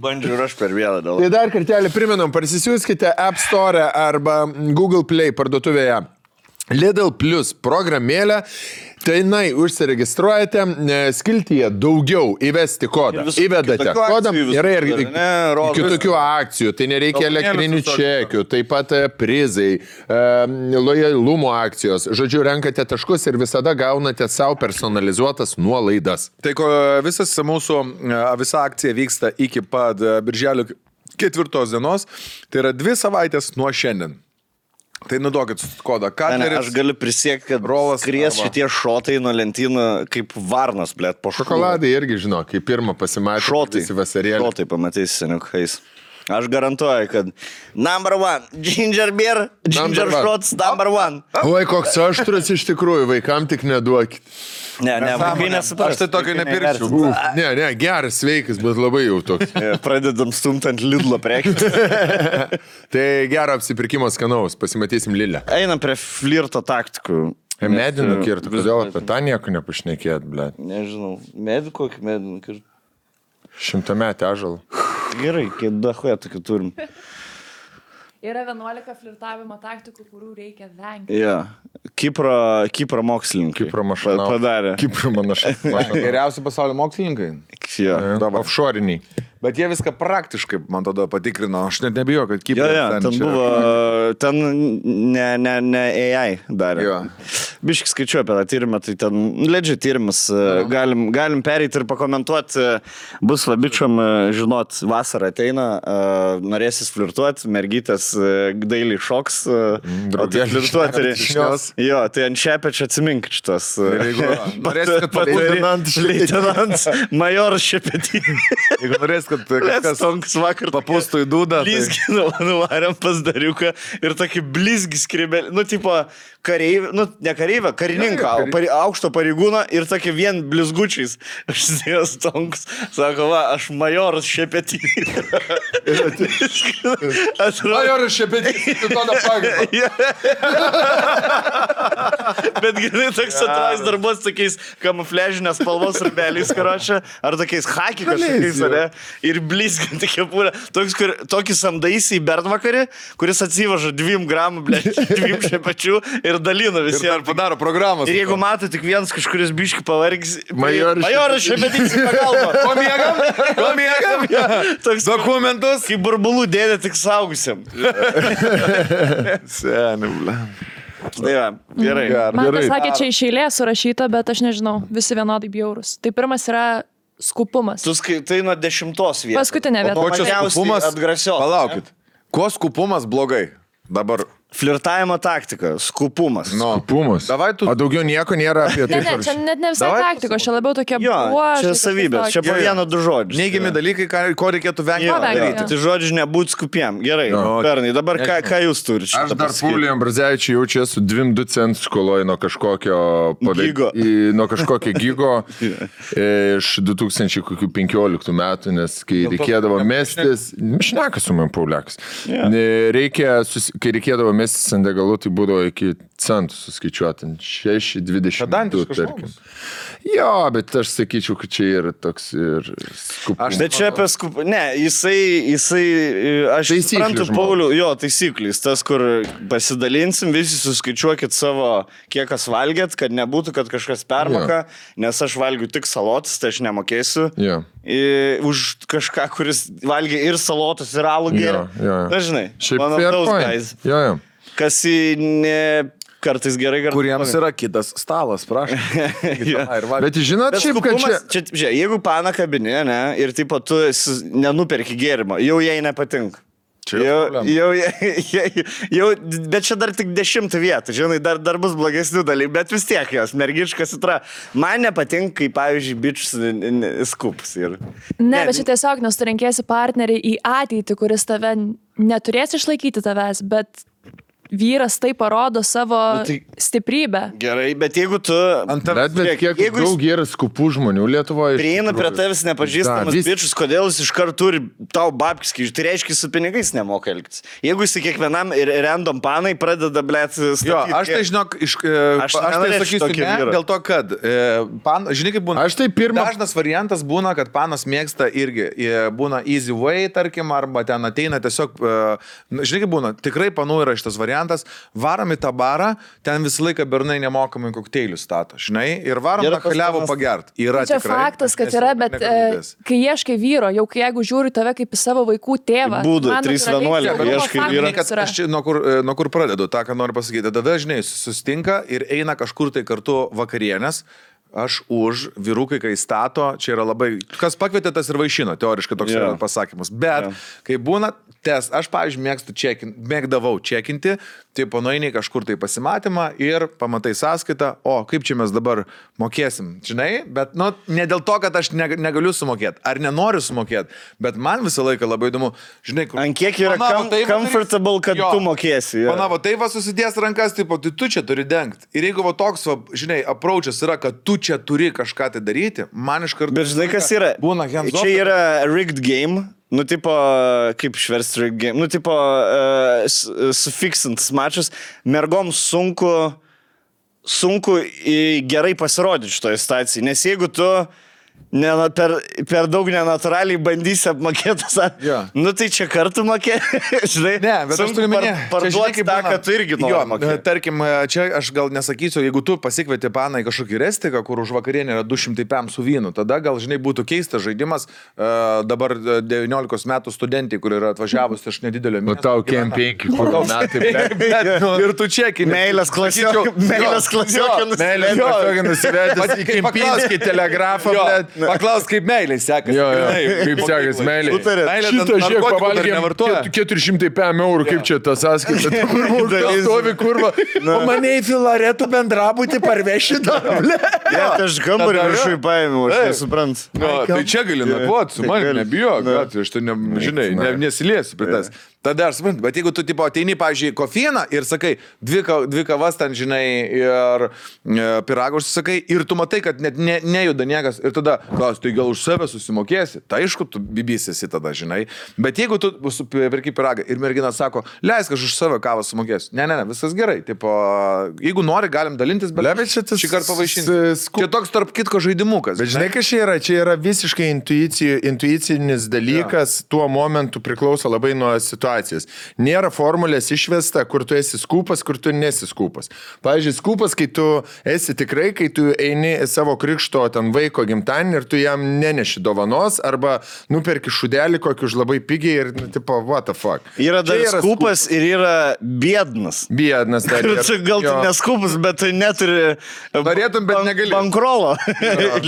Bandžiau ir aš per vieną dėl. Tai dar kartelį priminam, parsisiųskite App Store arba Google Play parduotuvėje Lidl Plus programėlę. Tai užsiregistruojate, skiltyje daugiau įvesti kodą. Įvedate kodą, yra ir kitokių akcijų, tai nereikia elektrinių čekių, taip pat prizai, lojalumo akcijos. Žodžiu, renkate taškus ir visada gaunate savo personalizuotas nuolaidas. Tai visa akcija vyksta iki pat birželio 4 dienos, tai yra 2 savaitės nuo šiandien. Tai naudokit kodą. Aš galiu prisiekti, kad skries šitie šotai nuo lentynų kaip varnas, blėt, po šokolą. Šokoladai irgi, žinau, kai pirmą pasimatė. Šotai pamatysi seniukais. Aš garantuoju, kad number 1, ginger beer, ginger shots, number 1. Oi, koks aštrus iš tikrųjų, vaikam tik neduokit. Ne, vaikai nesupras. Aš tai tokio nepirkčiau. Ne, geras, sveikas, bet labai jau toks. Pradedam stumtant Lidlo prekį. Tai gero apsipirkimo skanaus, pasimatysim Lidle. Einam prie flirto taktikų. Medinų kirtų, kodėl apie tą nieko nepašnekėt, ble. Nežinau, medų kokį medinų kirtų. 100-metį ąžuolą. Gerai, kiek dahoje tokių turim. Yra 11 flirtavimo taktikų, kurių reikia vengti. Jo. Kipro mokslininkai. Kipro mašanau. Padarė. Kipro mašanau. Geriausi pasaulio mokslininkai. Jo. Offshore'iniai. Bet jie viską praktiškai, man tada patikrino. Aš net nebijau, kad Kipras ten buvo, ten ne AI darė. Biškai skaičiu apie tą tyrimą, tai ten ledžiai tyrimas. Galim pereiti ir pakomentuoti. Bus labičiam, žinot, vasara ateina, norėsis flirtuoti, mergytės dailiai šoks. Flirtuoti. Jo, tai ant šepečio atsimink šitos. Norėsis, kad Leitenant majoras šepetį. Jeigu norėsis, kad kažkas papūstų į dūdą. Blizgi nuvarėm pas dariuką ir tokį blizgi skrybelį, nu, tipo, kareivį, nu, ne kareivį, karininką, aukšto pareigūną ir tokį vien blizgučiais. Aš sėdėjęs tonks, sako, va, aš majoras šepetį. Majoras šepetį, tu to nepagavai. Bet gerai, toks atrais darbos tokiais kamufležinės spalvos rubeliais, karočią, ar tokiais haki kažkokiais, ne? Ir blizginti kepurę. Tokį samdaisi į bernvakarį, kuris atsivaža 2 gramų, 2 šepečių ir dalina visiems. Ir padaro programas. Ir jeigu mato tik vienas kažkuris biški pavargis, majoras šepetys į pagalbą. Ko miegam? Toks Dokumentus. kaip burbulų dėdė tik saugusiam. Seni, ble. Tai va, gerai. Man pasakė, čia iš eilės surašyta, bet aš nežinau, visi vienodai bjaurus. Tai pirmas yra skupumas. Tu skaitai nuo 10 vietos. Paskutinė vieta. O čia skupumas? Atgrasios. Palaukit. Ko skupumas blogai? Dabar Flirtavimo taktika, skupumas. Pumus. Davai tu- O daugiau nieko nėra apie tai. Ne, čia net ne visai Davai taktikos, čia labiau tokie Jo, bruožai, čia kažkas savybės, čia tokio. po vieną du žodžius. Neigiami dalykai, ko reikėtų vengti. Jo, vengti, jo. Tai žodžiu, nebūt skupiem. Gerai, Jo. Pernai, dabar ką jūs turite? Aš dar Pauliui Ambrazevičiui jaučiu su 2 centus skoloju nuo kažkokio Gigo. Nuo kažkokio gigo iš 2015 metų, nes kai reikėdavo mestis, šneka su man Pauliakas. Kai reikėdavo mestis ant degalų, tai būdavo iki centų suskaičiuoti, 6,22 Pedantiškas tarkim. Jo, bet aš sakyčiau, kad čia yra toks ir skupumas. Bet čia apie skupą. Ne, jisai aš Taisyklių suprantu, žmogus. Paulių, jo, taisyklys, tas, kur pasidalinsim, visi suskaičiuokit savo, kiek kas valgėt, kad nebūtų, kad kažkas permoka, nes aš valgiu tik salotas, tai aš nemokėsiu. Jo. Už kažką, kuris valgė ir salotus, ir alų geria. Jo. Dažnai. Šiaip One of fair those point. guys. Jo. Kas kartais gerai, kartais Kuriems blogai. yra kitas stalas, prašau. Bet žinot, Bet šiaip, kad čia... skupumas, žiūrėk, jeigu pana kabinė, ne, ir tipo tu nenuperki gėrimo, jau jai nepatinka. Jau, bet čia dar tik 10 vietų, žinai, dar bus blogesnių dalykų, bet vis tiek jos, mergiškas itra. Man nepatinka, kai, pavyzdžiui, bičius skups. Ne, bet čia tiesiog, nes tu renkėsi partnerį į ateitį, kuris tave neturės išlaikyti tavęs, bet vyras tai parodo savo stiprybę. Gerai, bet jeigu tu... Bet kiek jeigu daug yra skupų žmonių Lietuvoje. prieina prie tavęs nepažįstamas bičius, kodėl jis iš karto turi tau babkis, tai reiškia, su pinigais nemoka elgtis. Jeigu jis kiekvienam ir random panai pradeda, blėt, statyti... Jo, aš tai žinok, aš tai sakysiu ne, dėl to, kad, žinai, kaip būna, Aš tai dažnas variantas būna, kad panas mėgsta irgi, būna easy way, tarkim, arba ten ateina tiesiog, žinai, kaip būna, tikrai panų yra šitas variantas, varom į tą barą, ten visą laiką bernai nemokamai kokteilių stato, žinai, ir varom tą kaliavą pagert. Yra Čia tikrai, faktas, kad yra, bet kai ieškai vyro, jau kai jeigu žiūri tave kaip į savo vaikų tėvą. Būdų, man 3:11, natūraliai ieškai faktas vyro. yra. Aš nuo kur pradedu, tą, ką noriu pasakyti. Tada, žinai, susitinka ir eina kažkur tai kartu vakarienės. Aš už, vyrukai, kai stato, čia yra labai... Kas pakvietė, tas ir vaišino, teoriškai toks yra pasakymas. Bet, kai būna test, aš, pavyzdžiui, mėgdavau čekinti, tai panoiniai kažkur tai pasimatymą ir pamatai sąskaitą, o kaip čia mes dabar mokėsim, žinai, bet, nu, ne dėl to, kad aš negaliu sumokėti, ar nenoriu sumokėti, bet man visą laiką labai įdomu, žinai, kur... Ant kiek yra comfortable, kad tu mokėsi. Manavo, tai va susidės rankas, tipo, tai tu čia turi dengti. Ir jeigu va toks, va, žinai, approachas yra, kad tu čia turi kažką tai daryti, man iš karto... Bet žinai, kas yra? Būna hands off. Čia yra rigged game. Nu, tipo, kaip šversti rigged game. Nu, tipo, sufiksintas mačas. Mergom sunku gerai pasirodyti šitoje stacijai. Nes jeigu tu per daug nenatūraliai bandysi apmokėti, nu tai čia kartu mokėti, žinai. Ne, bet aš turiu minėti, parduoti tą, kad tu irgi nori mokėti. Tarkim, čia aš gal nesakysiu, jeigu tu pasikvieti paną į kažkokį restiką, kur už vakarienę yra 200 pėm su vynu, tada gal, žinai, būtų keistas žaidimas dabar 19 metų studentai, kur yra atvažiavus iš nedidelio miesto. O tau kem 5 metai. Ir tu čekini. Meilės klasiokė nusivedęs į Kempinskį telegrafą. Paklaus, kaip meilė sekasi. Jo, kaip sekasi meilė. Šitą žiūrėk, pavalgėm 400 pėm eurų, kaip čia tas sąskaita. Stovi kurva. O mane į Filaretų bendrabutį parveši dar. Ne, aš gambarį viršui paėmiau, aš nesuprantu. Tai čia gali nakvoti, su manimi nebijok, aš tai, žinai, nesiliesiu prie tas. Tada aš suprantu, bet jeigu tu tipo ateini, pavyzdžiui, kofieną ir sakai, dvi kavas ten, žinai, ir piragus sakai, ir tu matai, kad net nejuda niekas, ir tada, klaus, tai gal už save susimokėsi, tai aišku, tu bibysėsi tada, žinai, bet jeigu tu perki piragą ir mergina sako, leisk, aš už save kavą sumokėsiu, ne, viskas gerai, tipo, jeigu nori, galim dalintis, bet šį kartą pavaišinti. Čia toks tarp kitko žaidimukas. Bet žinai, kas čia yra visiškai intuicinis dalykas, tuo momentu priklauso labai nuo situacijos. Nėra formulės išvesta, kur tu esi skupas, kur tu nesi skupas. Pavyzdžiui, skupas, kai tu esi tikrai, kai tu eini savo krikšto ten vaiko gimtadienį ir tu jam neneši dovanos, arba nuperki šudelį kokį už labai pigiai ir, nu, tipo, what the fuck. Yra dar skupas ir yra biednas. Biednas dar. Gal tu neskupas, bet tu neturi... Norėtum, bet negali. Bankrolo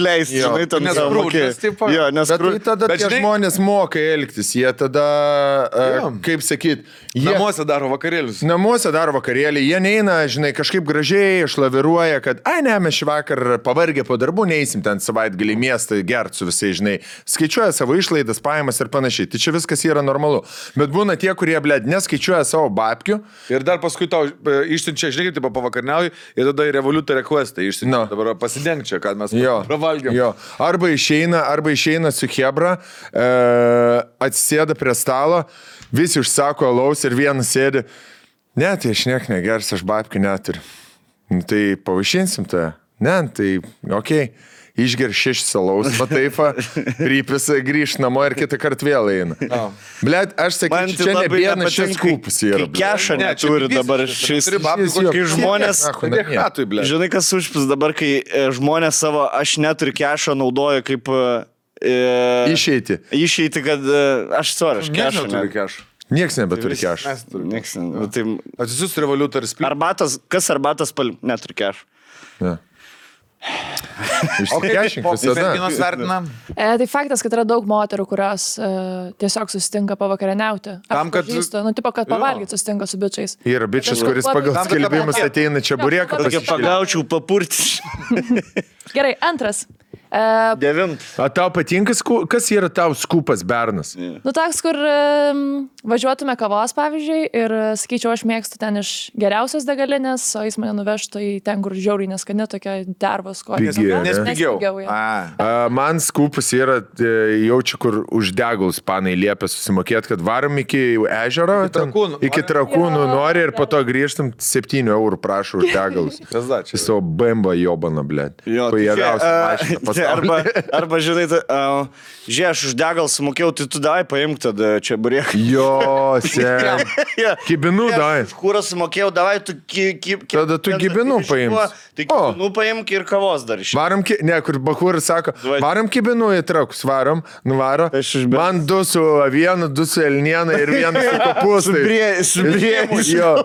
leisti, žinai, tam nesprūdęs, tipo. Jo, bet tai tada tie žmonės moka elgtis, jie tada... kaip sakyt, Namuose daro vakarėlius. Namuose daro vakarėlį, jie neina, žinai, kažkaip gražiai išlaviruoja, kad, ai ne, mes šį vakar pavargę po darbų, neįsim ten savaitgalį į miestą gert su visai, žinai, skaičiuoja savo išlaidas, pajamas ir panašiai. Tai čia viskas yra normalu. Bet būna tie, kurie, blėd, neskaičiuoja savo babkių. Ir dar paskui tau išsiunčia, žinai, taip pavakarniauji ir tada į Revoluta requestą išsiunčia. Dabar pasidengk čia, kad mes pravalgėm. Jo. Arba išeina su Hebra, atsisėda prie stalo, visi užsako alaus ir vienas sėdi. Ne, tai aš niek negers, aš babkių neturiu. Nu, tai pavaišinsim tą. Ne, tai okei. Išger 6 alaus, pataifa, rypisa, grįž namo ir kitą kartą vėl eina. Blet, aš sakyčiau, čia ne vienas šis kūpus yra. Kai kešą neturi dabar šis. Kai žmonės... Žinai, kas užpis dabar, kai žmonės savo aš neturiu kešą naudoja kaip... Išeiti, kad aš kešą neturiu. Nieks nebeturi kešą. Nieks neturi. Atsisius Revoluta ir spil. Kas arbatas neturi kešą? Išsikešink visada. Merginos vertina. Tai faktas, kad yra daug moterų, kurios tiesiog susitinka pavakarieniauti. Tam, kad... Nu, tipo, kad pavalgyti susitinka su bičiais. Yra bičias, kuris pagal skelbimus ateina čia burėką. Tokia pagaučiau papurti. Gerai, antras. 9. O tau patinka, kas yra tau skupas bernas? Nu, toks, kur važiuotume kavos, pavyzdžiui, ir sakyčiau, aš mėgstu ten iš geriausios degalinės, o jis mane nuvežtų į ten, kur žiauriai neskani, tokia dervos kojas. Nes pigiau. Man skupas yra jaučiu, kur už degalus panai liepia susimokėti, kad varom iki ežero, iki Trakūnų nori ir po to grįžtam 7 eurų prašau už degalus. Į savo bembą jobaną, blėt. Arba žinai, žiūrėk, aš už degalą sumokėjau, tai tu davai paimk tada čia burėką. Jo, sen. Kibinų davai. Už kurą sumokėjau, davai, tu tada tu kibinų paimk. Tai kibinų paimk ir kavos dar iš. Varom, ne, kur Bakuras sako, varom kibinų į Trakus, varom, nuvaro. Man 2 su avienu, 2 su elniena ir 1 su kopūstais. Su brėmis. Jo,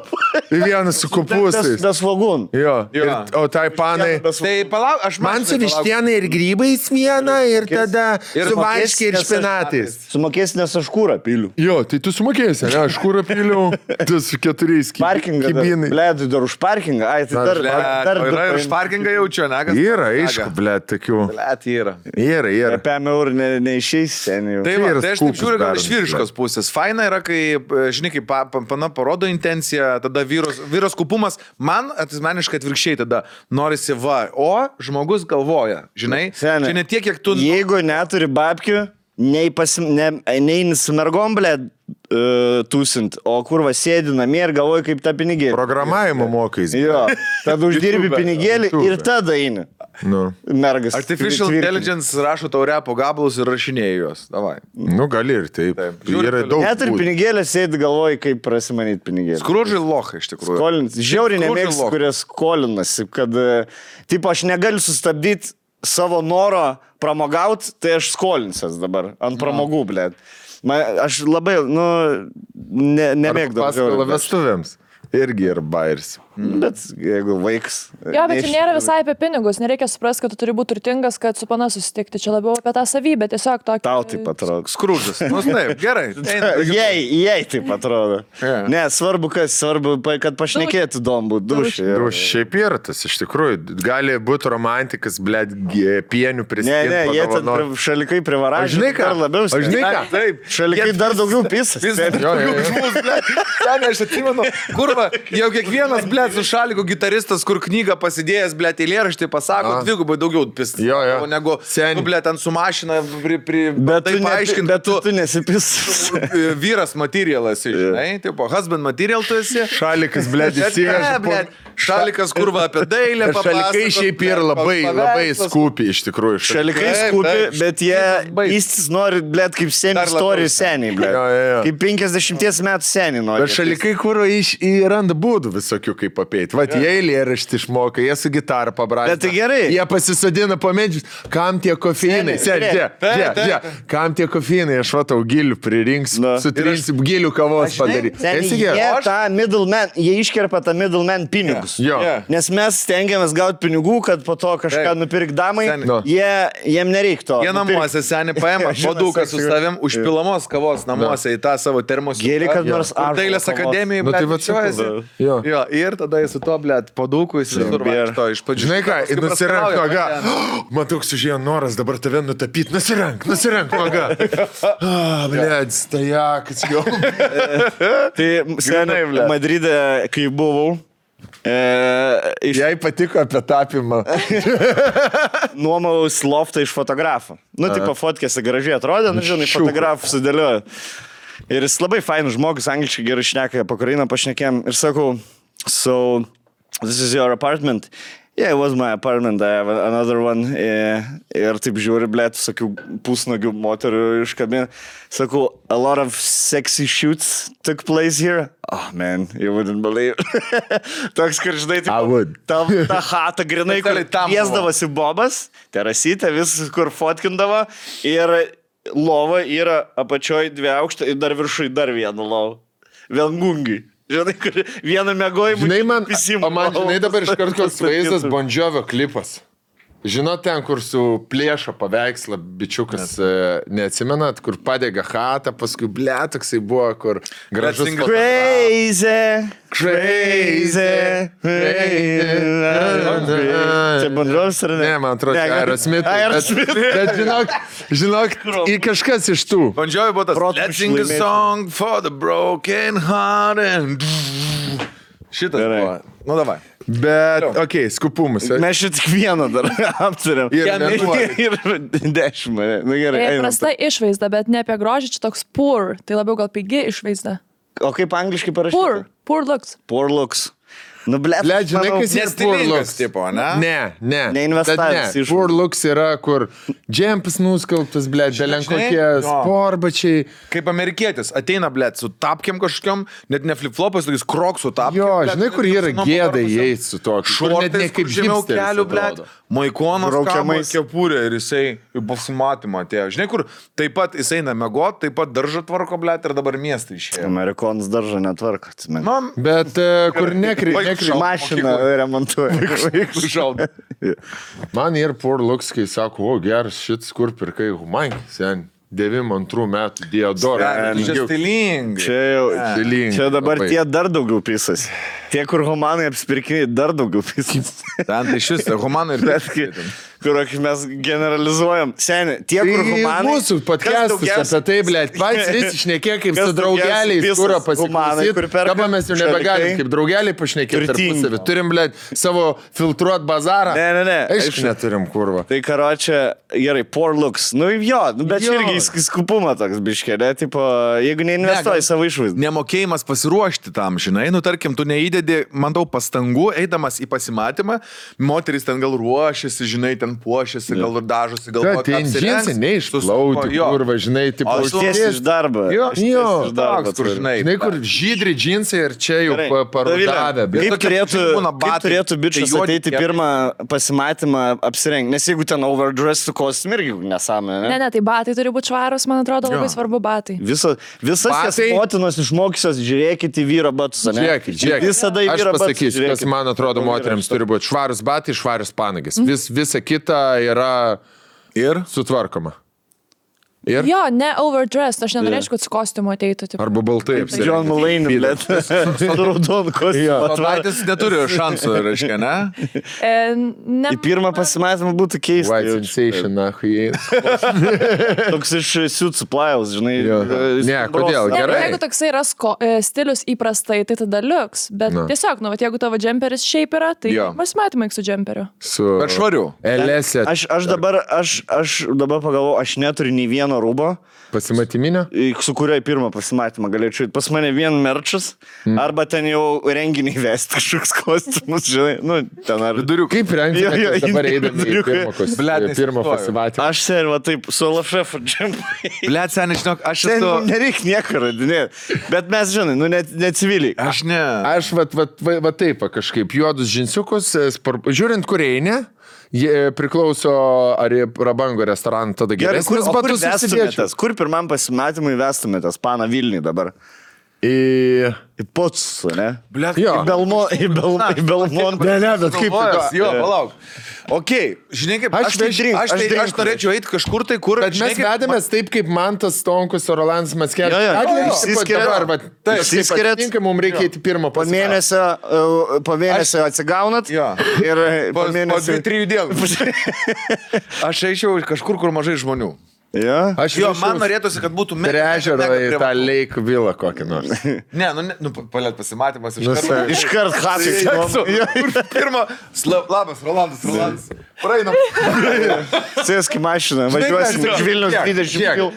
1 su kopūstais. Das vagun. Jo, o tai panai. Tai palauk, aš man su vištiena ir grybais vieną ir tada su varškiai ir špinatais. Sumokėsi, nes aš kūrą piliu. Jo, tai tu sumokėsi, ne, aš kūrą piliu, tu su 4 kibinai. Blėdui, dar už parkingą, ai, tai dar yra ir už parkingą jaučiu, ne? Yra, aišku, blėd, tokių. Blėd, yra. Yra. Apie eurų neišeis seniai. Tai aš taip žiūriu, gal iš vyriškos pusės. Faina yra, kai, žinai, kai pana parodo intenciją, tada vyros kupumas, man asmeniškai atvirkščiai tada norisi va, o žmogus galvoja, žinai, čia ne tiek, kiek tu... Jeigu neturi babkių, neini su mergom, blėd, tūsint, o kur va sėdi namie ir galvoji, kaip tą pinigėlį. Programavimo mokais. Jo, tada uždirbi pinigėlį ir tada eini. Mergas. Artificial Intelligence rašo tau repo gabalus ir rašinėja juos. Davai. Nu, gali ir taip. Yra daug. Net ir pinigėlį sėdi galvoji, kaip prasimanyti pinigėlį. Skrudžiai locha iš tikrųjų. Skolins. Žiauriai nemėgstu, kurie skolinasi, kad, tipo, aš negaliu sustabdyti savo noro pramogauti, tai aš skolinsias dabar ant pramogų, blėt. Aš labai, nemėgdavau. Paskolą vestuvėms. Irgi ir bairis. Bet jeigu vaiks... Jo, bet čia nėra visai apie pinigus. Nereikia suprasti, kad tu turi būti turtingas, kad su pana susitikti. Čia labiau apie tą savybę. Tiesiog tokį... Tau taip atrodo. Skrudžas. Nu, taip, gerai. Jei taip atrodo. Ne, svarbu, kad pašnekėtų įdomu būt dušai. Šiaip yra tas, iš tikrųjų. Gali būti romantikas, blėt, pienių priskirti. Ne, jie ten šalikai privaražė. Žinai ką? Žinai ką? Taip. Šalikai dar daugiau pisas. Aš atsimenu, kurva, jau kiekvienas, blėt, su šaliku gitaristas, kur knygą pasidėjęs, blėt, eilėraštį pasako, dvigubai daugiau pist. Negu, blėt, ant su mašina bet tu nesipis. Vyras materialas, žinai, tipo, husband material tu esi. Šalikas, blėt, įsiveža. Šalikas, kurva, apie dailę papasako. Šalikai šiaip yra labai skupi, iš tikrųjų. Šalikai skupi, bet jie įstis nori, blėt, kaip semi istorijų seniai, blėt. Kaip 50 metų seniai nori. Bet šalikai, kur randa būdų visokių, kaip apeiti. Vat jie eilėraštį išmoka, jie su gitarą pabrąžina. Bet tai gerai. Jie pasisadina po medžius. Kam tie kofeinai? Kam tie kofeinai? Aš vatau gilių pririnksiu, sutrinsiu gilių kavos padaryti. Jie tą middleman, jie iškerpa tą middleman pinigus. žmogus. Jo. Nes mes stengiamės gauti pinigų, kad po to kažką nupirk damai, Seni. jiem nereikto. Jie namuose seni paima paduką su savim, užpilamos kavos namuose į tą savo termos. Gėri, kad nors Ar dailės akademijai, Nu, tai va, bučiuojasi. Jo. Jo, ir tada jis su to, blėt, padukų, jis visur vaikšto iš pradžių. Žinai ką, Paskui nusirank praskrauja, nuoga. ten. Matau, sužėjo noras dabar tave nutapyti. Nusirank nuoga. Blėt, stajakas jau. Tai seniai, blet. Madride, kai buvau, Jai patiko apie tapimą. nuomaus loftą iš fotografo. Nu, tipo, fotkėse gražiai atrodė, nu, žinai, fotografų sudėliojo. Ir jis labai fainus žmogus, angliškai gerai šneka, apie Ukrainą pašnekėm. Ir sakau, so, this is your apartment. Yeah, it was my apartment, I have another one. Ir taip žiūri, blėt, sakiau, pusnagių moterių iš kabinų. Sakau, a lot of sexy shoots took place here. Oh, man, you wouldn't believe. Toks, kad žinai, I would. ta chata grinai, kur Specialiai tam buvo. kviesdavosi bobas, terasytė, vis kur fotkindavo. Ir lova yra apačioj 2 aukštą ir dar viršui dar vieną lovą. Viengungi. Žinai, kur vieną mėgojimą. Žinai, man žinai dabar iš karto koks vaizdas Bon Jovio klipas. Žinot, ten, kur su plėšo paveikslą bičiukas, neatsimenat, kur padega chatą, paskui toksai buvo, kur gražus... Crazy, crazy. Čia Bon Jovis ar ne? Ne, man atrodo, Ne, Aerosmith. Aerosmith. Bet žinok, į kažkas iš tų. Bandžiojai buvo tas. Protu Let's sing a išlaimėti. song for the broken hearted. Šitas Gerai. buvo. Nu, davai. Bet, okei, skupumus. Mes šit tik vieną dar aptarėm. Ir Ir 10 mane. Na gerai, einam. Prasta išvaizda, bet ne apie grožį, čia toks poor, tai labiau gal pigi išvaizda. O kaip angliškai parašyta? Poor looks. Poor looks. Nu, blėt, Blet, žinai, manau, kas yra poor Nestilingas looks? tipo, ne? Ne. Neinvestavęs Bet iš- Poor looks yra, kur džempas nuskalbtas, blet, belen Žinai, kokie jo. sporbačiai. Kaip amerikietis, ateina, blėt, su tapkiam kažkokiam, net ne flip-flopas, tokiais kroksų tapkiam. Jo, blet, žinai, kur yra nuo gėda nugarpusio. įeiti su to. Kur net ne Šortais, kaip kur žemiau hipsteris kelių, blėt, atrodo. maikonos Braukiamais. kepurė ir jisai į pasimatymą atėjo. Žinai, kur taip pat jisai eina mėgot, taip pat daržą tvarko, blėt, ir dabar miestą išėjo. Amerikonas daržą netvarko, atsimenu. Man, Bet kur nekri... Mašiną remontuoja. šalda. Man ir poor looks, kai sako, o geras šitas, kur pirkai humankai, sen. 92 metų Diodorą. Čia stilingai. Čia jau. Stilingai, Čia dabar labai. tie dar daugiau pisas. Tie, kur humanai apsipirkiniai, dar daugiau pisas. Ten tai šis, humanai ir Bet kai, kur mes generalizuojam. Seniai, tie, kur Tai humanai. mūsų podcastus apie tai, blėt, pats vis išnekė kaip kas su draugeliais, daugiausiai kur visas humanai, kur pasiklausyti. perka Dabar mes jau nebegalim šalikai. kaip draugeliai pašnekėti Turtingi. tarpusavį. Turim, blėt, savo filtruot bazarą. Ne. Aišku, neturim kurva. Tai karočią, gerai, poor looks. Nu jo, bet Jo. irgi skupumą toks biškėlė. Tipo, jeigu neinvestuoji gal- savo išvaizdą. Nemokėjimas pasiruošti tam, žinai, nu tarkim, tu neįdedi, manau, pastangų, eidamas į pasimatymą, moteris ten gal ruošiasi, žinai, ten puošiasi, gal ir dažosi, gal Kad ten džinsai neišplauti, kurva, žinai, tipo, O su- Tiesiai iš darbo. Jo, Jo, iš darbo. toks, kur, žinai. Žinai, kur žydri džinsai ir čia jau Gerai. parudavę. Dovile, bet- Kaip tokie turėtų, būna kaip batai, turėtų bičias tai juodi ateiti kepuriai. pirmą pasimatymą apsirengti? Nes jeigu ten overdress su kostium irgi nesąmonė. Ne, tai batai turi būti švarus, man atrodo, labai svarbu batai. Visas jas Batai- motinos išmokysios, žiūrėkite į vyro batus, ne? Žiūrėkit. Visada į Aš vyro batus. pasakysiu, kas žiūrėkit. man atrodo moteriams turi būti švarus batai, švarus panagis. Visa kita yra Ir? sutvarkoma. Ir? Jo, ne overdressed, aš nenorėčiau, kad su kostiumu ateitų. Tipo. Arba baltai apsirengti. John Mulaney, blėt. Su raudonu kostiumu. Patvartis neturi šansų, reiškia, ne? Ne, Į pirmą pasimatymą būtų keista. White jaučiu. sensation, na, jie. Toks iš Suit Supplies, žinai. Jo. Ne, kodėl? ne, Gerai. jeigu toksai yra stilius įprastai, tai tada liuks. Bet Na. tiesiog, nu, vat jeigu tavo džemperis šiaip yra, tai Jo. pasimatymai su džemperiu. Su Bet švariu. Elėse Aš dabar pagalvoju, aš neturiu nei vieno rūbo, pasimatyminio. su kurio į pirmą pasimatymą galėčiau. Pas mane vien merčas, arba ten jau renginį vesti kažkoks kostiumus, žinai, nu, ten ar... Kaip rengti Jo, jo, dabar eidami į viduriukai. Blet, pirmą neįsivaizduoju. pasimatymą? Aš seniai, va taip, su Lašefu džempai. Blet, seniai, žinok, aš Ten esu... nereikia nieko radinėti. Bet mes, žinai, nu, ne civiliai. Aš ne. Aš va taip, va, kažkaip juodus džinsiukus, žiūrint, kur eini, jie priklauso ar į prabango restoraną, tada Gerai, geresnis batus susidėčiau. Kur pirmam pasimatymui vestumėtės, pana Vilniui dabar? Į Potsą, ne? Blet, Jo. Į Belmontą. Ne, bet kaip... Jo, palauk. Ok, žinai kaip, Aš norėčiau eiti kažkur tai, kur... Bet mes vedėmės taip, kaip Mantas Stonkus ir Rolandas Mackevičius. Jo, išsiskiria. Išsiskiria. Mums reikia eiti pirmo Po mėnesio atsigaunat. Jo. Ir Po po mėnesio... 2-3 dienų. Aš eičiau kažkur, kur mažai žmonių. Ja? Jo, man norėtųsi, kad būtų prie ežero į tą Lake Villa kokį nors. Ne, palėt pasimatymas iš karto. Iškart hakai. Pirma, labas, Rolandas. Praeinam. Sėsk į mašiną, važiuosim iš Vilnius 20 km.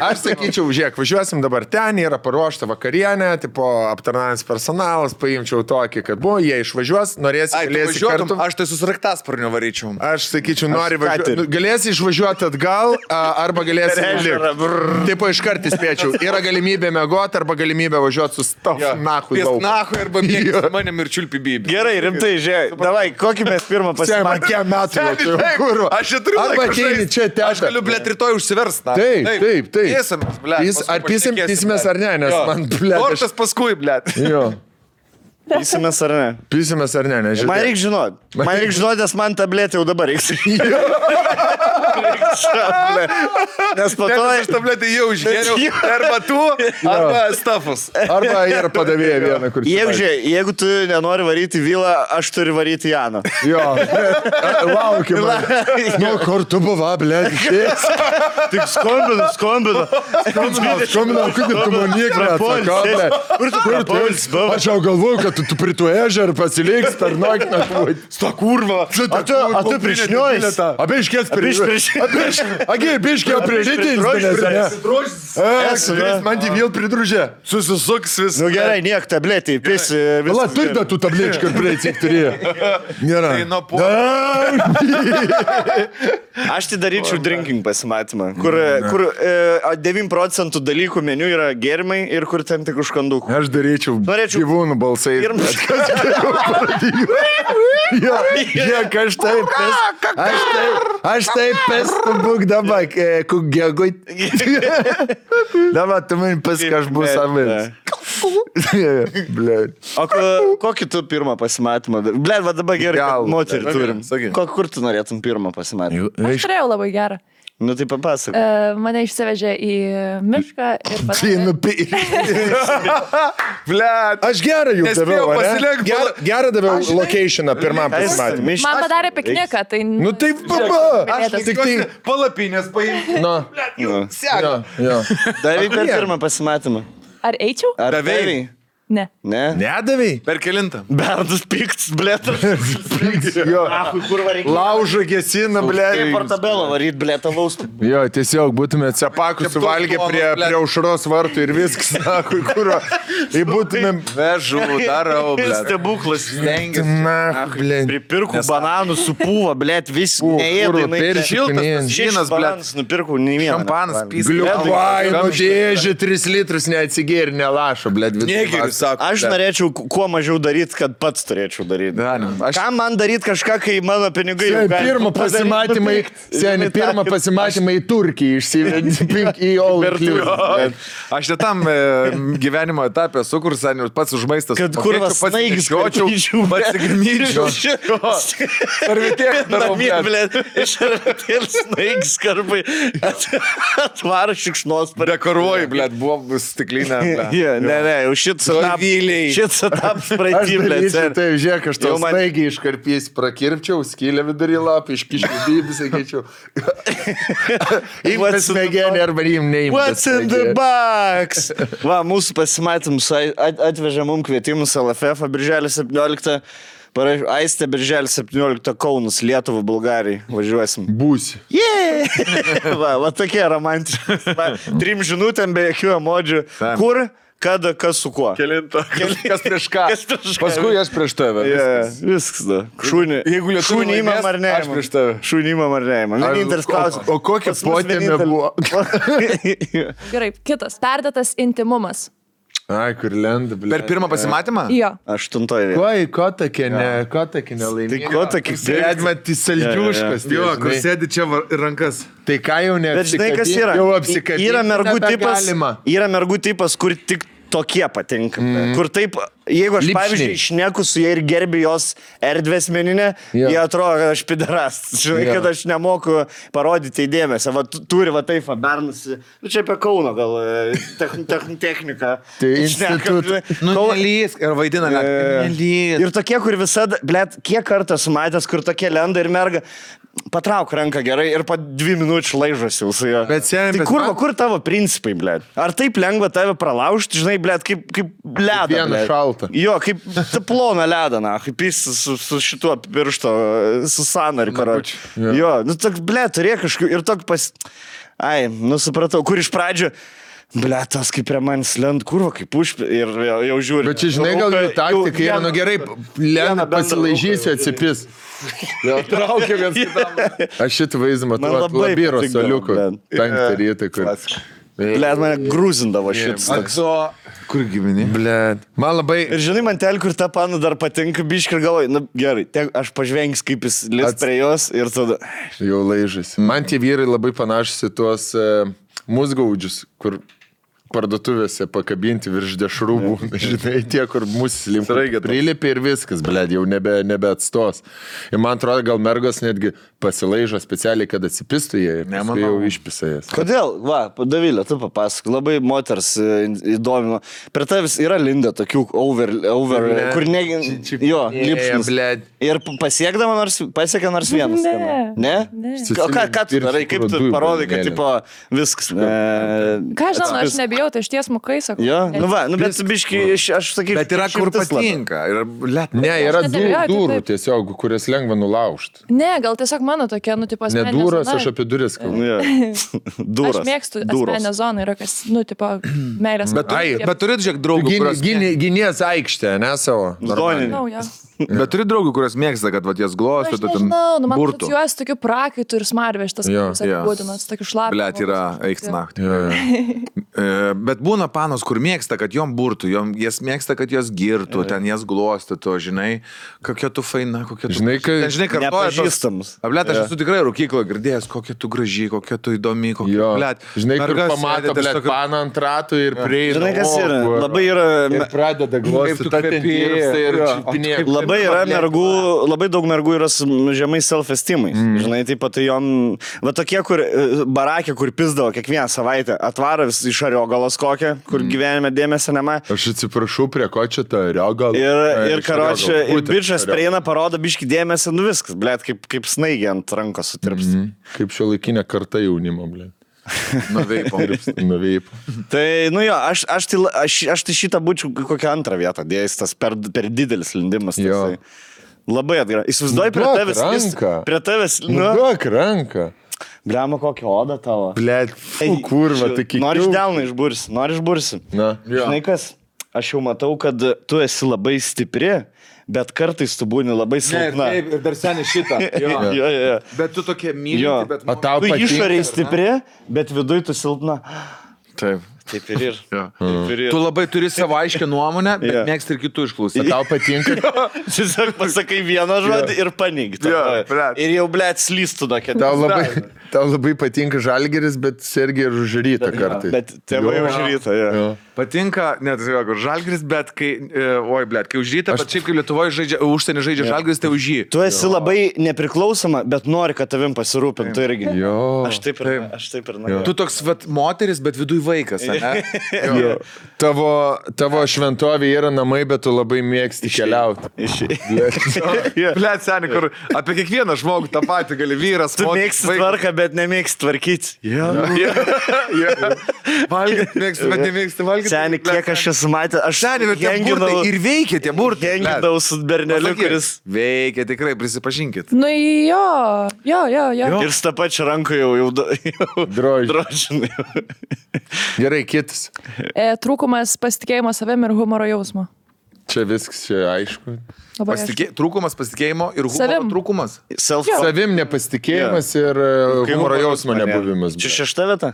Aš sakyčiau, žiūrėk, važiuosim dabar ten, yra paruošta vakarienė, tipo aptarnaujantis personalas, paimčiau tokį, kad buvo, jie išvažiuos, norėsi galėsi kartu. Aš tai susraktasparnio varyčiau. Aš sakyčiau, nori važiuoti. Galėsi išvažiuoti atgal, arba galėsi likti. Taip, iškart įspėčiau. Yra galimybė mėgoti, arba galimybė važiuoti su stop nahui daug. Nahui arba mėgti manim ir čiulpi bybį. Gerai, rimtai, žiūrėk. Davai, kokį mes pirmą pasimatėme? Kiek metų jau tai kurva. Aš čia turiu arba ateini čia ten. Aš galiu, blėt, rytoj užsiversti. Taip. Pėsimės, blėt. Ar pysimės ar ne, nes man, blėt. Tortas paskui, blėt. Jo. Pysimės ar ne? Pysimės ar ne, nežinau. Man reikia žinoti. Nes man tabletė jau dabar reiks. Nes po to... Aš tabletę jau išgėriau. Arba tu, arba stafus. Arba ir padavėja vieną, kur... Jeigu tu nenori varyti Vilą, aš turiu varyti Janą. Jo. Laukim. Nu, kur tu buvo, blėt, išės. Tik skambinu. Skambinu, kur tu manik, blėt. Kur tu? Aš jau galvoju, kad tu prie tų ežer pasiliks per naktį. Sta kurva. A tu prišniojas? Abiškės Abiškė prižytins, ne? Man tai vėl pridružė. Susisuks vis. Nu gerai, niek tabletį, pisi. Vala, turi da tų tablečių, kur prieicik turėjo. Nėra. Aš tai daryčiau drinking pasimatymą, kur 9% dalykų meniu yra gėrimai ir kur ten tik užkandukų. Aš daryčiau gyvūnų balsai. Aš taip pestu būk dabar, kugėgui. Dabar tu man pask, aš bus amis. O kokį tu pirmą pasimatymą? Blet, va dabar gerai, moterį turim. Kur tu norėtum pirmą pasimatymą? Aš turėjau labai gerą. Nu tai papasakok. Mane išsivežė į mišką ir Blet. Aš gerą jų daviau, gerą daviau locationą pirmam pasimatymui. Man padarė pikniką, tai... Nu taip, baba. Aš tik tai palapinės paimti. Nu, seka. Davai per pirmą pasimatymą. Ar eičiau? Ar davai? Ne. Ne? Nedavai? Per kelintą. Berndas piktas, blėtas. Jo. Kur varyk? Laužą gesina, blėt. Portabelą varyt, blėtą laustų. Jo, tiesiog būtumėt cepakus suvalgę prie aušros vartų ir viskas, nakui, kuro. Tai būtumėm... Vežu, darau, blėt. Stebuklas. Na, blėt. Pripirkų bananų supūva, blėt, vis neėdai. Šiltas bananas nupirkau, nei vieną. Šampanas, pys. Gliuvainų dėžė 3 litrus neatsigėri, nelašo, blėt. Aš norėčiau kuo mažiau daryti, kad pats turėčiau daryti. Kam man daryti kažką, kai mano pinigai jau gali... Pirmą pasimatymą į Turkiją išsivedė į all inclusive. Aš netam gyvenimo etapę sukur, senius, pats už maistą. Kad kurvas snaigis karpyčiau, pasigrimyčiau. Sarvitėlį darau, blėt. Iš sarvitėlį snaigis karpai atvaro šikšnos. Dekoruoji, blėt, buvo stiklinė. Ne, jau šit setaps praeitį, blėt. Taip, žiūrėk, aš tau snaigiai iškarpys prakirpčiau, skylę vidurį lapį, iškiškiau dybį, sakyčiau. Imtas smegenį arba neimtas. What's in the box? Va, mūsų pasimatymus atvežė mums kvietimus LFF birželio 17. Aistė birželio 17 Kaunas, Lietuva, Bulgarijai. Važiuosim. Būsi. Va tokie romantiški. 3 žinutėm be jokių emodžių. Kur? Kada, kas su kuo? Kelinta. Kas prieš ką? Paskui aš prieš tave. Viskas, da. Šūnį įmam ar ne? Aš prieš tave. Šūnį įmam ar ne? Vienintelis klausimas. O kokia potėmė buvo? Gerai, kitas. Perdėtas intimumas. Ai, kur lenda, ble. Per pirmą pasimatymą? Jo. 8 vietoje. Ko tokia nelaimė? Tai ko tokia Sėdė, mat, saldžiuškas. Jo, kur sėdi čia rankas. Tai ką jau ne? Bet žinai, kas yra? Jau apsikabinti. Yra mergų tipas, kur tik tokie patinka. Kur taip, jeigu aš, Lipšniai. pavyzdžiui, šneku su jie ir gerbiu jos erdvę asmeninę, jie atrodo, kad aš piderastas. Žinai, kad aš nemoku parodyti įdėmėse. Va, turi va taip, bernusi. Nu, čia apie Kauno gal techniką. Tai institut. Nu, nelys ir vaidina, nelys. Ir tokie, kur visada, blėt, kiek kartą sumatęs, kur tokie lenda ir merga, patrauk ranką gerai ir po 2 minučių laižosi su juo. Bet seniai, Tai kur tavo principai, blėt? Ar taip lengva tave pralaužti, žinai, blėt, kaip ledą. Vieną šaltą. Jo, kaip ploną ledą, na, kaip jis su šituo piršto, su sanariu, karoči. Jo, nu, toks, blėt, turėjo kažkaip ir toks Ai, nu, supratau, kur iš pradžių Ble, tas kaip prie manęs lent kurva, kaip užpė ir jau žiūri. Bet čia, žinai, gal jų taktika yra, nu gerai, lent pasilaižysiu, atsipis. Vėl traukia viens kitam. Aš šitą vaizdą matau, Labiro soliuko, 5 rytą, kur... Ble, mane grūzindavo šitas. Kur gyveni? Ble, man labai... Ir žinai, man tel, kur ta pana dar patinka, biškai ir galvoju, na gerai, aš pažvengsiu, kaip jis lis prie jos ir tada... Jau laižasi. Man tie vyrai labai panašus į tuos musgaudžius, kur parduotuvėse pakabinti virš dešrūbų, žinai, tie, kur mūsų prilipė ir viskas, blėd, jau nebe atstos. Ir man atrodo, gal mergos netgi pasilaižo specialiai, kad atsipistų jie ir paskui jau išpisa jas. Kodėl? Va, Davilė, tu papasakok, labai moters įdomino. Prie tavęs yra linda tokių over kur ne... Jo, lipšnis. Ir pasiekė nors vienas. Ne? Ką tu darai, kaip tu parodai, kad tipo viskas. Ką žinau, aš nebijau, tai aš tiesmukai sakau. Jo, nu va, bet biškai, aš sakyčiau. Bet yra kur patinka. Ne, yra durų tiesiog, kurias lengva nulaužti. Ne, gal tiesiog mano tokia, nu, tipo, ne duros, aš apie duris kalbu. Duros. Aš mėgstu asmeninę zoną, yra kas, nu, tipo, meilės. Bet turit, žiūrėk, draugų, kurios... Gynės aikštė, ne savo? Bet turi draugų, kurios mėgsta, kad jas glostų, tu ten man burtų. asocijuojas tokiu prakaitu ir smarveštas, kaip jis apibūdinas, tokiu šlapiu. Blet, yra eikti naktį. Bet būna panos, kur mėgsta, kad jom burtų, jas mėgsta, kad jas girtų, ten jas glostytų, žinai, kokia tu faina, kokia tu... Žinai, nepažįstamus. Blet, aš esu tikrai rūkykloje girdėjęs, kokia tu graži, kokia tu įdomi, kokia... Blet, žinai, kur pamato, blet, paną ant ratų ir prieina. Žinai, kas yra? Labai yra... Ir pradeda glostyti ir čipinėti. Labai yra mergų, labai daug mergų yra su žemai self-estimais. Žinai, taip pat jom, va tokie, kur barakė, kur pizdavo kiekvieną savaitę, atvaro vis iš ariogalos kokią, kur gyvenime dėmesio nematė. Aš atsiprašau, prie ko čia ta ariogala. Ir karočią, ir bičas prieina, parodo biškį dėmesį, nu viskas, blėt, kaip snaigė ant rankos sutirps. Kaip šio laikinė karta jaunimo, blėt. Nuveipo. Tai, nu jo, aš tai šitą būčiau kokią antrą vietą dėjęs, tas per didelis lindimas. Labai atgerai. Įsivaizduoji prie tavęs. Duok ranką. Bliama, kokią odą tavo. Blet, kurva, tai kiek. Nori delną išbursi. Na. Žinai kas, aš jau matau, kad tu esi labai stipri, bet kartais tu būni labai silpna. Ir dar seniai šitą. Jo. Bet tu tokia mylinti, bet... Tu išoriai stipri, bet viduj tu silpna. Taip. Taip ir ir. Tu labai turi savo aiškę nuomonę, bet mėgsti ir kitų išklausyti. Tau patinka. Tiesiog pasakai vieną žodį ir paneigti. Ir jau, blėt, slystų tokia. Tau labai patinka Žalgiris, bet Sergija ir už rytą kartais. Bet tėvai už rytą, jo. Patinka, net Žalgiris, bet kai, kai už rytą, bet šiaip kai Lietuvoje žaidžia, užsienį žaidžia Žalgiris, tai už jį. Tu esi labai nepriklausoma, bet nori, kad tavim pasirūpintų irgi. Jo. Aš taip ir noriu. Tu toks moteris, bet viduj vaikas. Tavo šventovė yra namai, bet tu labai mėgsti keliauti. Blet, seniai, kur apie kiekvieną žmogų tą patį gali vyras. Tu mėgsti tvarką, bet nemėgsti tvarkyti. Valgyti mėgsti, bet nemėgsti valgyti. Seniai, kiek aš esu matęs, aš henginau ir veikia tie burtai. Henginau su berneliu, kuris veikia, tikrai, prisipažinkit. Nu jo. Ir su tą pačią ranką jau drožinai. Gerai, kitas. Trūkumas pasitikėjimo savim ir humoro jausmo. Čia viskas, čia aišku. Trūkumas pasitikėjimo ir humoro trūkumas. Savim nepasitikėjimas ir humoro jausmo nebuvimas. Čia 6 vieta?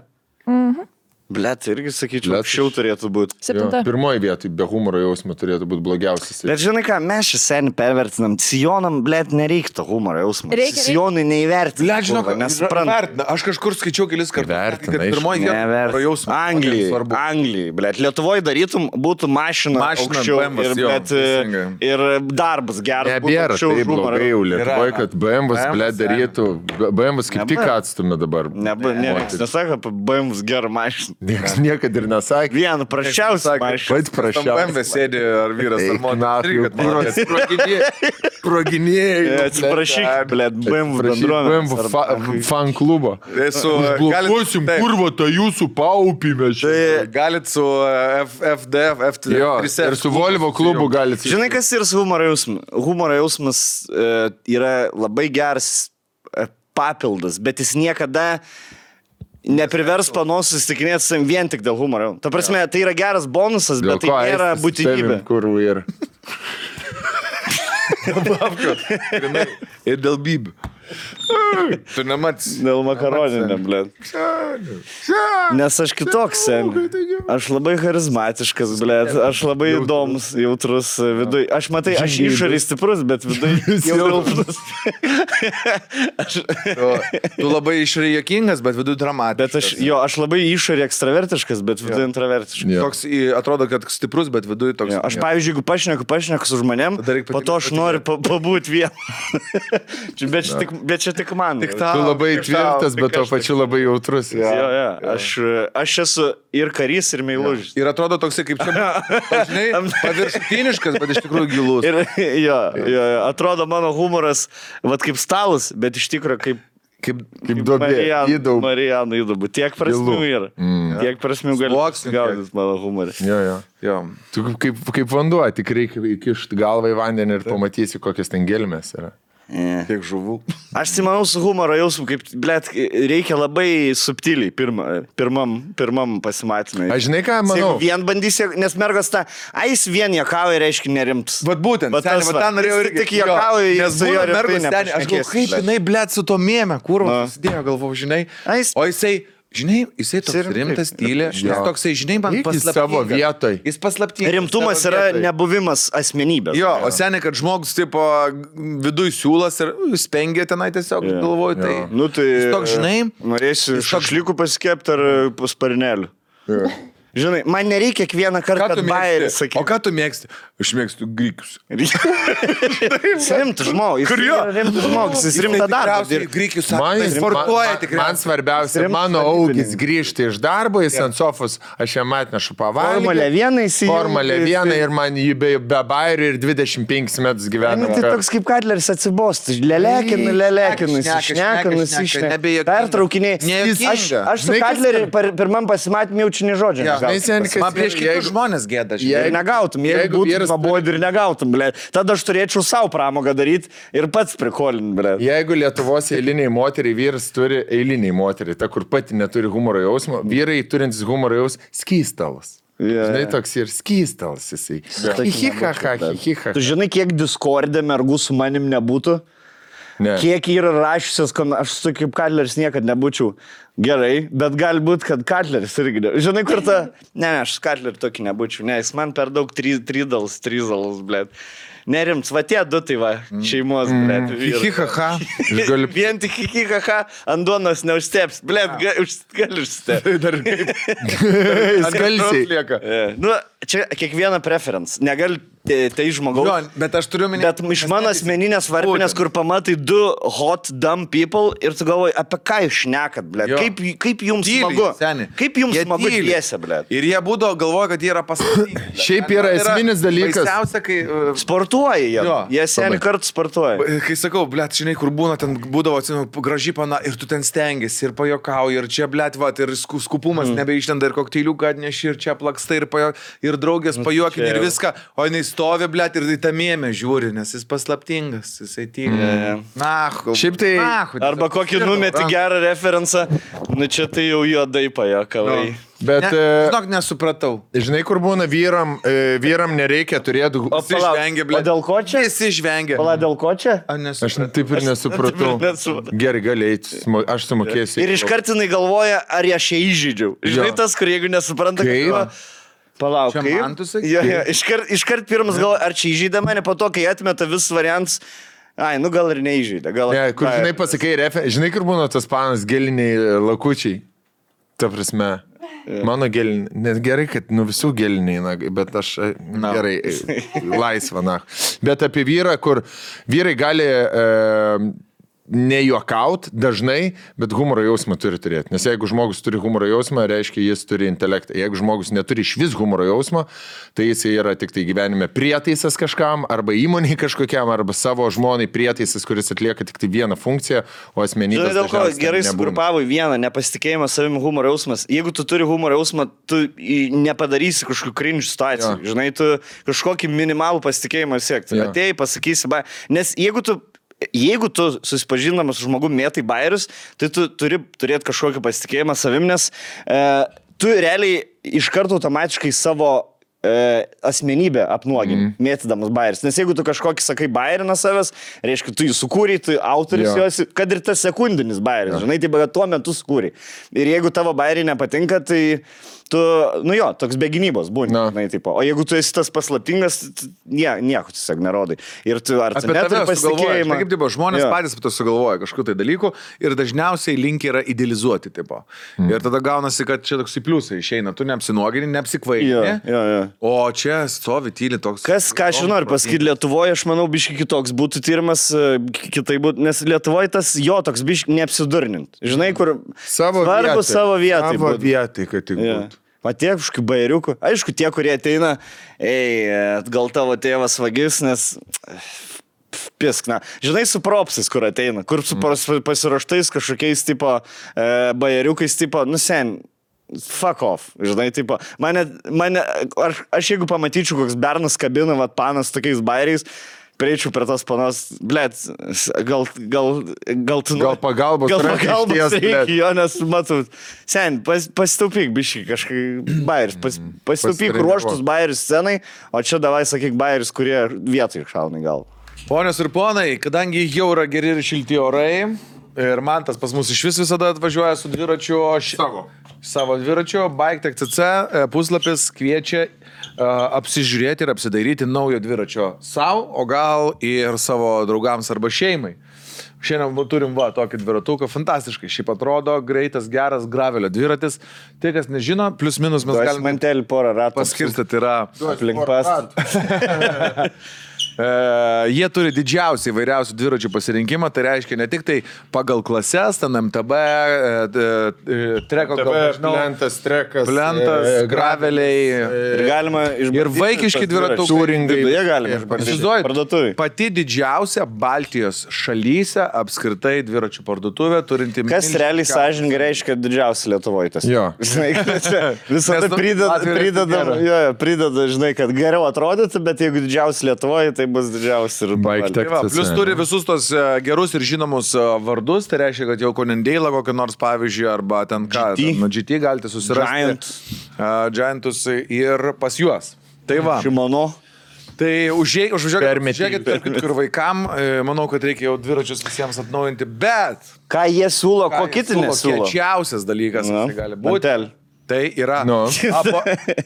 Blet, irgi sakyčiau, Blet, anksčiau turėtų būti. 7. Pirmoji vietoj be humoro jausmo turėtų būti blogiausias. Bet žinai ką, mes šį senį pervertinam. Sijonam, blet, nereiktų humoro jausmo. Reikia. Sijonai neįvertina. Blet, žinok, nesupranta. vertina. Aš kažkur skaičiau kelis kartus. Vertina, Kad pirmoji vieta jausmas. Anglijai, blet. Lietuvoje darytum, būtų mašina aukščiau BMW, ir, jo, bet, teisingai. ir darbas geras. Nebėra aukščiau taip už humorą. blogai jau Lietuvoje, Yra. kad BMW, ble, darytų. BMW kaip tik atstumė dabar. Niekas nesako apie BMW gerą mašiną. Niekas niekada ir nesakė. Vieną prašiausią mašiną. Pats prašiau. BMW sėdi ar vyras ar moteris. Proginėjai. Atsiprašyk, blet, BMW BMW bendruomenė. fan klubo. Užblokuosim kurvo tą jūsų paupymę. Galit su FDF, Jo, ir su Volvo klubu galit. Žinai, kas yra su humoro jausmu? Humoro jausmas yra labai geras papildas, bet jis niekada neprivers panos susitikinėti su savim vien tik dėl humoro. Ta prasme, tai yra geras bonusas, bet tai nėra būtinybė. Kurvų yra. Ir dėl bybių. Tu nemats. Dėl makaroninio, blėt. Nes aš kitoks, sen. Aš labai charizmatiškas, blėt. Aš labai įdomus, jautrus viduj. Aš matai, aš išoriai stiprus, bet viduj silpnas. Tu labai išoriai juokingas, bet viduj dramatiškas. Bet aš labai išoriai ekstravertiškas, bet viduj intravertiškas. Toks atrodo, kad stiprus, bet viduj toks. Jo, aš pavyzdžiui, jeigu pašneku su žmonėm, po to aš noriu pabūti vieną. Bet čia tik man. Tu labai tvirtas, bet tuo pačiu labai jautrus. Aš esu ir karys, ir meilužis. Ir atrodo toksai kaip čia, žinai, paviršutiniškas, bet iš tikrųjų gilus. Jo, atrodo mano humoras, vat kaip stalas, bet iš tikrųjų kaip duobė. Marijanų įdubų. Tiek prasmių yra. Tiek prasmių gali gaudyti mano humorą. Jo. Tu kaip vanduo, tik reikia įkišti galvą į vandenį ir pamatysi, kokios ten gelmės yra. Tiek žuvų. Aš manau su humoro jausmu, kaip, blėt, reikia labai subtiliai pirmam pasimatymui. Aš žinai ką, manau. Jeigu vien bandysi, nes mergos tą, jis vien juokauja, reiškia nerimtas. Vat būtent, ten norėjau irgi. Tik juokauja, nes su jo mergos ten, aš galvoju, kaip jinai, blėt, su to mėme, kurva, susidėjo, galvoju, žinai. O jisai toks rimtas, tylė, jis toksai, žinai, man paslaptingas. Savo vietoj. Jis paslaptingas. Rimtumas yra nebuvimas asmenybės. Jo, o seniai, kad žmogus, tipo, viduj siūlas ir spengia tenai tiesiog, galvoju, tai. Nu tai, jis toks, žinai. Norėsi šašlykų pasikepti ar pasparnelių. Žinai, man nereikia kiekvieną kartą, kad bairį sakyti. O ką tu mėgsti? Aš mėgstu grikius. Jis rimtas žmogus. Jis yra rimtas žmogus. Jis rimta darbą. Grikius sportuoja tikrai. Man svarbiausia, mano augis grįžti iš darbo, jis ant sofos, aš jam atnešu pavalgyti. Formulė 1 įsijungi. Formulė 1 ir man jį be bairių ir 25 metus gyvena. Tai toks kaip Katleris atsibosti. Lelekinu, išnekinu. Pertraukiniai. Aš su Katleriu pirmam pasimatymui jaučiu žodžią. Man prieš kitus žmonės gėda. Ir negautum, jeigu būtų pabodi ir negautum, ble. Tada aš turėčiau savo pramogą daryti ir pats prikolin, ble. Jeigu Lietuvos eiliniai moteriai vyras turi eiliniai moteriai, ta kur pati neturi humoro jausmo, vyrai turintis humoro jausmo skystalas. Žinai, toks ir skystalas jisai. Tu žinai, kiek Discord'e mergų su manim nebūtų? Ne. Kiek yra rašysios, aš su kaip Katleris niekad nebūčiau. Gerai, bet galbūt, kad Katleris irgi. Žinai, kur ta... Ne, aš Katlerį tokį nebūčiau. Ne, jis man per daug tryzalas, blėt. Nerimts, va tie du tai va, šeimos, blėt. Hihihaha. Vien tik hihihaha, ant duonos neužsteps. Blėt, gali užstepti. Dar kaip. Skalsiai. Nu, čia kiekviena preference. Negali tai žmogaus. Jo, bet aš turiu minėti. Bet iš mano asmeninės varpinės, kur pamatai du hot, dumb people ir tu galvoji, apie ką jūs šnekat, blėt. Kaip jums smagu? Kaip jums smagu dviese, blėt? Ir jie būdavo galvoja, kad jie yra pasaulyje. Šiaip yra esminis dalykas. Baisiausia, kai... Sportuoja jie. Jie seniai kartu sportuoja. Kai sakau, blėt, žinai, kur būna, ten būdavo, atsimenu, graži pana ir tu ten stengiasi ir pajokauji ir čia, blėt, va, ir skupumas nebeištenda ir kokteiliuką atneši ir čia plaksta ir draugės pajuokinė ir viską, o jinai stovi, blėt, ir tą mėmę žiūri, nes jis paslaptingas, jisai tyli. Šiaip tai... Arba kokį numeti gerą referencą, Nu čia tai jau juodai pajakavai. Bet, Žinok, nesupratau. žinai, kur būna vyram nereikia turėti... Visi žvengia, ble. O dėl ko čia? Visi žvengia. Pala, dėl ko čia? Aš taip ir nesupratau. Gerai, gali eiti, aš sumokėsiu. Ir iškartinai galvoja, ar aš ją įžydžiau. Žinai, tas, kur jeigu nesupranta, Kaip? Palauk, Čia kaip? man tu sakai? Jo, iškart pirmas galvoja, ar čia įžydė mane, po to, kai atmeta vis variantus. Ai, nu gal ir neįžydė. Gal... Ne, kur, žinai, pasakai, žinai, kur būna tas panas geliniai lakučiai. Ta prasme, mano geliniai, net gerai, kad visų geliniai, bet aš gerai, laisva, na. Bet apie vyrą, kur vyrai gali nejuokaut dažnai, bet humoro jausmą turi turėti. Nes jeigu žmogus turi humoro jausmą, reiškia, jis turi intelektą. Jeigu žmogus neturi iš vis humoro jausmo, tai jis yra tik tai gyvenime prietaisas kažkam, arba įmoniai kažkokiam, arba savo žmonai prietaisas, kuris atlieka tik tai vieną funkciją, o asmenybės... Žinai, dėl ko gerai sugrupavo į vieną, nepasitikėjimas savimi, humoro jausmas. Jeigu tu turi humoro jausmą, tu nepadarysi kažkokių cringe situacijų. Jo. Žinai, tu kažkokį minimalų pasitikėjimą siekti. Atėjai, pasakysi, nes jeigu tu susipažindamas su žmogumi mėtai bairius, tai tu turi turėti kažkokį pasitikėjimą savim, nes tu realiai iš karto automatiškai savo asmenybę apnuogini, mėtydamas bairis. Nes jeigu tu kažkokį sakai bairiną savęs, reiškia, tu jį sukūrei, tu autoris jos, kad ir tas sekundinis bairis, žinai, tai tuo metu sukūrei. Ir jeigu tavo bairiai nepatinka, tai tu, toks be gynybos būni. Žinai, tipo. O jeigu tu esi tas paslaptingas, nieko tiesiog nerodai. Ir tu ar tu neturi pasitikėjimą. Kaip tipo, žmonės patys to sugalvoja kažkokiu tai dalyku ir dažniausiai linki yra idealizuoti. Tipo. Ir tada gaunasi, kad čia toks į pliusą išeina. Tu neapsinuogini, neapsikvailini. O čia stovi tyli toks... Ką aš noriu pasakyti, Lietuvoje, aš manau, biški kitoks būtų tyrimas, kitai būtų, nes Lietuvoje tas toks biški neapsidurnint. Žinai, kur savo vietai. Savo vietai, kad tik būtų. Tiek kažkokių bairiukų. Aišku, tie, kurie ateina, gal tavo tėvas vagis, nes... Piskna. Žinai, su propsais, kur ateina, kur su pasiruoštais kažkokiais tipo bairiukais, tipo, sen... Fuck off, žinai, tipo, aš jeigu pamatyčiau, koks bernas kabina, panas tokiais bairiais, prieičiau prie tos panos, blėt, gal pagalbos reikia, jo, nes matau, sen, pasitaupyk biškai kažkai bairis, pasitaupyk ruoštus bairis scenai, o čia davai sakyk bairis, kurie vietoj šauna į galvą. Ponios ir ponai, kadangi jau yra geri ir šilti orai, ir man tas pas mus iš vis visada atvažiuoja su dviračiu, savo dviračiu, Bike.cc puslapis kviečia apsižiūrėti ir apsidairyti naujo dviračio savo, o gal ir savo draugams arba šeimai. Šiandien turim tokį dviratuką, fantastiškai, šiaip atrodo, greitas, geras gravelio dviratis. Tai, kas nežino, plius minus mes galime... Mantelį porą ratų. Paskirstyti yra... Aplink pastą. Jie turi didžiausią įvairiausių dviračių pasirinkimą, tai reiškia ne tik tai pagal klases, ten MTB, treko, plentas, trekas, graveliai. Ir galima išbandyti. Ir vaikiški dviratukai. Turingai. Jie galima išbandyti. Pati didžiausia Baltijos šalyse apskritai dviračių parduotuvė turinti... Kas realiai sąžiningai reiškia didžiausia Lietuvoje tas? Jo. Visada prideda, žinai, kad geriau atrodyti, bet jeigu didžiausia Lietuvoje, tai bus didžiausia ir Bike.cc. Plius turi visus tos gerus ir žinomus vardus, tai reiškia, kad jau Konendeilą kokį nors pavyzdžiui, arba ten ką, nuo GT galite susirasti. Giantus ir pas juos. Tai va. Šimano. Tai užžiūrėkit, kur vaikam, manau, kad reikia jau dviračius visiems atnaujinti, bet... Ką jie siūlo, ko kiti nesiūlo? Kečiausias dalykas, tai gali būti. Tai yra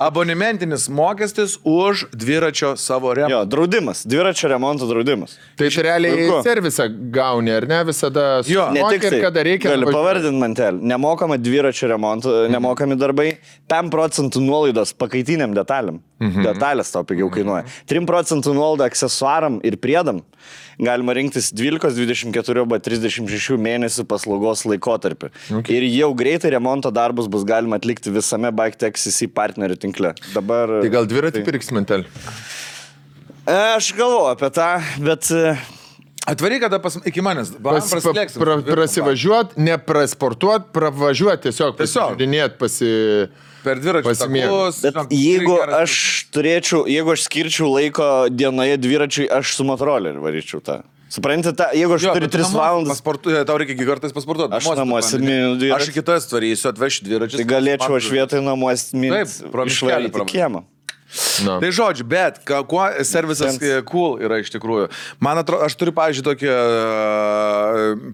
abonementinis mokestis už dviračio savo remontą. Jo, draudimas, dviračio remonto draudimas. Tai realiai servisą gauni, ar ne, visada ne tik tai, kada reikia. Gali pavardinti mantelį. Nemokama dviračio remonto, nemokami darbai, 5% nuolaidos pakaitiniam detalėm. Detalės tau pigiau kainuoja. 3% nuolaida aksesuaram ir priedam. Galima rinktis 12, 24 arba 36 mėnesių paslaugos laikotarpį. Ir jau greitai remonto darbus bus galima atlikti visame Bike.cc partnerių tinkle. Dabar... Tai gal dviratį pirks mentelį? Aš galvoju apie tą, bet... Atvaryk kada iki manęs. Prasivažiuot, neprasportuot, pravažiuot, tiesiog pasižiūrinėt, per dviračių takus. Bet jeigu aš skirčiau laiko dienoje dviračiui, aš su motoroleriu varyčiau tą. Suprantate, jeigu aš turiu 3 valandas, Tau reikia kartais pasportuoti. Aš namuose miniu dviratį. Aš į kitas varysiu, atvešiu dviračius. tai galėčiau aš vietoj namuose pro miškelį išvaryti kiemą. Na. Tai žodžiu, bet kuo servisas cool yra iš tikrųjų. Man atrodo, aš turiu, pavyzdžiui, tokį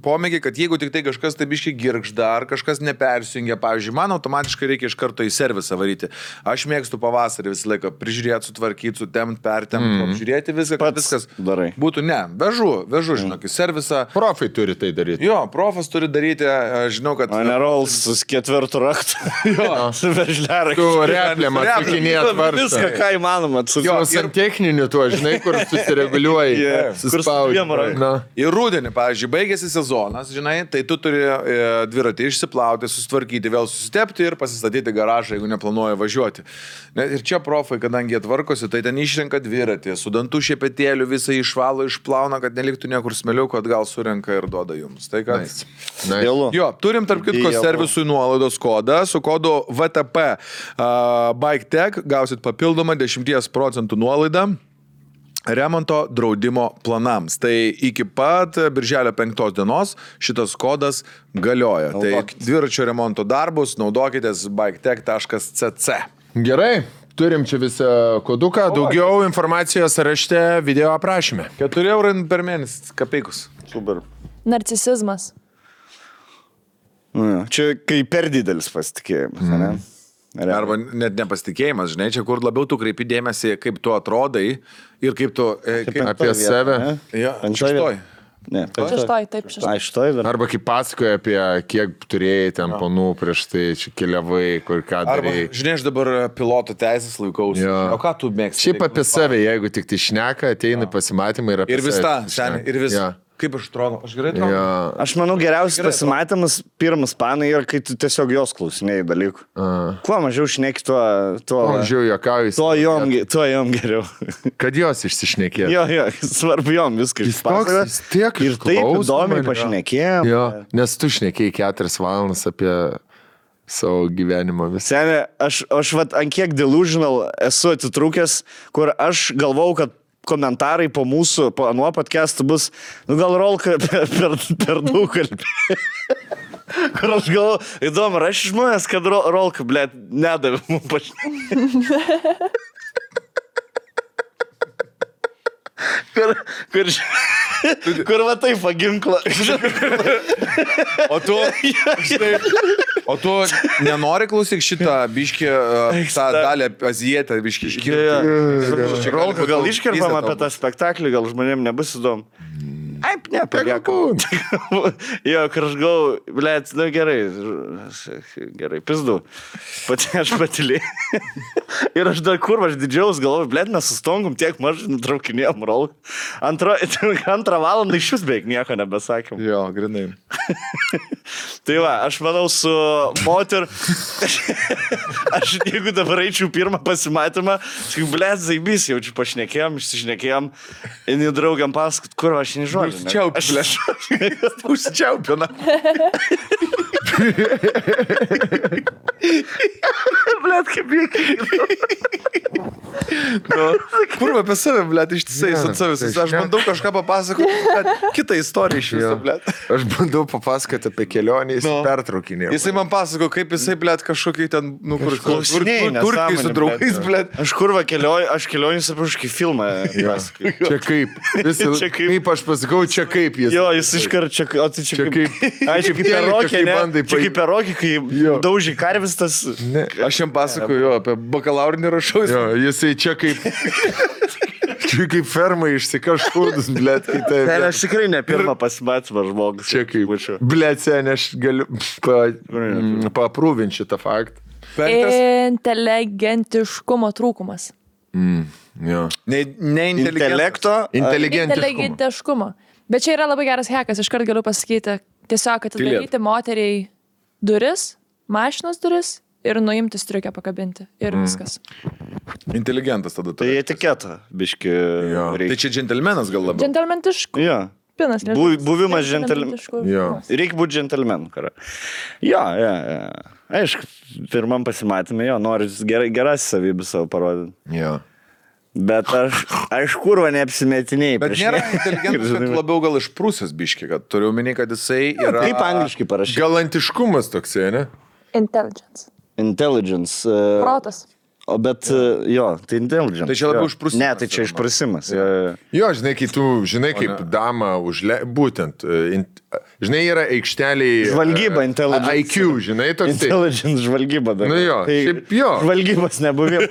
pomėgį, kad jeigu tik tai kažkas taip iškiai girgžda, ar kažkas nepersijungia, pavyzdžiui, man automatiškai reikia iš karto į servisą varyti. Aš mėgstu pavasarį visą laiką prižiūrėti, sutvarkyti, sutemti, pertemti, apžiūrėti viską, kad viskas darai. būtų. Ne, vežu, žinok, į servisą. Profai turi tai daryti. Jo, profas turi daryti, aš žinau, kad... O ne Rolls su 4 raktu. Jo. Su veržliarakčiu. Tu repliam atsakinėt varstą. Viską, ką įmanoma. Jo, santechniniu tuo, žinai, kur susireguliuoji. Suspaudži. Ir rudenį, pavyzdžiui, baigėsi sezonas, žinai, tai tu turi dviratį išsiplauti, susitvarkyti, vėl susitepti ir pasistatyti garažą, jeigu neplanuoji važiuoti. Ir čia profai, kadangi atvarkosi, tai ten išrenka dviratį, su dantų šepetėliu visą išvalo, išplauna, kad neliktų niekur smeliukų, atgal surenka ir duoda jums. Tai kad... Nice. Jo, turim tarp kitko servisui nuolaidos kodą, su kodu VTP Bike Tech gausit papildomą 10% nuolaidą remonto draudimo planams. Tai iki pat birželio 5 dienos šitas kodas galioja. Tai dviračio remonto darbus naudokitės biketech.cc. Gerai, turim čia visą koduką. Daugiau informacijos rašte video aprašyme. 4 eurų per mėnesį, kapeikus. Super. Narcisizmas. Čia kai per didelis pasitikėjimas, ne? Arba net nepasitikėjimas, žinai, čia kur labiau tu kreipi dėmesį, kaip tu atrodai ir kaip tu... Apie save. Jo, šeštoj. Ne, Šeštoj. Arba kaip pasakoja apie kiek turėjai ten ponų prieš tai, čia keliavai, kur ką Arba, darai. žinai, aš dabar piloto teisės laikausi. Jo. O ką tu mėgsti? Šiaip apie save, jeigu tik tai šneka, ateina pasimatymai ir apie Ir vis save tą, seniai, ir vis... Jo. Kaip aš atrodo? Aš gerai atrodo? Jo. Aš manau, geriausias pasimatymas pirmas panai yra, kai tu tiesiog jos klausinėjai dalykų. Kuo mažiau šneki, tuo Mažiau juokauju. tuo jom geriau. Kad jos išsišnekėtų. Jo, svarbu jom viską išpasakoti. Jis tiek Ir taip išklauso įdomiai mane. pašnekėjom. Jo, nes tu šnekėjai 4 valandas apie savo gyvenimą visą. Senė, aš vat ant kiek delusional esu atitrūkęs, kur aš galvau, kad komentarai po mūsų, po anuo podcast'u bus, gal Rolka per daug kalbė. Kur aš galvoju, įdomu, aš žmonės, kad Rolka, blėt, nedavė mums pašnekėti. Kur va taip paginkla. O tu nenori klausyk šitą biškį, tą dalį azijetę biškį iškirti. Rolka, gal iškirpam apie tą spektaklį, gal žmonėm nebus įdomu. Aip, ne, paliekam. Jo, kur aš galvoju, blėt, nu gerai, pizdu. Aš patylėjau. Ir aš dar kur, aš didžiaus galvoju, blėt, mes sustongom tiek mažai nutraukinėjom Rolką. Antrą valandą iš vis beveik nieko nebesakėm. Jo, grinai. Tai va, aš manau su moter, aš jeigu dabar eičiau pirmą pasimatymą, sakai, blėt, zaibys, jaučiu pašnekėjom, išsišnekėjom, ir draugiam pasakot, kur aš nežodžiu. Užsičiaupina. Blet, kaip jėkai. Kur apie save, blet, ištisai su savais. Aš bandau kažką papasakoti, bet kitą istoriją iš viso, blet. Aš bandau papasakoti apie kelionę, jis pertraukinė. Jisai man pasako, kaip jisai, blet, kažkokį ten, nu, kur Klausinėjai, turkiai su draugais, blet. Aš kurva kelioju, aš kelionys apie kažkokį filmą. Čia kaip. Kaip aš pasakau, čia kaip jis. Jo, jis iškart čia, o tai čia kaip. Ai, čia kaip perokė, ne? Čia kaip perokė, kai daužy karvis tas. Aš jam pasakoju, jo, apie bakalaurinį rašau. Jo, jisai čia kaip... Čia kaip ferma išsikaškūdus, blėt, kitai. Aš tikrai ne pirmą pasimatymą žmogus. Čia kaip... Blėt, sen, aš galiu paprūvinti šitą faktą. Inteligentiškumo trūkumas. Jo. Intelekto. Inteligentiškumo. Bet čia yra labai geras hekas, iškart galiu pasakyti. Tiesiog atidaryti moteriai duris, mašinos duris ir nuimti striukę pakabinti. Ir viskas. Inteligentas tada. Tai etiketą, biški. Tai čia džentelmenas gal labiau. Džentelmentiškumas. Jo. Pinas, Buvimas džentelmenu. Reikia būti džentelmenu, kara. Jo. Aišku, pirmam pasimatymė, jo, nori geras savybės savo parodyti. Jo. Bet aš kurva neapsimetinėjai. Bet nėra inteligentas, kad labiau gal išprūsęs biški, kad turiu omeny, kad jisai yra... Kaip angliškai parašyti? Galantiškumas toksai, ne? Intelligence. Intelligence. Protas. O bet jo, tai intelligence. Tai čia labiau jo. išprusimas. Ne, tai čia išprusimas. Jo, žinai, kai tu, žinai, kaip dama būtent, žinai, yra aikšteliai... Žvalgyba, intelligence. IQ, žinai, toks. Intelligence žvalgyba. Dar. Nu jo, tai šiaip jo. Žvalgybos nebuvimas.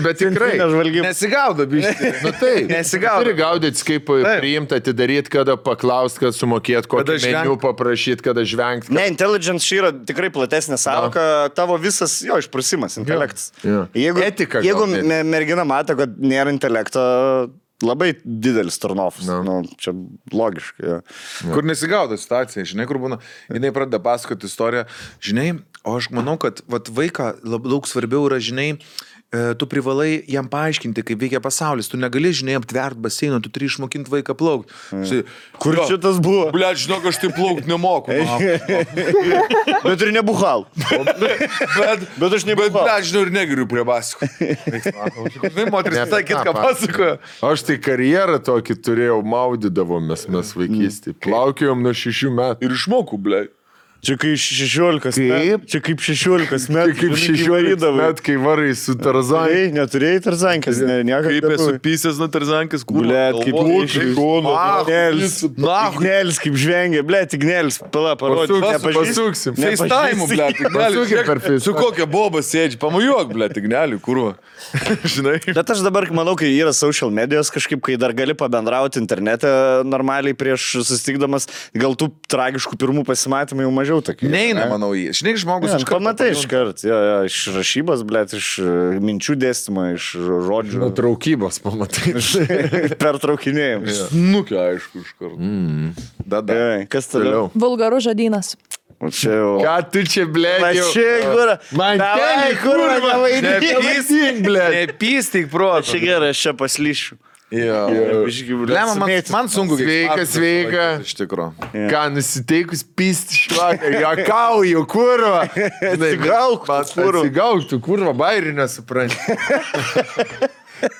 Bet tikrai. Žvalgyba. Nesigaudo, biški. Nu taip, Nesigaudo. turi gaudyti, kaip priimti, atidaryti, kada paklausti, kad sumokėt, kokį meniu paprašyti, kada žvengti. Ne, intelligence čia yra tikrai platesnė sąvoka, tavo visas jo išprusimas, intelektas. Jo. Jeigu, Etika jeigu gal net. mergina mato, kad nėra intelekto, labai didelis turnovas. Nu, čia logiškai. Ja. Kur nesigaudo situacija, žinai, kur būna, jinai pradeda pasakoti istoriją, žinai, o aš manau, kad vat, vaiką daug svarbiau yra, žinai, tu privalai jam paaiškinti, kaip veikia pasaulis, tu negali, žinai, aptvert baseino, tu turi išmokinti vaiką plaukti. Kur šitas buvo? Ble, žinok, aš tai plaukti nemoku. Bet ir nebuhal. Bet aš nebuhal. Bet, žinau, ir negeriu prie basiko. Žinai, moteris visai kitką pasakoja. Aš tai karjerą tokį turėjau, maudydavomės mes vaikystį. Plaukiojom nuo 6 metų. Ir išmokau, ble. Čia kai 16 metų. Čia kaip 16 metų. Kaip 16 metų, kai varai su Tarzanai. Neturėjai Tarzankės, Kaip esu pysęs nuo Tarzankės, kur. Blet, kaip Ignelis, kaip žvengia, blet, Ignelis, pala, parodžiu. Pasuksim. FaceTime, ble, Pasuksim per Ignelį. Su FaceTime. kokia boba sėdži, pamujuok, ble, Ignelį, kurva. Žinai. Bet aš dabar manau, kai yra social medijos kažkaip, kai dar gali pabendrauti internete normaliai prieš susitikdamas, gal tų tragiškų pirmų pasimatymų jau mažiau tokių. Neina, manau, jį. Žinai, žmogus Aš pamatai iš kart, iš rašybos, blet, iš minčių dėstymo, iš žodžių. Nutraukybos, pamatai. Pertraukinėjimus. Nukia, aišku, iš karto. Dada. Kas toliau? Vulgarus žodynas. Čia jau. Ką tu čia, ble? Čia, kur? Man Davai, kur, nepystyk, ble. Nepystyk, proto. Čia gerai, aš čia paslyšiu. Lemma, man sunku. Sveika. Iš tikro. Ką, nusiteikus pysti švaką, juokauju, kurva. Atsigauk, tu kurva, bairį nesupranti.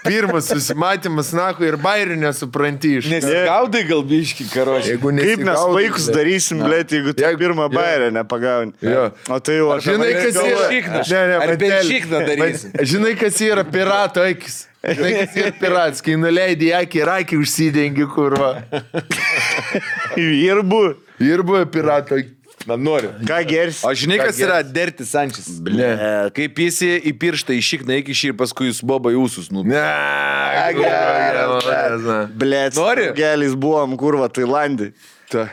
Pirmas susimatymas, nahu, ir bairį nesupranti iš. Nesigaudai gal biški, karočiui. Kaip mes vaikus darysim, blėt, jeigu tu pirmą bairę nepagauni. O tai jau aš. Žinai, kas yra? Ar benšikną darysim? Žinai, kas yra pirato akis? Žinai, kas yra piratas, kai nuleidai akį ir akį užsidengi, kurva. Ir buvo pirato akis. Na, noriu. Ką gersi? O žinai, kas yra Dirty Sanchez? Ne. Kaip jis į pirštą išikna iki šį ir paskui jūs boba jūsus. Ne, Blėt, Nori? gelis buvom, kurva, Tailandį. Ta.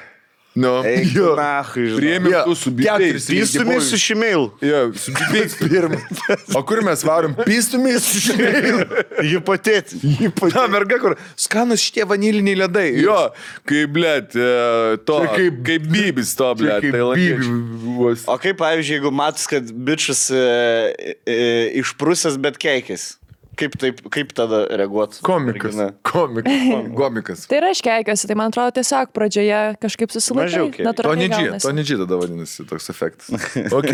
Nu, Jo. Nachai, žinai. priėmė tu su bibėjais. Pystumis su šimėl. Jo, su bibėjais pirmą. O kur mes varom? Pystumis? Hipotėti. Ta merga, kur skanus šitie vaniliniai ledai. Jo, kaip, blėt, to, kaip bybis to, blėt. O kaip, pavyzdžiui, jeigu matus, kad bičias išprusęs, bet keikės? Kaip tada reaguoti? Komikas. Tai yra iškeikiuosi, tai man atrodo tiesiog pradžioje kažkaip Mažiau susilaikai. keik. Natūraliai To nedži tada vadinasi toks efektas. Ok.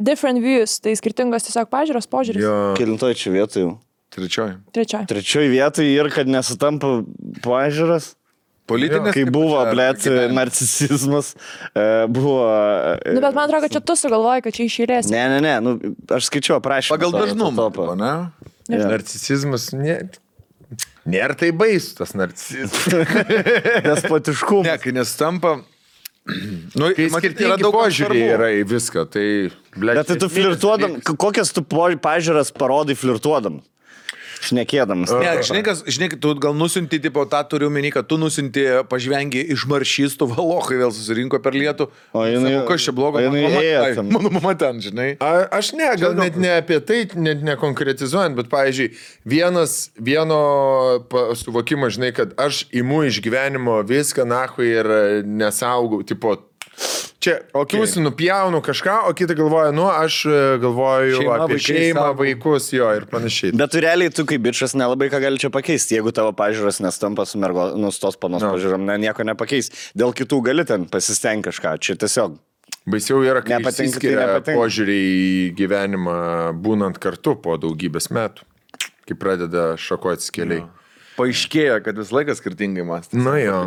Different views, tai skirtingos tiesiog pažiūros, požiūris. Kelintoj čia vietoj jau. Trečioji. Trečioji. Trečioj vietoj ir kad nesutampa pažiūras. Politinės. Kai buvo, blėt, narcisizmas, buvo... Nu, bet man atrodo, kad čia tu sugalvoji, kad čia išėlės. Ne, nu, aš skaičiu aprašymą. Pagal dažnumą, ne? Narcisizmas nėra tai baisu, tas narcisizmas. Despotiškumas. Ne, kai nestampa... Nu, Kai skirtingi požiūriai yra į viską, tai... Bet tai tu flirtuodam, kokias tu pažiūras parodai flirtuodam? Šnekėdamas. Ne, žinai, tu gal nusinti, tipo, tą turiu menį, kad tu nusinti pažvengi iš maršystų, valokai vėl susirinko per lietų. O jinai... Sako, kas čia blogo? Mano mama ten, žinai. Aš gal net ne apie tai, net nekonkretizuojant, bet, pavyzdžiui, vieno suvokimo, žinai, kad aš imu iš gyvenimo viską, nahui, ir nesaugau, tipo, čia, tu nupjaunu kažką, o kita galvoja, aš galvoju apie šeimą, vaikus, jo, ir panašiai. Bet tu realiai, tu kaip bičas nelabai ką gali čia pakeisti, jeigu tavo pažiūros nestampa su nustos panos pažiūrom, nieko nepakeis. Dėl kitų gali ten pasistengti kažką, čia tiesiog. Baisiau yra, kai Nepatinka, tai išsiskiria nepatinka. požiūriai į gyvenimą būnant kartu po daugybės metų. kai pradeda šakotis keliai. Paaiškėjo, kad vis laikas skirtingai mąstė. Nu jo.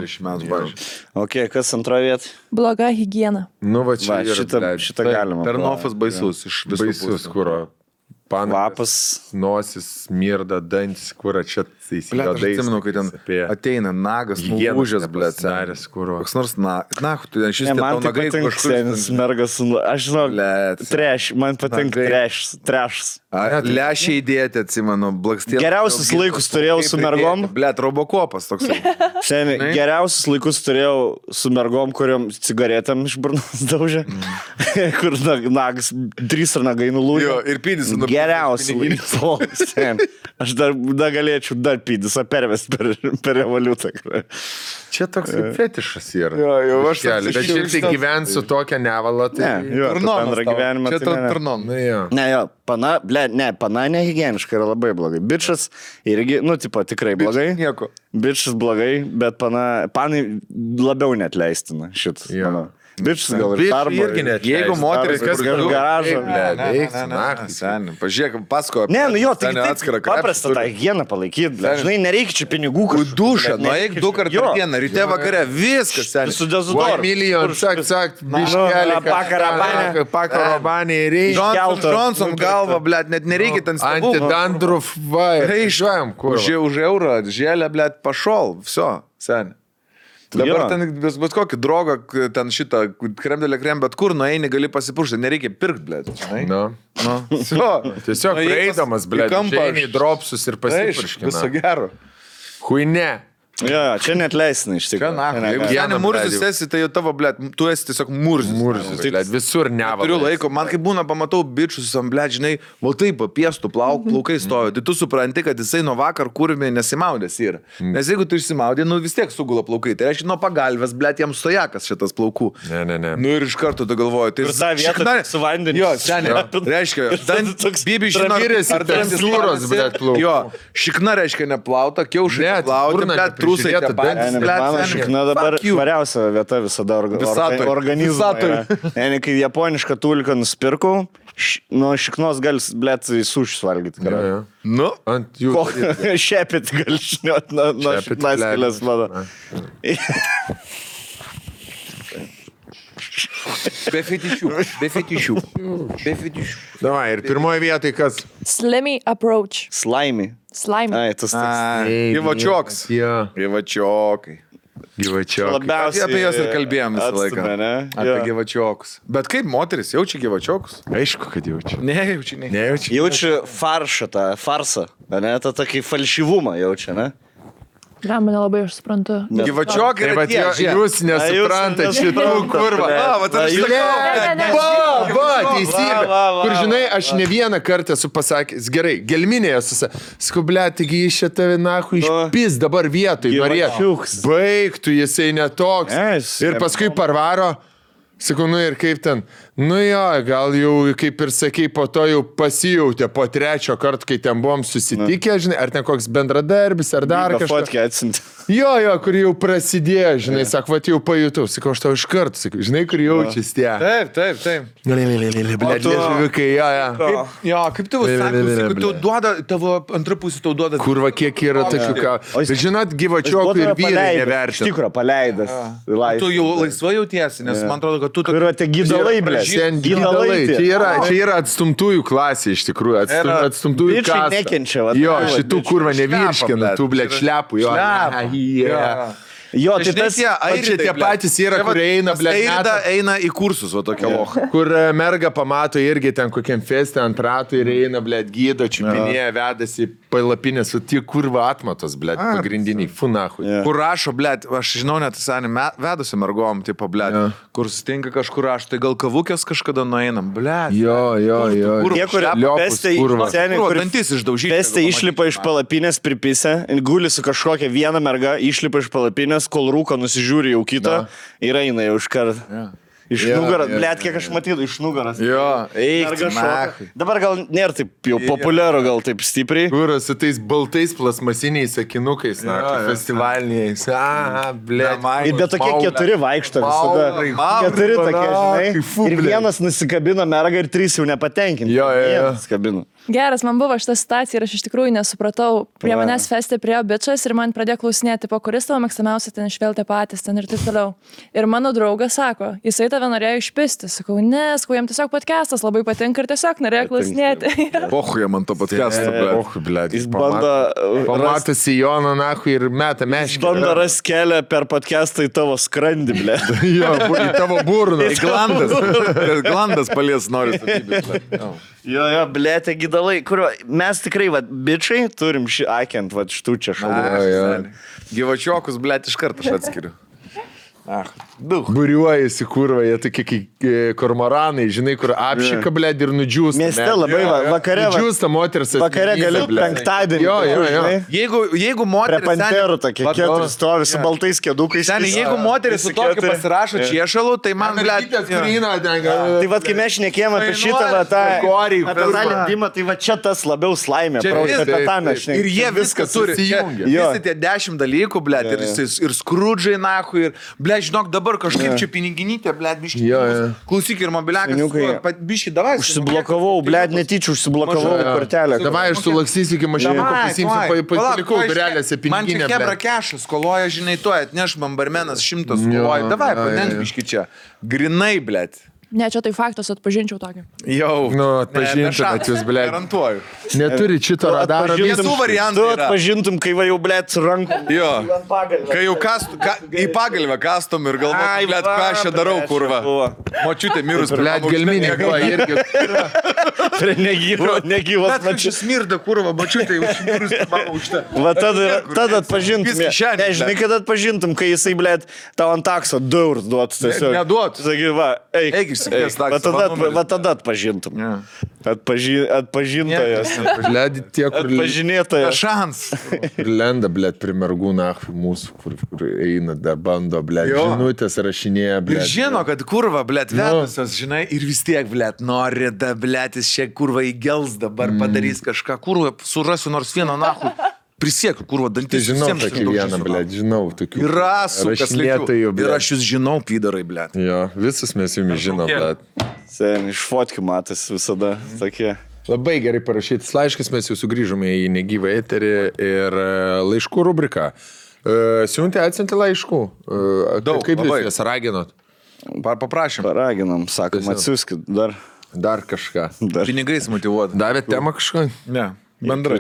Ok, kas antroje vietoje? Bloga higiena. Nu va čia yra, šitą galima. Ternofas baisus iš visų baisus, pusių. kuro. Kvapas. Nosis, mirda, dantis, kur čia Blet, aš atsimenu, kai ten ateina nagas, nulūžęs, blet, senis, kur. koks nors tu ten šis Man tai nagai patinka senis mergas, aš žinau, Blet. trash, man patinka trashs. Lešiai įdėti, atsimenu, blakstėlį. Geriausius laikus turėjau su mergom. Blet, robokopas toks. Seniai, geriausius laikus turėjau su mergom, kuriuom cigaretėm iš burnos daužė. Kur nagas, 3 nagai nulūžė. Jo, ir pydis. Geriausių laikų. Aš dar galėčiau dar pydis pervesti per revoliutą. Čia toks kaip fetišas yra. Jo, aš Keli, bet šiaip tai gyvensiu tokią nevalą, tai... Bendrą gyvenimą. Čia turnom. Na, jo. Ne, jo, pana nehigieniška yra labai blogai. Bičas irgi, tipo, tikrai blogai. Nieko. Bičas blogai, bet panai labiau net leistina šit. Jo. Bičas gal ir darbo. irgi net Jeigu moteris kas garažą. Pažiūrėk, pasakoju. Ne, jo, tai paprasta tą higieną palaikyti. Žinai, nereikia čia pinigų. Dušą, eik 2 kartus per dieną, ryte vakare, viskas, seniai. Su dezodoru. Milijon, sak, biškelį. Pakarabanį reikia. Johnson galva, blet, net nereikia ten stabų. Antidandruf, va, reišuojam, kur. Už eurą, žėlę, blet, pašol, viso, seniai. Dabar ten bet kokį drogą, ten šitą kremdelę krem, bet kur nueini gali pasipuršti, nereikia pirkti, blėt. Tiesiog prieidamas, blėt, žainiai dropsus ir pasipurškina. Viso gero. Huine. Jo, čia net leisina iš tikrųjų. Jeigu seniai murzis esi, tai jau tavo, blėt, tu esi tiesiog murzis. Murzis, blėt, visur nevalai. Turiu laiko, man kaip būna, pamatau bičius, blėt, žinai, va taip, piestų plaukai stovi, tai tu supranti, kad jisai nuo vakar kurmi nesimaudės yra. Nes jeigu tu išsimaudė, vis tiek sugula plaukai, tai reiškia nuo pagalvės, blėt, jam stojakas šitas plaukų. Ne. Nu ir iš karto tu galvoji, tai... Ir tą vietą su vandeniu. Jo, seniai, reiškia, bibi žino, ar tekstūros, blėt, plaukų. Jo, šikna reiškia neplauta, kiaušai neplauta, blėt, trusai tie patys. Mano šikna dabar variausia vieta visada organizmui. Kai japonišką tulką nusipirkau, nuo šiknos gali, blėt, sušius valgyti. Nu, ant jų. Šepit gali šniot nuo šiknas kelias, mano. Be fetišių. Davai, ir pirmoje vietoje kas? Slimy approach. Slimy. Ai, tas toks. Gyvačioks. Jo. Gyvačiokai. Labiausiai Apie juos ir kalbėjom visą laiką. Atstumė, Apie gyvačiokus. Bet kaip moteris jaučia gyvačiokus? Aišku, kad jaučiu. Nejaučia. Jaučiu farsą, ne? Ta tokį falšyvumą jaučia, ne? Mane labai aš suprantu. Gyvačiokai yra tie. Jūs nesuprantate šitų kurva. Teisybė. Kur žinai, aš ne vieną kartą esu pasakęs, gerai, gelminėje skublė, taigi iš čia tave nahu išpis dabar vietoj, norėtų. Baigtų, jisai netoks. Ir paskui parvaro. Sakau, nu ir kaip ten, nu jo, gal jau, kaip ir sakei, po to jau pasijautė po 3 karto, kai ten buvom susitikę, žinai, ar ten koks bendradarbis, ar dar kažkas. Jo, kur jau prasidėjo, žinai, sako, va, jau pajutau, sakau, aš tau iš karto, sakau, žinai, kur jaučiasi tie. Taip. Blėt, liežuviukai, jo. Jo, kaip tavo sakai, tau duoda, tavo antra pusė tau duoda. Kurva, kiek yra tokių ką. Žinot, gyvačiokų ir vyrai nevertina. Iš tikro, paleidęs. Tu jau laisvai jautiesi, nes man atrodo, kad tu... Kur yra tie gydalai, blė. Gydalai. Čia yra atstumtųjų klasė, iš tikrųjų. Atstumtųjų klasė. Bičiai nekenčia, va. Jo, šitų kurva nevirškina, tų, blėt, šlepų. Jo, tai tas čia tie patys yra, kurie eina, blėt, eina į kursus, o tokia locha. Kur merga pamato irgi ten kokiam feste ant ratų ir eina, blėt, gydo, čiupinėje, vedasi palapinės, o tie kurva atmatos, blėt, pagrindiniai, funahui. Kur rašo, blėt, aš žinau net, vedusi mergom, tipo, blėt, kur sutinka kažkur rašo, tai gal kavukės kažkada nueinam, blėt. Jo. Tie, kur dantis išdaužyti. Pestė išlipa iš palapinės, pripisa, guli su kažkokia viena merga, išlipa iš palapinės, kol rūko nusižiūri jau kitą ir eina jau iš karto. Iš nugaros, blėt, kiek aš matydavau, iš nugaros. Jo, eik, dabar gal nėra taip jau populiaru, gal taip stipriai. Kuras su tais baltais plasmasiniais sakinukais, festivaliniais. Blėt. Ir bet tokie 4 vaikšto visada. 4 tokie, žinai. Ir vienas nusikabino mergą ir 3 jau nepatenkinti. Jo. Nusikabino. Geras, man buvo šitą situaciją ir aš iš tikrųjų nesupratau. Prie manęs feste priėjo bičas ir man pradėjo klausinėti, po kuris tavo mėgstamiausia ten išveltė patys ten ir taip toliau. Ir mano draugas sako, jisai tave norėjo išpisti. Sakau, sakau, jam tiesiog podcastas labai patinka ir tiesiog norėjo klausinėti. Pochuja man to podcast'o, blėt. Jis bando... Pamatęs į Joną, nahui, ir meta meškį. Bando ras kelią per podcastą į tavo skrandį, blė. Jo, į tavo burną. Glandas palies nori statybės. Jo, blė, tie gydalai, kurio mes tikrai, bičiai, turim šį akiant, šitų čia šalų. Gyvačiokus, blė, iš karto aš atskiriu. Buriuojasi, kurva, jie tokie kaip kormoranai, žinai, kur apšika, blėd, ir nudžiūsta. Mieste labai vakare. Nudžiūsta moters. Vakare gali penktadienį. Jo. Jeigu moteris... Prie panterų tokie keturi stovi su baltais kėdukais. Seniai, jeigu moteris su tokiu pasirašo čiešalų, tai man, blėd... Tai kai mes šnekėjom apie šitą, tą lindimą, tai čia tas labiau slaimė. Ir jie viską turi. Visi tie 10 dalykų, blėd, ir skrudžai, nahu, ir, blėd, žinok, dabar kažkaip čia piniginytė, blėd, biški. Klausyk ir mobiliakas, biški, davai. Užsiblokavau, blėd, netyčių užsiblokavau kortelę. Davai, aš sulaksysiu iki mašinų, pasimsiu, palikau durelėse piniginę. Man čia hebra kešas, skoloja, žinai, to atneš man barmenas 100 skoloja. Davai, padenk biški čia. Grinai, blėd. Ne, čia tai faktas, atpažinčiau tokį. Jau. Nu, atpažintumėt jūs, blėd. Garantuoju. Neturi šito radaro. Visų variantų Tu yra. atpažintum, kai va jau, blėd, su rankom. Jo. Kai jau į pagalvę kastom ir galvoju, blėd, ką aš čia darau, kurva. Močiutė mirus, Blėd, gelminė, kuo irgi. Prie negyvos Bet čia smirda, kurva, močiutė, jau mirus, mama užta. Va tada atpažintum. Ne, žinai, kad atpažintum, kai jisai, blėd, tau ant takso 2 eurus duotų tiesiog. Neduot. Sakai, va, eik. Va tada atpažintum. Atpažintojas. Blėd, tie, kur... Atpažinėtojas. Šans. Lenda, blėd, prie mergų nahui mūsų, kur eina, dar bando, blėd, žinutės rašinėja, blėd. Ir žino, kad kurva, blėd, vedusios, žinai, ir vis tiek, blėd, nori, da, blėd, jis čia kurva įgels dabar, padarys kažką, kurva, surasiu nors vieną nahui. Prisiekiu, kurva, dantis. Žinau tokį vieną, blėd, žinau tokių. Yra rašinėtojų, blėd. Ir aš jūs žinau, pydarai, blėd. Jo, visus mes jumis žinom, blėd. Sen, iš fotkių matas visada tokie. Labai gerai parašytas laiškas, mes jau sugrįžome į negyvą eterį ir laiškų rubriką. Siuntė, atsiuntė laiškų. Daug, kaip labai. jūs jas raginot? Paprašym. Paraginam, sakom, atsiųskit Dar kažką. Pinigais motivuoti. Davėt temą kažką? Ne. Bendrai.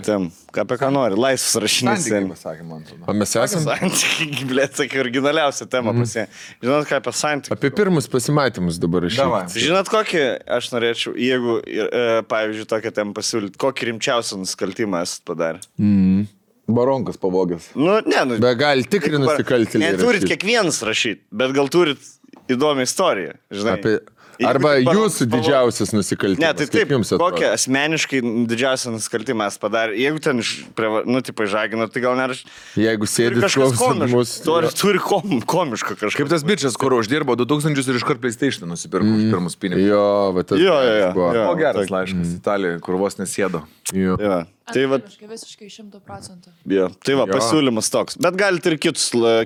Apie ką nori, laisvas rašinys. Santykiai, pasakė man. O mes esame? Santykiai, blėt, sakai, originaliausia tema pasie. Žinot, ką apie santykiai? Apie pirmus pasimatymus dabar rašyti. Žinot, kokį aš norėčiau, jeigu, pavyzdžiui, tokią temą pasiūlyti, kokį rimčiausią nusikaltimą esat padarę? Baronkas pavogęs. Be gali tikri nusikaltėliai. Neturit kiekvienas rašyti, bet gal turit įdomią istoriją, žinai. Arba jūsų didžiausias nusikaltimas. Ne, tai taip, kokią asmeniškai didžiausią nusikaltimą mes padarė. Jeigu ten, žagino, tai gal neraš... Jeigu sėdit klausimus... Turi komišką kažką. Kaip tas bičias, kur uždirbo 2000 ir iškart PlayStation nusipirko už pirmus pinigus. Jo, va tas... O geras laiškas Italijoje, kur vos nesėdo. Jo. Tai va, visiškai 100%. Tai va, pasiūlymas toks. Bet galite ir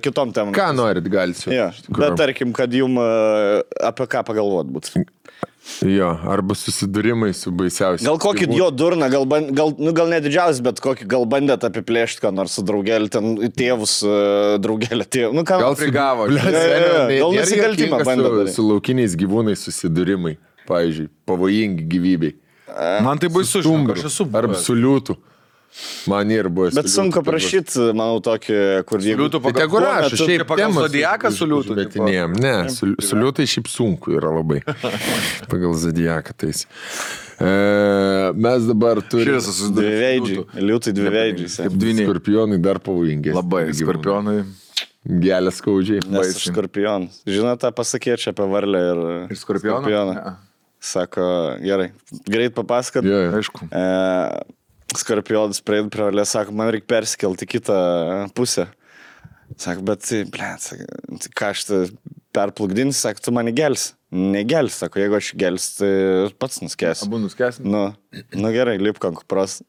kitom temom. Ką norit, galite. Bet tarkim, kad jum apie ką pagalvot būtų. Jo, arba susidūrimai su baisiausiais. Gal kokį jo durną, gal ne didžiausias, bet kokį gal bandėt apiplėšti, ką nors su draugelį, ten tėvus, draugelį tėvų. Gal prigavo. Gal nusikaltimą bandėt. Su laukiniais gyvūnais susidūrimai, pavyzdžiui, pavojingi gyvybei. Man tai baisu, aš esu. Arba su liūtu. Man ir buvo. Bet sunku prašyti, manau, tokį, kur jeigu... Liūtų pagal zodiaką su liūtų. Ne, su liūtai šiaip sunku yra labai. Pagal zodiaką tais. Mes dabar turime... Dviveidžiai. Liūtai dviveidžiai. Skorpionai dar pavojingi. Labai, skorpionai. Gelės skaudžiai. Nes aš skorpionas. Žinote, pasakėčiau apie varlę ir skorpioną. Sako, gerai, greit papasakot. Aišku. Skorpionas prieid prie varlės, sako, man reikia persikelti kitą pusę. Sako, bet, ką aš perplukdinsiu, sako, tu mane gelsi. Negels, sako, jeigu aš gels, tai pats nuskęsiu. Abu nuskęsim? Nu gerai, lipk ant kupros,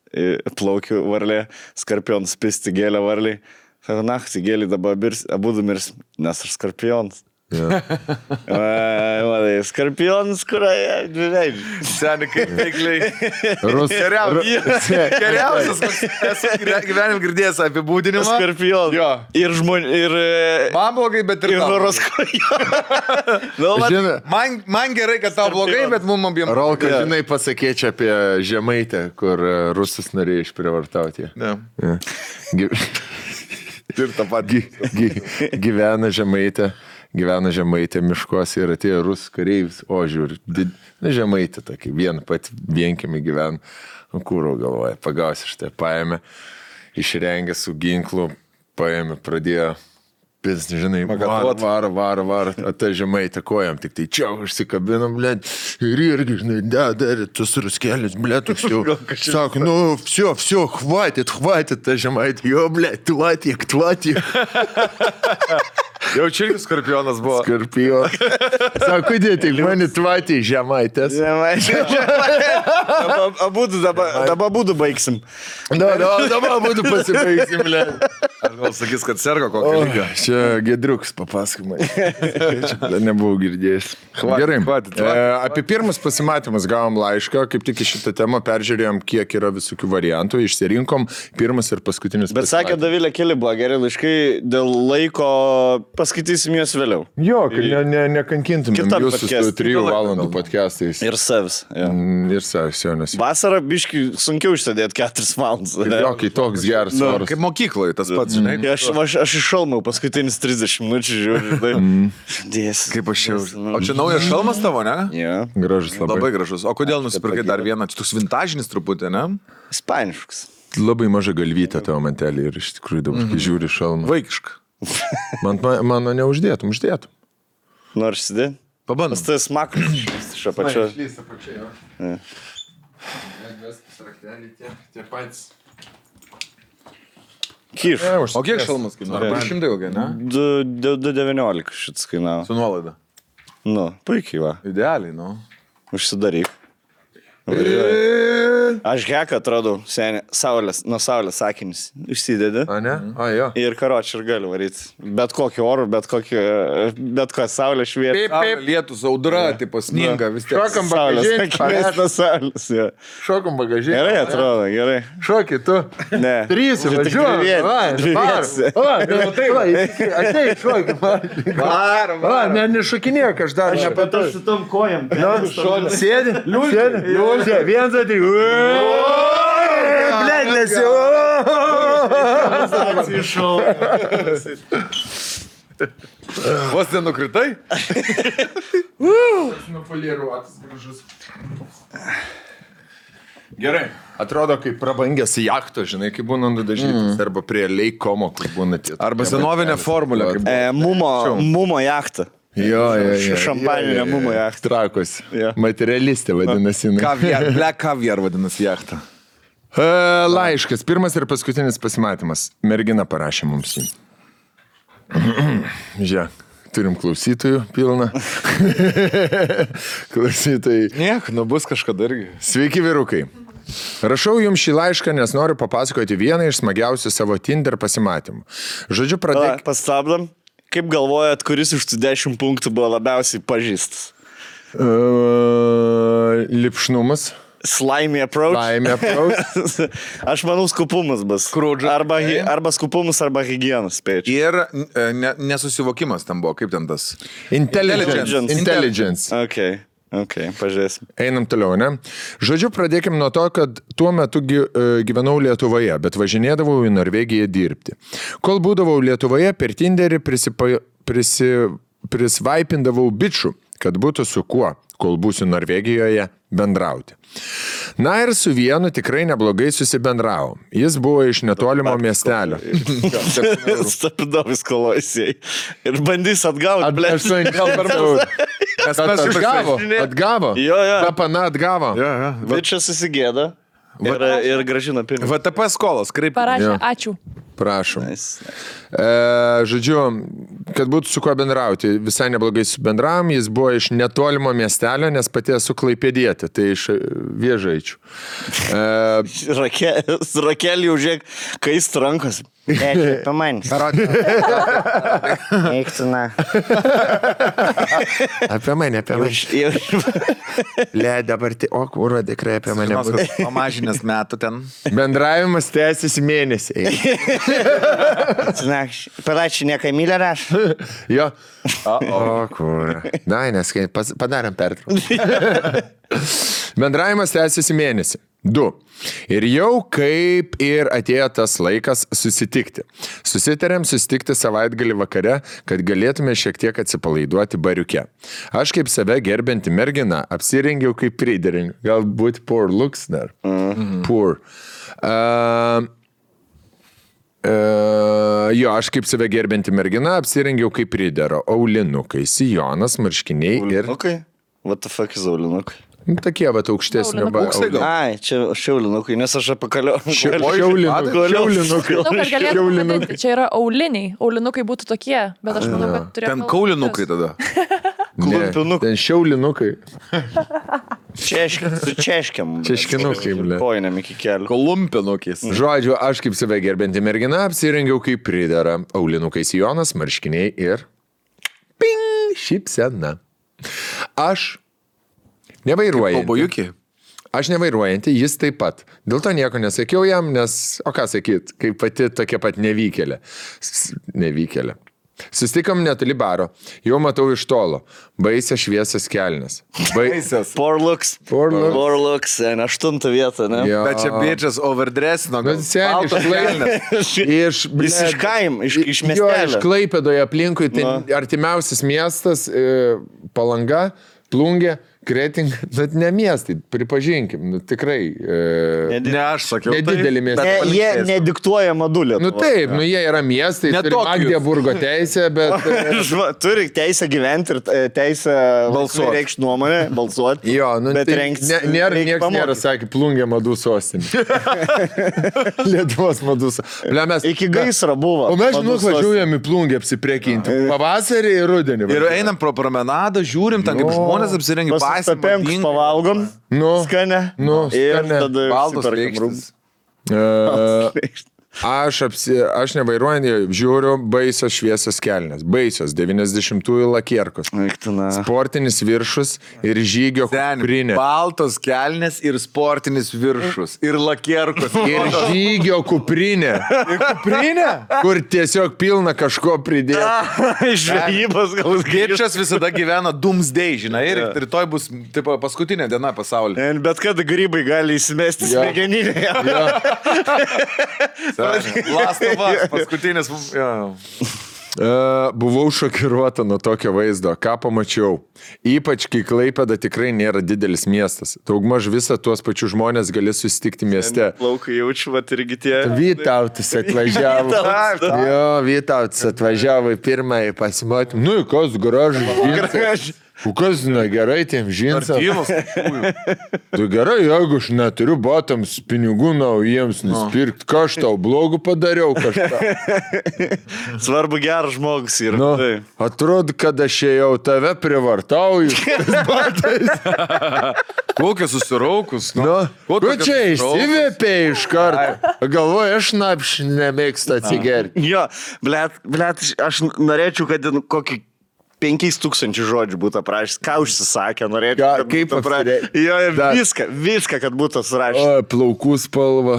plaukiu varlė, skorpionas pisti gėlę varliai. Sako, naktį gėlį dabar abu mirs, nes aš skorpionas. Matai, skorpionas, kurioje, žinai. Seniai, kaip veikliai. Geriausias. Geriausias, esu gyvenim girdėjęs apibūdinimą. Skorpionas. Jo. Ir žmonių, ir... Man blogai, bet ir Ir tau. horoskopo. Man gerai, kad tau blogai, bet mum abiem. Rolka, žinai, pasakėčiau apie Žemaitę, kur rusus norėjo išprivartauti. Ne. Ja. Ir tą patį. Gyvena Žemaitė miškuose ir atėjo rusų kareivis, o žiūri, Žemaitė tokį, vienkimi gyvena, kūro galvoja, pagausi štai, paėmė, išrengė su ginklu, paėmė, pradėjo, pis, žinai, var, ta Žemaitė kojam, tik tai čia užsikabinam, blėt, ir irgi, žinai, dar, tas ruskėlis, blėt, toks jau, sako, nu, все, хватит, ta Žemaitė, jo, blėt, tvatik. Jau čia irgi skorpionas buvo. Skorpio. Sako, dėti, mani tvatį Žemaitės. Dabar būdu baigsim. Dabar būtų pasibaigsim, blė. Aš gal sakys, kad serga kokio lygio. Čia Gedriuks papasakomai. Čia nebuvau girdėjęs. Gerai. Apie pirmus pasimatymus gavom laišką, kaip tik į šitą temą peržiūrėjom, kiek yra visokių variantų, išsirinkom pirmas ir paskutinis. Bet sakė, Davilė, keli buvo geri laiškai, dėl laiko paskaitysim juos vėliau. Jo, kad nekankintumėm Kitam jūsų podcast. 3 valandų podcastais. Ir savs. Ir savs, jo, nes. Vasarą biškai sunkiau išsėdėti 4 valandas. Jo, kai toks geras oras. Kaip mokykloje tas pats, žinai. Aš iššalmau paskutinis 30 minučių, žiūriu. Dės. Kaip aš jau. O čia naujas šalmas tavo, ne? Ja. Gražus labai. Labai gražus. O kodėl nusipirkai dar vieną? Čia toks vintažinis truputį, ne? Ispaniškas. Labai maža galvytė tavo mantelį ir iš tikrųjų dabar, kai žiūri šalmą. Vaikiška. Mano neuždėtum. Nors įsidėti? Pabandom. Tai smakus iš apačio. Kyš. O kiek šalmas kainavo? 200 ilgai, ne? 2,19 šits kainavo. Su nuolaida. Nu, puikiai va. Idealiai, nu. Užsidaryk. Aš heką atradau, seniai, nuo saulės sakinis. Užsidedi. A, ne? A, jo. Ir karočią ir galiu varyti. Bet kokį orų, bet kokią saulę švietą. Saulė, lietus, audra, tipo sninga, vis tiek. Šokam Saulės, bagažinį. akivaizdų saulės. Ja. Šokam bagažinį. Gerai atrodo, gerai. Šokį tu. Ne. 3 važiuoju. Ateik, šokį. Varom. Nešokinėk, aš dar nepatau. Su tom kojam. Sėdi. Liūdė. Vienas atėjo. Blet, nesi. Vos nenukritai? Nupoliruotas gražus. Gerai. Atrodo, kaip prabangęs jachto, žinai, kaip būna nudažytas, arba prie Leikomo, kur būna tie. Arba senovinė formulė. Mumo jachtą. Jo. Šampaninė mumo jachtą. Trakos. Jo. Materialistė vadinasi. Black caviar vadinasi jachtą. Laiškas. Pirmas ir paskutinis pasimatymas. Mergina parašė mums jį. Žiūrėk. Turim klausytojų pilną. Klausytojai. Niek, bus kažkada irgi. Sveiki, vyrukai. Rašau jums šį laišką, nes noriu papasakoti vieną iš smagiausių savo Tinder pasimatymų. Žodžiu, pradėk. Pastabdam. Kaip galvojat, kuris iš tų 10 punktų buvo labiausiai pažįstas? Lipšnumas. Slimy approach. Aš manau, skupumas bus. Arba skupumas, arba higienas, spėčiau. Ir nesusivokimas tam buvo, kaip ten tas. Intelligence. Ok, pažiūrėsim. Einam toliau, ne? Žodžiu, pradėkim nuo to, kad tuo metu gyvenau Lietuvoje, bet važinėdavau į Norvegiją dirbti. Kol būdavau Lietuvoje, per Tinderį prisvaipindavau bičių, kad būtų su kuo, kol būsiu Norvegijoje, bendrauti. Na ir su vienu tikrai neblogai susibendravo. Jis buvo iš netolimo miestelio. Stapidovis kolojasiai. Ir bandys atgauti, ble. Atgavo. Jo. Papana atgavo. Bičia susigėda ir gražina pinigą. VTP skolas, kaip. Parašė, ačiū. Prašom. Nice. Žodžiu, kad būtų su kuo bendrauti, visai neblogai su bendravom, jis buvo iš netolimo miestelio, nes pati esu klaipėdietė, tai iš Vėžaičių. Rakelį jau žiūrėk, kaist rankos. Pamanys. Eiktų, na. Apie mane. Le, dabar, o kūro tikrai apie mane. Pamažinęs metų ten. Bendravimas tęsiasi mėnesiai. Palačiu, ne Kamilė raš. Jo. O kūro. Dai, nes padarėm pertrauką. Bendravimas tęsiasi mėnesį. 2. Ir jau kaip ir atėjo tas laikas susitikti. Susitarėm susitikti savaitgalį vakare, kad galėtume šiek tiek atsipalaiduoti bariuke. Aš kaip save gerbinti mergina apsirengiau kaip pridering. Galbūt poor looks dar. Poor. Jo, aš kaip save gerbinti mergina apsirengiau kaip pridero. Aulinukai, sijonas, marškiniai ir... Aulinukai? What the fuck is aulinukai? Tokie vat aukštesnio. Ai, čia šiaulinukai, nes aš apakaliu. Šiaulinukai. Šiaulinukai. Čia yra auliniai. Aulinukai būtų tokie, bet aš manau, kad turėtų... Ten kaulinukai tada. Klumpinukai. Ten šiaulinukai. Su češkiam. Češkinukai, ble. Kojiniam iki kelių. Kolumpinukais. Žodžiu, aš kaip save gerbinti mergina apsirengiau kaip pridera. Aulinukai sijonas, marškiniai ir... Ping! Šypsena. Aš nevairuojantį. Aš nevairuojantį, jis taip pat. Dėl to nieko nesakiau jam, nes, o ką sakyt, kaip pati tokia pat nevykėlė. Nevykėlė. Sustikom netoli baro. Jau matau iš tolo. Baisia šviesias kelnes. Baisias. Poor looks. Poor looks. Poor looks. 8 vietą, ne? Jo. Bet čia bitches overdressino. Iš kaim, iš Jo, iš miestelio. Klaipėdoje aplinkui, tai artimiausias miestas, Palanga, Plungė, Kretinga, bet ne miestai, pripažinkim, tikrai. Ne aš sakiau. Nedidelį miestą. Jie nediktuoja madulį. Nu taip, jie yra miestai, turi Magdeburgo teisę, bet... Turi teisę gyventi ir teisę reikšti nuomonę, balsuoti. Jo, nu bet tai niekas nėra, sakė, Plungė madų sostinė. Lietuvos madų sostinė. Iki gaisro buvo. O mes, važiuojam į Plungę apsiprekinti. Pavasarį ir rudenį. Ir einam pro promenadą, žiūrim, ten kaip žmonės apsirengia. Papenks pavalgom, skanę, ir tada baltos reikštis. Aš nevairuojant, žiūriu baisios šviesios kelnes. Baisios, 90-ųjų lakierkos. Sportinis viršus ir žygio kuprinė. Baltos kelnes ir sportinis viršus. Ir lakierkos. Ir žygio kuprinė. Ir kuprinė? Kur tiesiog pilna kažko pridėti. Žvejybos gal Gečas visada gyvena doomsday, žinai, ir rytoj bus tipo, paskutinė diena pasaulyje. Bet kada grybai gali įsimesti smegeninėje. Lastovas, paskutinis. Buvau šokiruota nuo tokio vaizdo. Ką pamačiau? Ypač, kai Klaipėda tikrai nėra didelis miestas. Daugmaž visą tuos pačius žmonės gali susitikti mieste. Plaukai jaučiu, vat irgi tie. Vytautas atvažiavo. Jo, Vytautas atvažiavo į pirmąjį pasimotymą. Nu, kas gražus. Kas negerai tiem žinsams? Tu gerai, jeigu aš neturiu batams pinigų naujiems nusipirkti, ką aš tau blogų padariau kažką. Svarbu geras žmogus yra. Nu, atrodo, kad aš jau tave privartauju. Kokia susiraukus. Ko čia išsivėpė iš karto? Galvoju, aš napš nemėgstu atsigerti. Jo, blet, aš norėčiau, kad kokį 5000 žodžių būtų aprašęs, ką užsisakė, norėčiau. Kaip aprašęs? Jo, ir viską, kad būtų surašęs. O, plaukų spalva.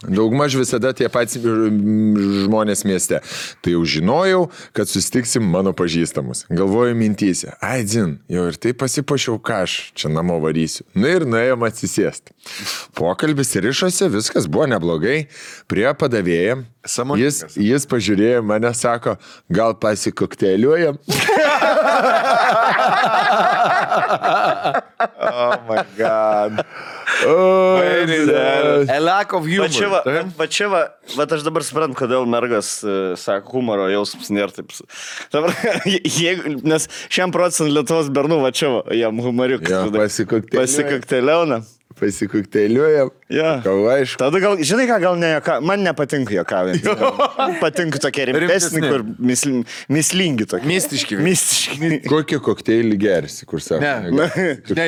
Daugmaž visada tie patys žmonės mieste. Tai jau žinojau, kad susitiksim mano pažįstamus. Galvoju mintyse. Ai, dzin, jau ir tai pasipašiau, ką aš čia namo varysiu. Nu ir nuėjom atsisėsti. Pokalbis rišosi, viskas buvo neblogai. Prie padavėjam. Jis pažiūrėjo mane, sako, gal pasikokteliuojam. Oh my god. A lack of humor. Va čia, aš dabar suprantu, kodėl mergas sako, humoro jausmas nėra taip. Nes 100% Lietuvos bernų, va čia, jam humoriukas. Pasikokteliauna. pasikukteiliuojam. Jo. Aišku. Tada gal, žinai ką, gal ne joka, man nepatinka jokavinti. Patinka tokie rimtesni, kur mislingi tokie. Mistiški. Mistiški. Kokį kokteilį gersi, kur sako? Ne,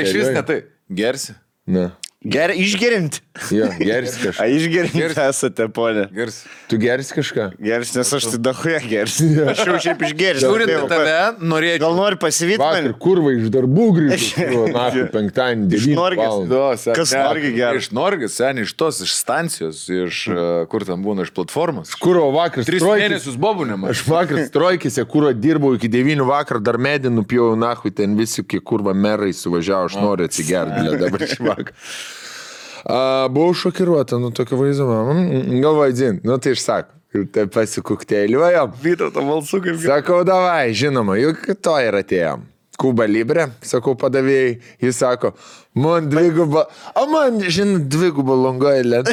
iš vis ne tai. Gersi. Na. Išgerinti. Jo, gersi kažką. Išgerinti esate, ponė. Gersi. Tu gersi kažką? Gersi, nes aš tai dahuja gersi. Aš jau šiaip išgersiu. Žiūrint tave, norėčiau. Gal nori pasivyti Vakar mane? kurva iš darbų grįžtu. Na, penktadienį, 9 Norgės. valandą. Kas Norgį geria? Iš Norgės, seniai, iš tos, iš stancijos, iš kur ten būna, iš platformos. Kuro vakar 3 mėnesius bobunėm. Aš vakar strojkėse, kuro dirbau iki 9 vakar, dar medį nupjau nahui, ten visi, kai kurva merai suvažiavo, aš noriu atsigerti dabar šį vakar. Buvau šokiruota, tokio vaizdo, galvoju, dzin, tai išsako, tai pasikukteiliuojam. Vytauto balsu kaip... Sakau, davai, žinoma, juk to ir atėjom. Kuba Libre, sakau padavėjai, jis sako, man dviguba, man, žinai, dviguba Long Island.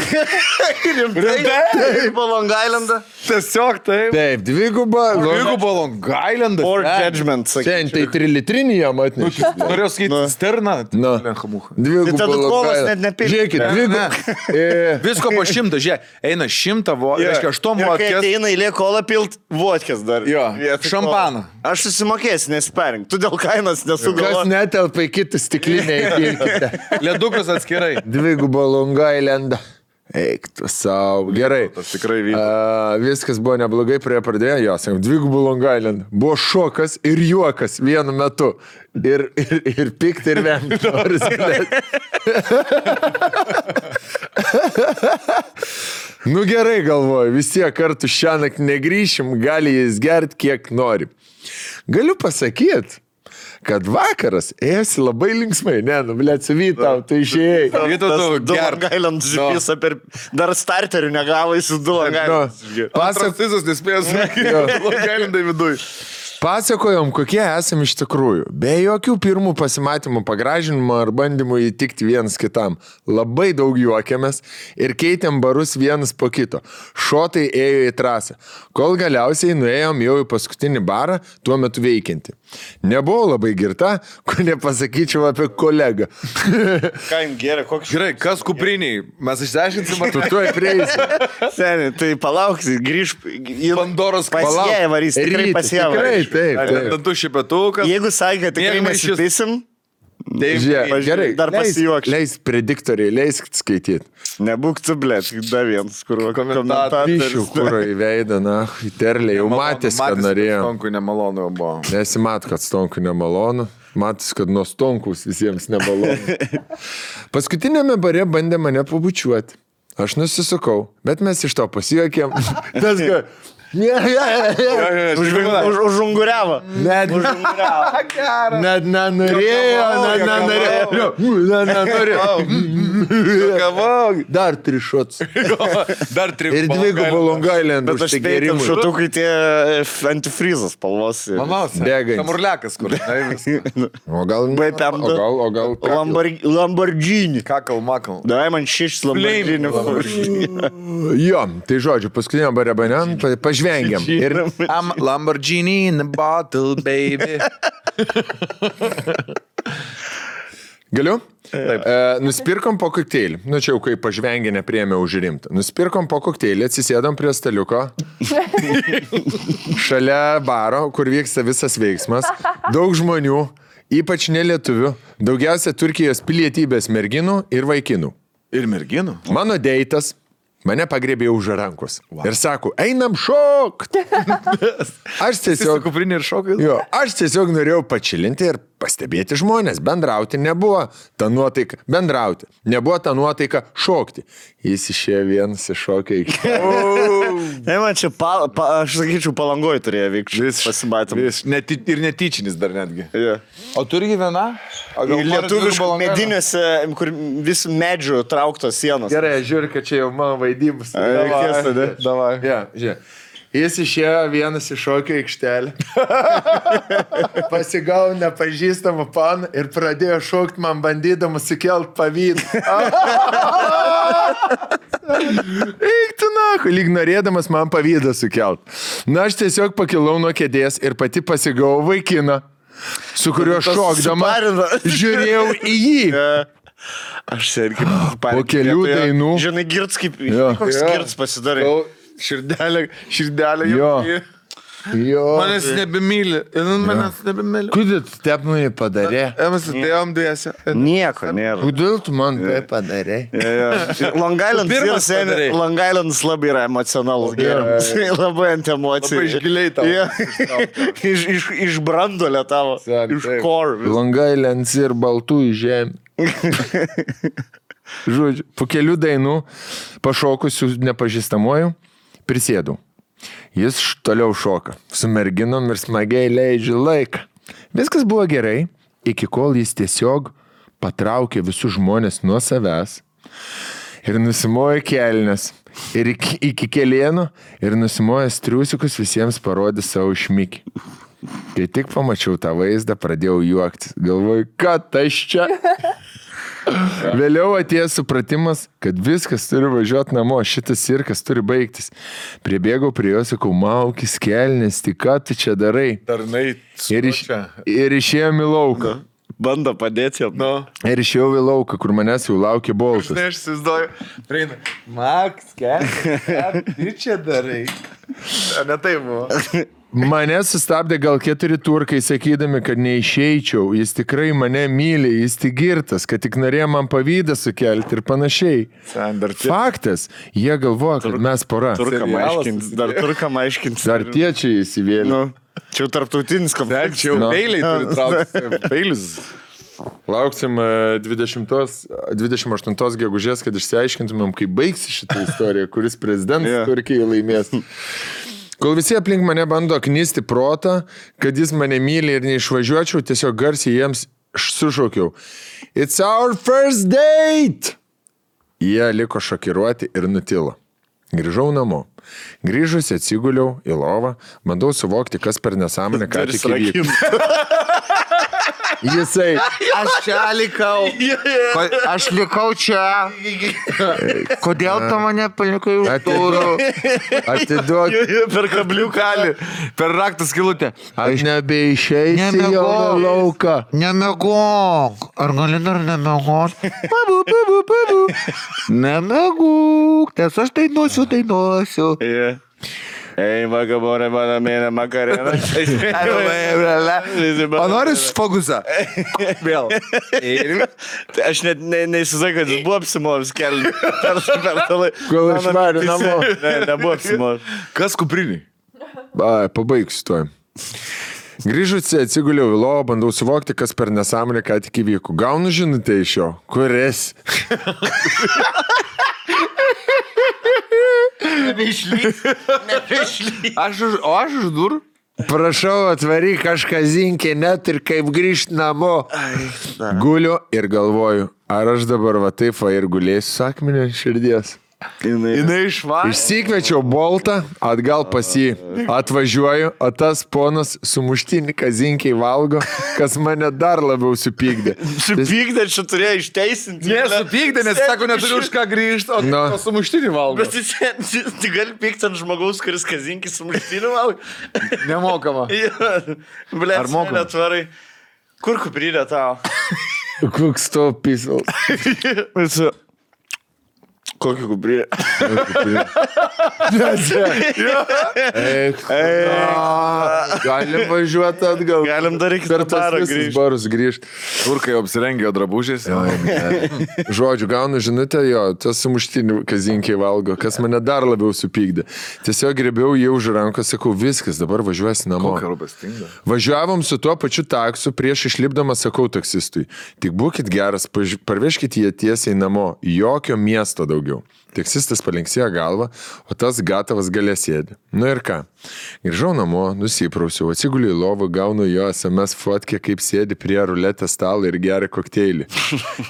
Rimtai? Po Long Islandą? Tiesiog taip. Taip, dviguba Long Islandas. Or judgment, Šiandien tai 3 litrinį jam atnešė. Norėjau sakyti, sterna. Nu. Dviguba Tai tada Long kolas Island. net nepirks. Žiūrėkit, dviguba. Visko po 100, žiūrėk, eina 100, reiškia 8 Ir kai vodkės. ateina eilė kolą pilt, vodkės dar. Jo, Vietoj šampaną. kolos. Aš susimokėsiu, nesperink. Tu dėl kainos Kas nesugalvoji. netelpa į kitą stiklinę įpilkite. Ledukas atskirai. Dviguba Long Island. Eik tu savo. Gerai. Tas tikrai vyko. Viskas buvo neblogai, prie pradėjo, jo, sakom, dvigubų Long Island. Buvo šokas ir juokas vienu metu. Ir pikti ir vemti. Nu gerai galvoju, vis tiek kartu šiąnakt negrįšim, gali jis gerti kiek nori. Galiu pasakyti, kad vakaras ėjosi labai linksmai. Ne, blėt, su Vytau, tu išėjai. Du Long Island žipisa per... Dar starterių negavo į su du Long Island. Pasakysius nespėjęs Long Islandai viduj. Pasakojom, kokie esame iš tikrųjų. Be jokių pirmų pasimatymų, pagražinimo ar bandymų įtikti vienas kitam. Labai daug juokėmės ir keitėm barus vienas po kito. Šotai ėjo į trasą. Kol galiausiai nuėjom jau į paskutinį barą, tuo metu veikiantį. Nebuvau labai girta, ko nepasakyčiau apie kolegą. Ką jums geria, koks... Gerai, kas kupriniai? Mes išsiaiškinsim, ar Tu tuoj prieisi. Seniai, tai palauksi, grįž... Pandoros Pasieja varys, tikrai pasieja varys. Taip. dantų šipetukas. Jeigu sakė, kad tikrai nesipaisim, Žiūrėk, gerai, dar pasijuokš. leis prediktoriai, leisk skaityti. Nebūk tu, blėt, dar vienas, kur Pišiu, komentatorius. kuro į veidą, na, į terlę, jau matys, kad norėjo. Stonkui nemalonu jau buvo. Nesimat, kad stonkui nemalonu. Matys, kad nuo stonkus visiems nemalonu. Paskutinėme bare bandė mane pabučiuoti. Aš nusisukau, bet mes iš to pasijuokėm. Tas, kad... Užunguriavo. Net nenorėjo. Dar 3 šots. Dar 3. Ir 2 Long Island. Bet aš peitam šotukai tie antifrizas spalvos. Bėgai. Samurlekas, kur. O gal... O gal... Lamborghini. Kakal, makal. Dai man 6 Lamborghini. Jo, tai žodžiu, paskutinio bare banen pažvengiam. Ir I'm Lamborghini in a bottle, baby. galiu? Nusipirkom po kokteilį. Nu čia jau kai pažvengė nepriėmė už rimtą. Nusipirkom po kokteilį, atsisėdom prie staliuko. Šalia baro, kur vyksta visas veiksmas. Daug žmonių, ypač nelietuvių. Daugiausia Turkijos pilietybės merginų ir vaikinų. Ir merginų? Mano deitas mane pagriebė už rankos. Ir sako, einam šokt. Aš tiesiog... Kuprinė ir šokai. Jo, aš tiesiog norėjau pačilinti ir pastebėti žmonės. Bendrauti nebuvo ta nuotaika. Bendrauti. Nebuvo ta nuotaika šokti. Jis išėjo vienas iššokė iki... Ne, man čia, aš sakyčiau, Palangoj turėjo vykti. Pasimatėm. Ir netyčinis dar netgi. Yeah. O turi viena? Lietuviškų mediniuose, kur vis medžių trauktos sienos. Gerai, žiūrėk, kad čia jau mano vaidybus. Davai. Ja, žiūrėk. Jis išėjo vienas iššokio aikštelę. Pasigavo nepažįstamą paną ir pradėjo šokti man bandydamas sukelt pavydą. Eik tu naku, lyg norėdamas man pavydą sukelt. Na, aš tiesiog pakilau nuo kėdės ir pati pasigavau vaikiną, su kuriuo šokdama žiūrėjau į jį. Aš irgi Po kelių dainų. Žinai, girts kaip... Jo. Koks girts pasidarai. Širdelė Jo. jau. Jo. Manęs nebemyli. Manęs nebemyli. Kodėl tu taip man padarė? Mes atėjom dviese. Nieko nėra. Kodėl tu man tai padarė? Long Island, Pirmas padarei. Long Island labai yra emocionalus gėrimas. Labai ant emocijų. Labai iš giliai tau. Iš brandolio tavo. Iš core. Long Island ir baltų žemė. Žodžiu, po kelių dainų pašokusių nepažįstamuoju prisėdau. Jis toliau šoka, su merginom ir smagiai leidžia laiką. Viskas buvo gerai, iki kol jis tiesiog patraukė visus žmonės nuo savęs ir nusimojo kelnes. Ir iki kelieno ir nusimojęs triusikus visiems parodė savo šmikį. Kai tik pamačiau tą vaizdą, pradėjau juoktis. Galvoju, kad aš čia... Vėliau atėjo supratimas, kad viskas turi važiuoti namo, šitas cirkas turi baigtis. Pribėgau prie jo, sakau, maukis kelnes, tik ką tu čia darai? Tarnai. Ir išėjom į lauką. Bando padėti jam. Nu. Ir išėjau į lauką, kur manęs jau laukė boltas. Žinai, aš įsivaizduoju. Prieina. Maks, ką tu čia darai? Ne taip buvo. Mane sustabdė gal 4 turkai, sakydami, kad neišeičiau, jis tikrai mane myli, jis tik girtas, kad tik norėjo man pavydą sukelti ir panašiai. Faktas, jie galvoja, kad mes pora. Dar turkam aiškins. Dar tie čia įsivėlė. Nu, čia jau tarptautinis konfliktas. Čia jau peiliai turi traukti. Peilis. Lauksim 28 gegužės, kad išsiaiškintumėm, kaip baigsi šitą istoriją, kuris prezidentas Turkijai laimės. Kol visi aplink mane bando knisti protą, kad jis mane myli ir neišvažiuočiau, tiesiog garsiai jiems sušaukiau. It's our first date! Jie liko šokiruoti ir nutilo. Grįžau namo. Grįžusi atsiguliau į lovą, bandau suvokti, kas per nesąmonę ką tik įvyko. Jisai. Aš čia likau. Aš likau čia. Kodėl tu mane palikai už durų? Atiduok. Per kabliuką. Per raktą skilutę. Aš nebeišeisiu jau į lauką. Nemegok. Ar gali dar nemegok? Nemegok. Nes aš dainuosiu. Ei, vagabonė, mano mėne, makarena. O nori fokusą? Vėl. Aš net neįsivaizduoju, kad jis buvo apsimovęs kelią per tą laiką. Kol išvarė namo. Ne, nebuvo apsimovęs. Kas kupriniai? Pabaigsiu to. Grįžusi atsiguliau į lovą, bandau suvokti, kas per nesąmonę ką tik įvyko. Gaunu žinutę iš jo. Kuris? Nebeišlys. Aš už durų? Prašau, atvaryk kažką zinkė, net ir kaip grįžt namo. Guliu ir galvoju, ar aš dabar va taip va ir gulėsiu sakmenį ant širdies. Jinai išvarė. Išsikviečiau boltą, atgal pas jį. Atvažiuoju, o tas ponas sumuštinį kazinkiai valgo, kas mane dar labiau supykdė. Supykdė, čia turėjo išteisinti. Nesupykdė, nes sako, neturiu už ką grįžti, o sumuštinį valgo. Bet tu gali pykti ant žmogaus, kuris kazinkį sumuštinį valgo. Nemokama. Ble, Ar mokama? Netvarai. Kur kuprinė tau? Koks to pisal. Kokį kuprinę? Galim važiuoti atgal. Galim dar iki per tas barą visus barus grįžti. Turkai apsirengė drabužiais. Žodžiu, gaunu žinutę, jo, tas sumuštinį kazinkiai valgo, kas mane dar labiau supykdė. Tiesiog grėbiau jį už rankos, sakau, viskas, dabar važiuosi namo. Važiuovom su tuo pačiu taksu, prieš išlipdamas sakau taksistui, tik būkit geras, parvežkit jį tiesiai namo, jokio miesto daugiau. Taksistas palinksėjo galvą, o tas gatavas gale sėdi. Nu ir ką? Grįžau namo, nusiprausiau, atsiguliu į lovą, gaunu jo SMS fotkę, kaip sėdi prie ruletės stalo ir geria kokteilį.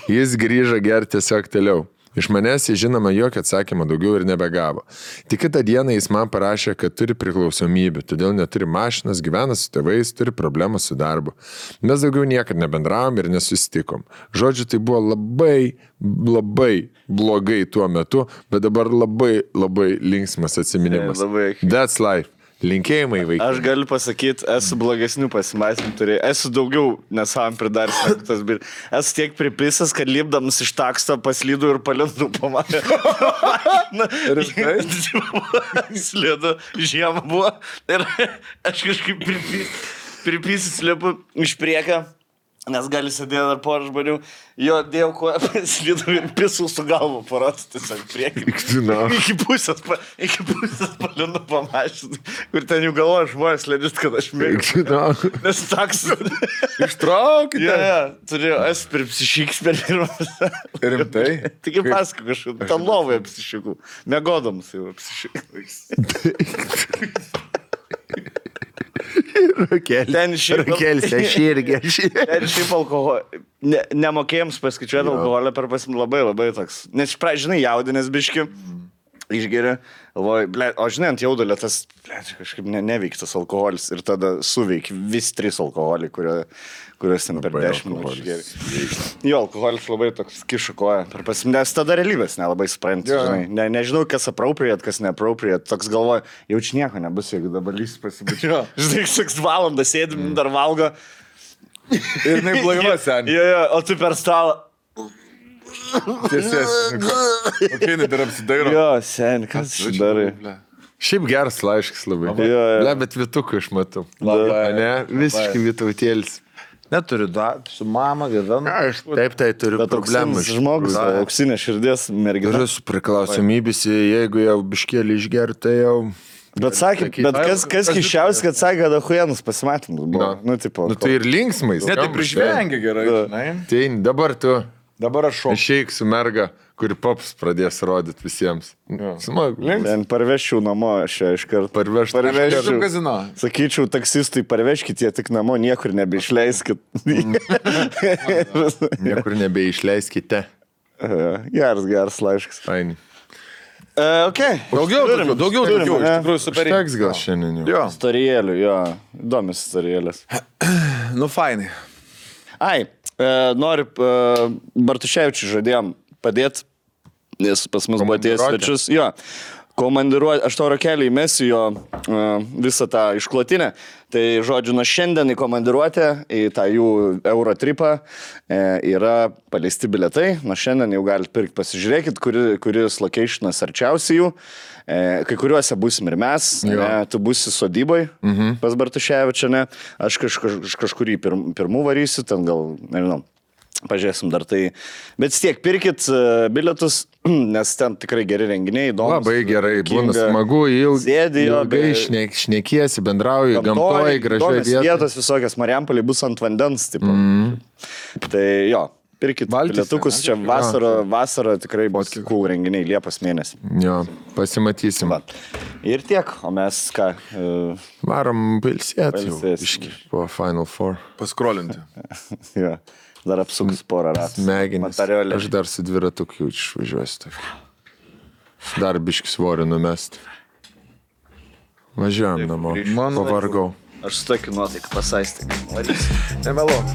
Jis grįžo gerti tiesiog toliau. Iš manęs jis žinoma jokio atsakymą daugiau ir nebegavo. Tik kitą dieną jis man parašė, kad turi priklausomybę, todėl neturi mašinas, gyvena su tėvais, turi problemą su darbu. Mes daugiau niekad nebendravom ir nesusitikom. Žodžiu, tai buvo labai blogai tuo metu, bet dabar labai linksmas atsiminimas. That's life. Linkėjimai vaikai. Aš galiu pasakyti, esu blogesnių pasimatymų turėjau. Esu daugiau nesavam pridaręs negu tas bir. Esu tiek pripisęs, kad lipdamas iš taksto paslydau ir palindau po mane. Slidu, žiemą buvo. Ir aš kažkaip pripisęs lipu iš priekio. Nes gali sėdėti dar porą žmonių, jo dėjau koją, paslydau ir pisau su galvu parodų tiesiog priekį. Iki pusės palinu pamašinti, kur ten jų galvoja žmonės lėdžiut, kad aš mėgstu. Nes taks. Ištraukite. Turėjau, esu per psišiks per pirmas. Rimtai? Tik pasakau kažkaip, tam lovoje psišikų. Mėgodamas jau psišikas. Rakelis, aš irgi. Ir šiaip alkoholį. Nemokėjams paskaičiuoti alkoholį per labai toks. Nes, žinai, jaudinės biški. Išgeria. O žinai, ant jaudulio tas kažkaip neveiktas alkoholis. Ir tada suveik vis 3 alkoholį, kuriuos ten per 10 minučių išgeria. Jo, alkoholis labai toks kiša koją. Nes tada realybės nelabai supranti. Nežinau, kas appropriate, kas neappropriate. Toks galvoja, jaučiu nieko nebus, jeigu dabar lys pasibučia. Žinai, 6 valandas sėdim, dar valgo. Ir jinai blaiva, seniai. Jo, o tu per stalą. Tiesies. Kokie jinai dar apsidairo. Jo, seniai, kas čia darai? Šiaip geras laiškas labai. Jo. Bet Vitukų aš matau. Labai. Ne, visiškai Vitutėlis. Neturiu su mama gyvenu. Aš taip, tai turiu Bet problemų. auksinis žmogus, auksinė širdies mergina. Turiu su priklausomybės, jeigu jau biškėlį išger, tai jau... Bet sakė, kas kiščiausia, kad sakė, kad ahuėnus pasimatymus buvo. Nu, tai ir linksmais. Ne, tai prižvengia gerai, žinai. Tai dabar tu Dabar aš šoku. išeik su merga, kuri pops pradės rodyti visiems. Smagu. Ten parvežčiau namo šią iš karto. Parvežti. Kazino. Sakyčiau, taksistui parvežkite jie tik namo, niekur nebeišleiskit. Niekur nebeišleiskite. Geras laiškas. Faini. Okay. Daugiau, iš tikrųjų super. Teks gal šiandien jau. Jo. Storijėlių, jo. Įdomios storijėlės. Nu, fainai. Ai, noriu, Bartuševičiui žadėjom padėti, nes pas mus buvo atėjęs svečius. Jo, komandiruoti, aš tau Rakelį įmesiu jo visą tą išklotinę. Tai, žodžiu, nuo šiandien į komandiruotę, į tą jų Eurotripą yra paleisti biletai. Nuo šiandien jau galite pirkti, pasižiūrėkit, kuris locationas arčiausiai jų. Kai kuriuose busim ir mes, tu busi sodyboj pas Bartuševičią, ne? Aš kažkurį pirmų varysiu, ten gal, nežinau, pažiūrėsim dar tai. Bet tiek, pirkit bilietus, nes ten tikrai geri renginiai, įdomus. Labai gerai, būna smagu, ilgai šnekiesi, bendrauji, gamtoje, gražiai vietos visokios, Marijampolė bus ant vandens, tipo. Tai jo. Pirkit bilietukus, čia vasarą tikrai bus cool renginiai, Liepos mėnesį. Jo, pasimatysim. Ir tiek, o mes ką? Varom pilsėti po Final Four. Paskrolinti. Jo, dar apsuks porą ratų. Smegenis. Aš dar su dviratuku išvažiuosiu. Dar biškis svorį numesti. Važiuojam namo. Pavargau. Aš su tokiu nuotaiku pasaistį. Nemeluok.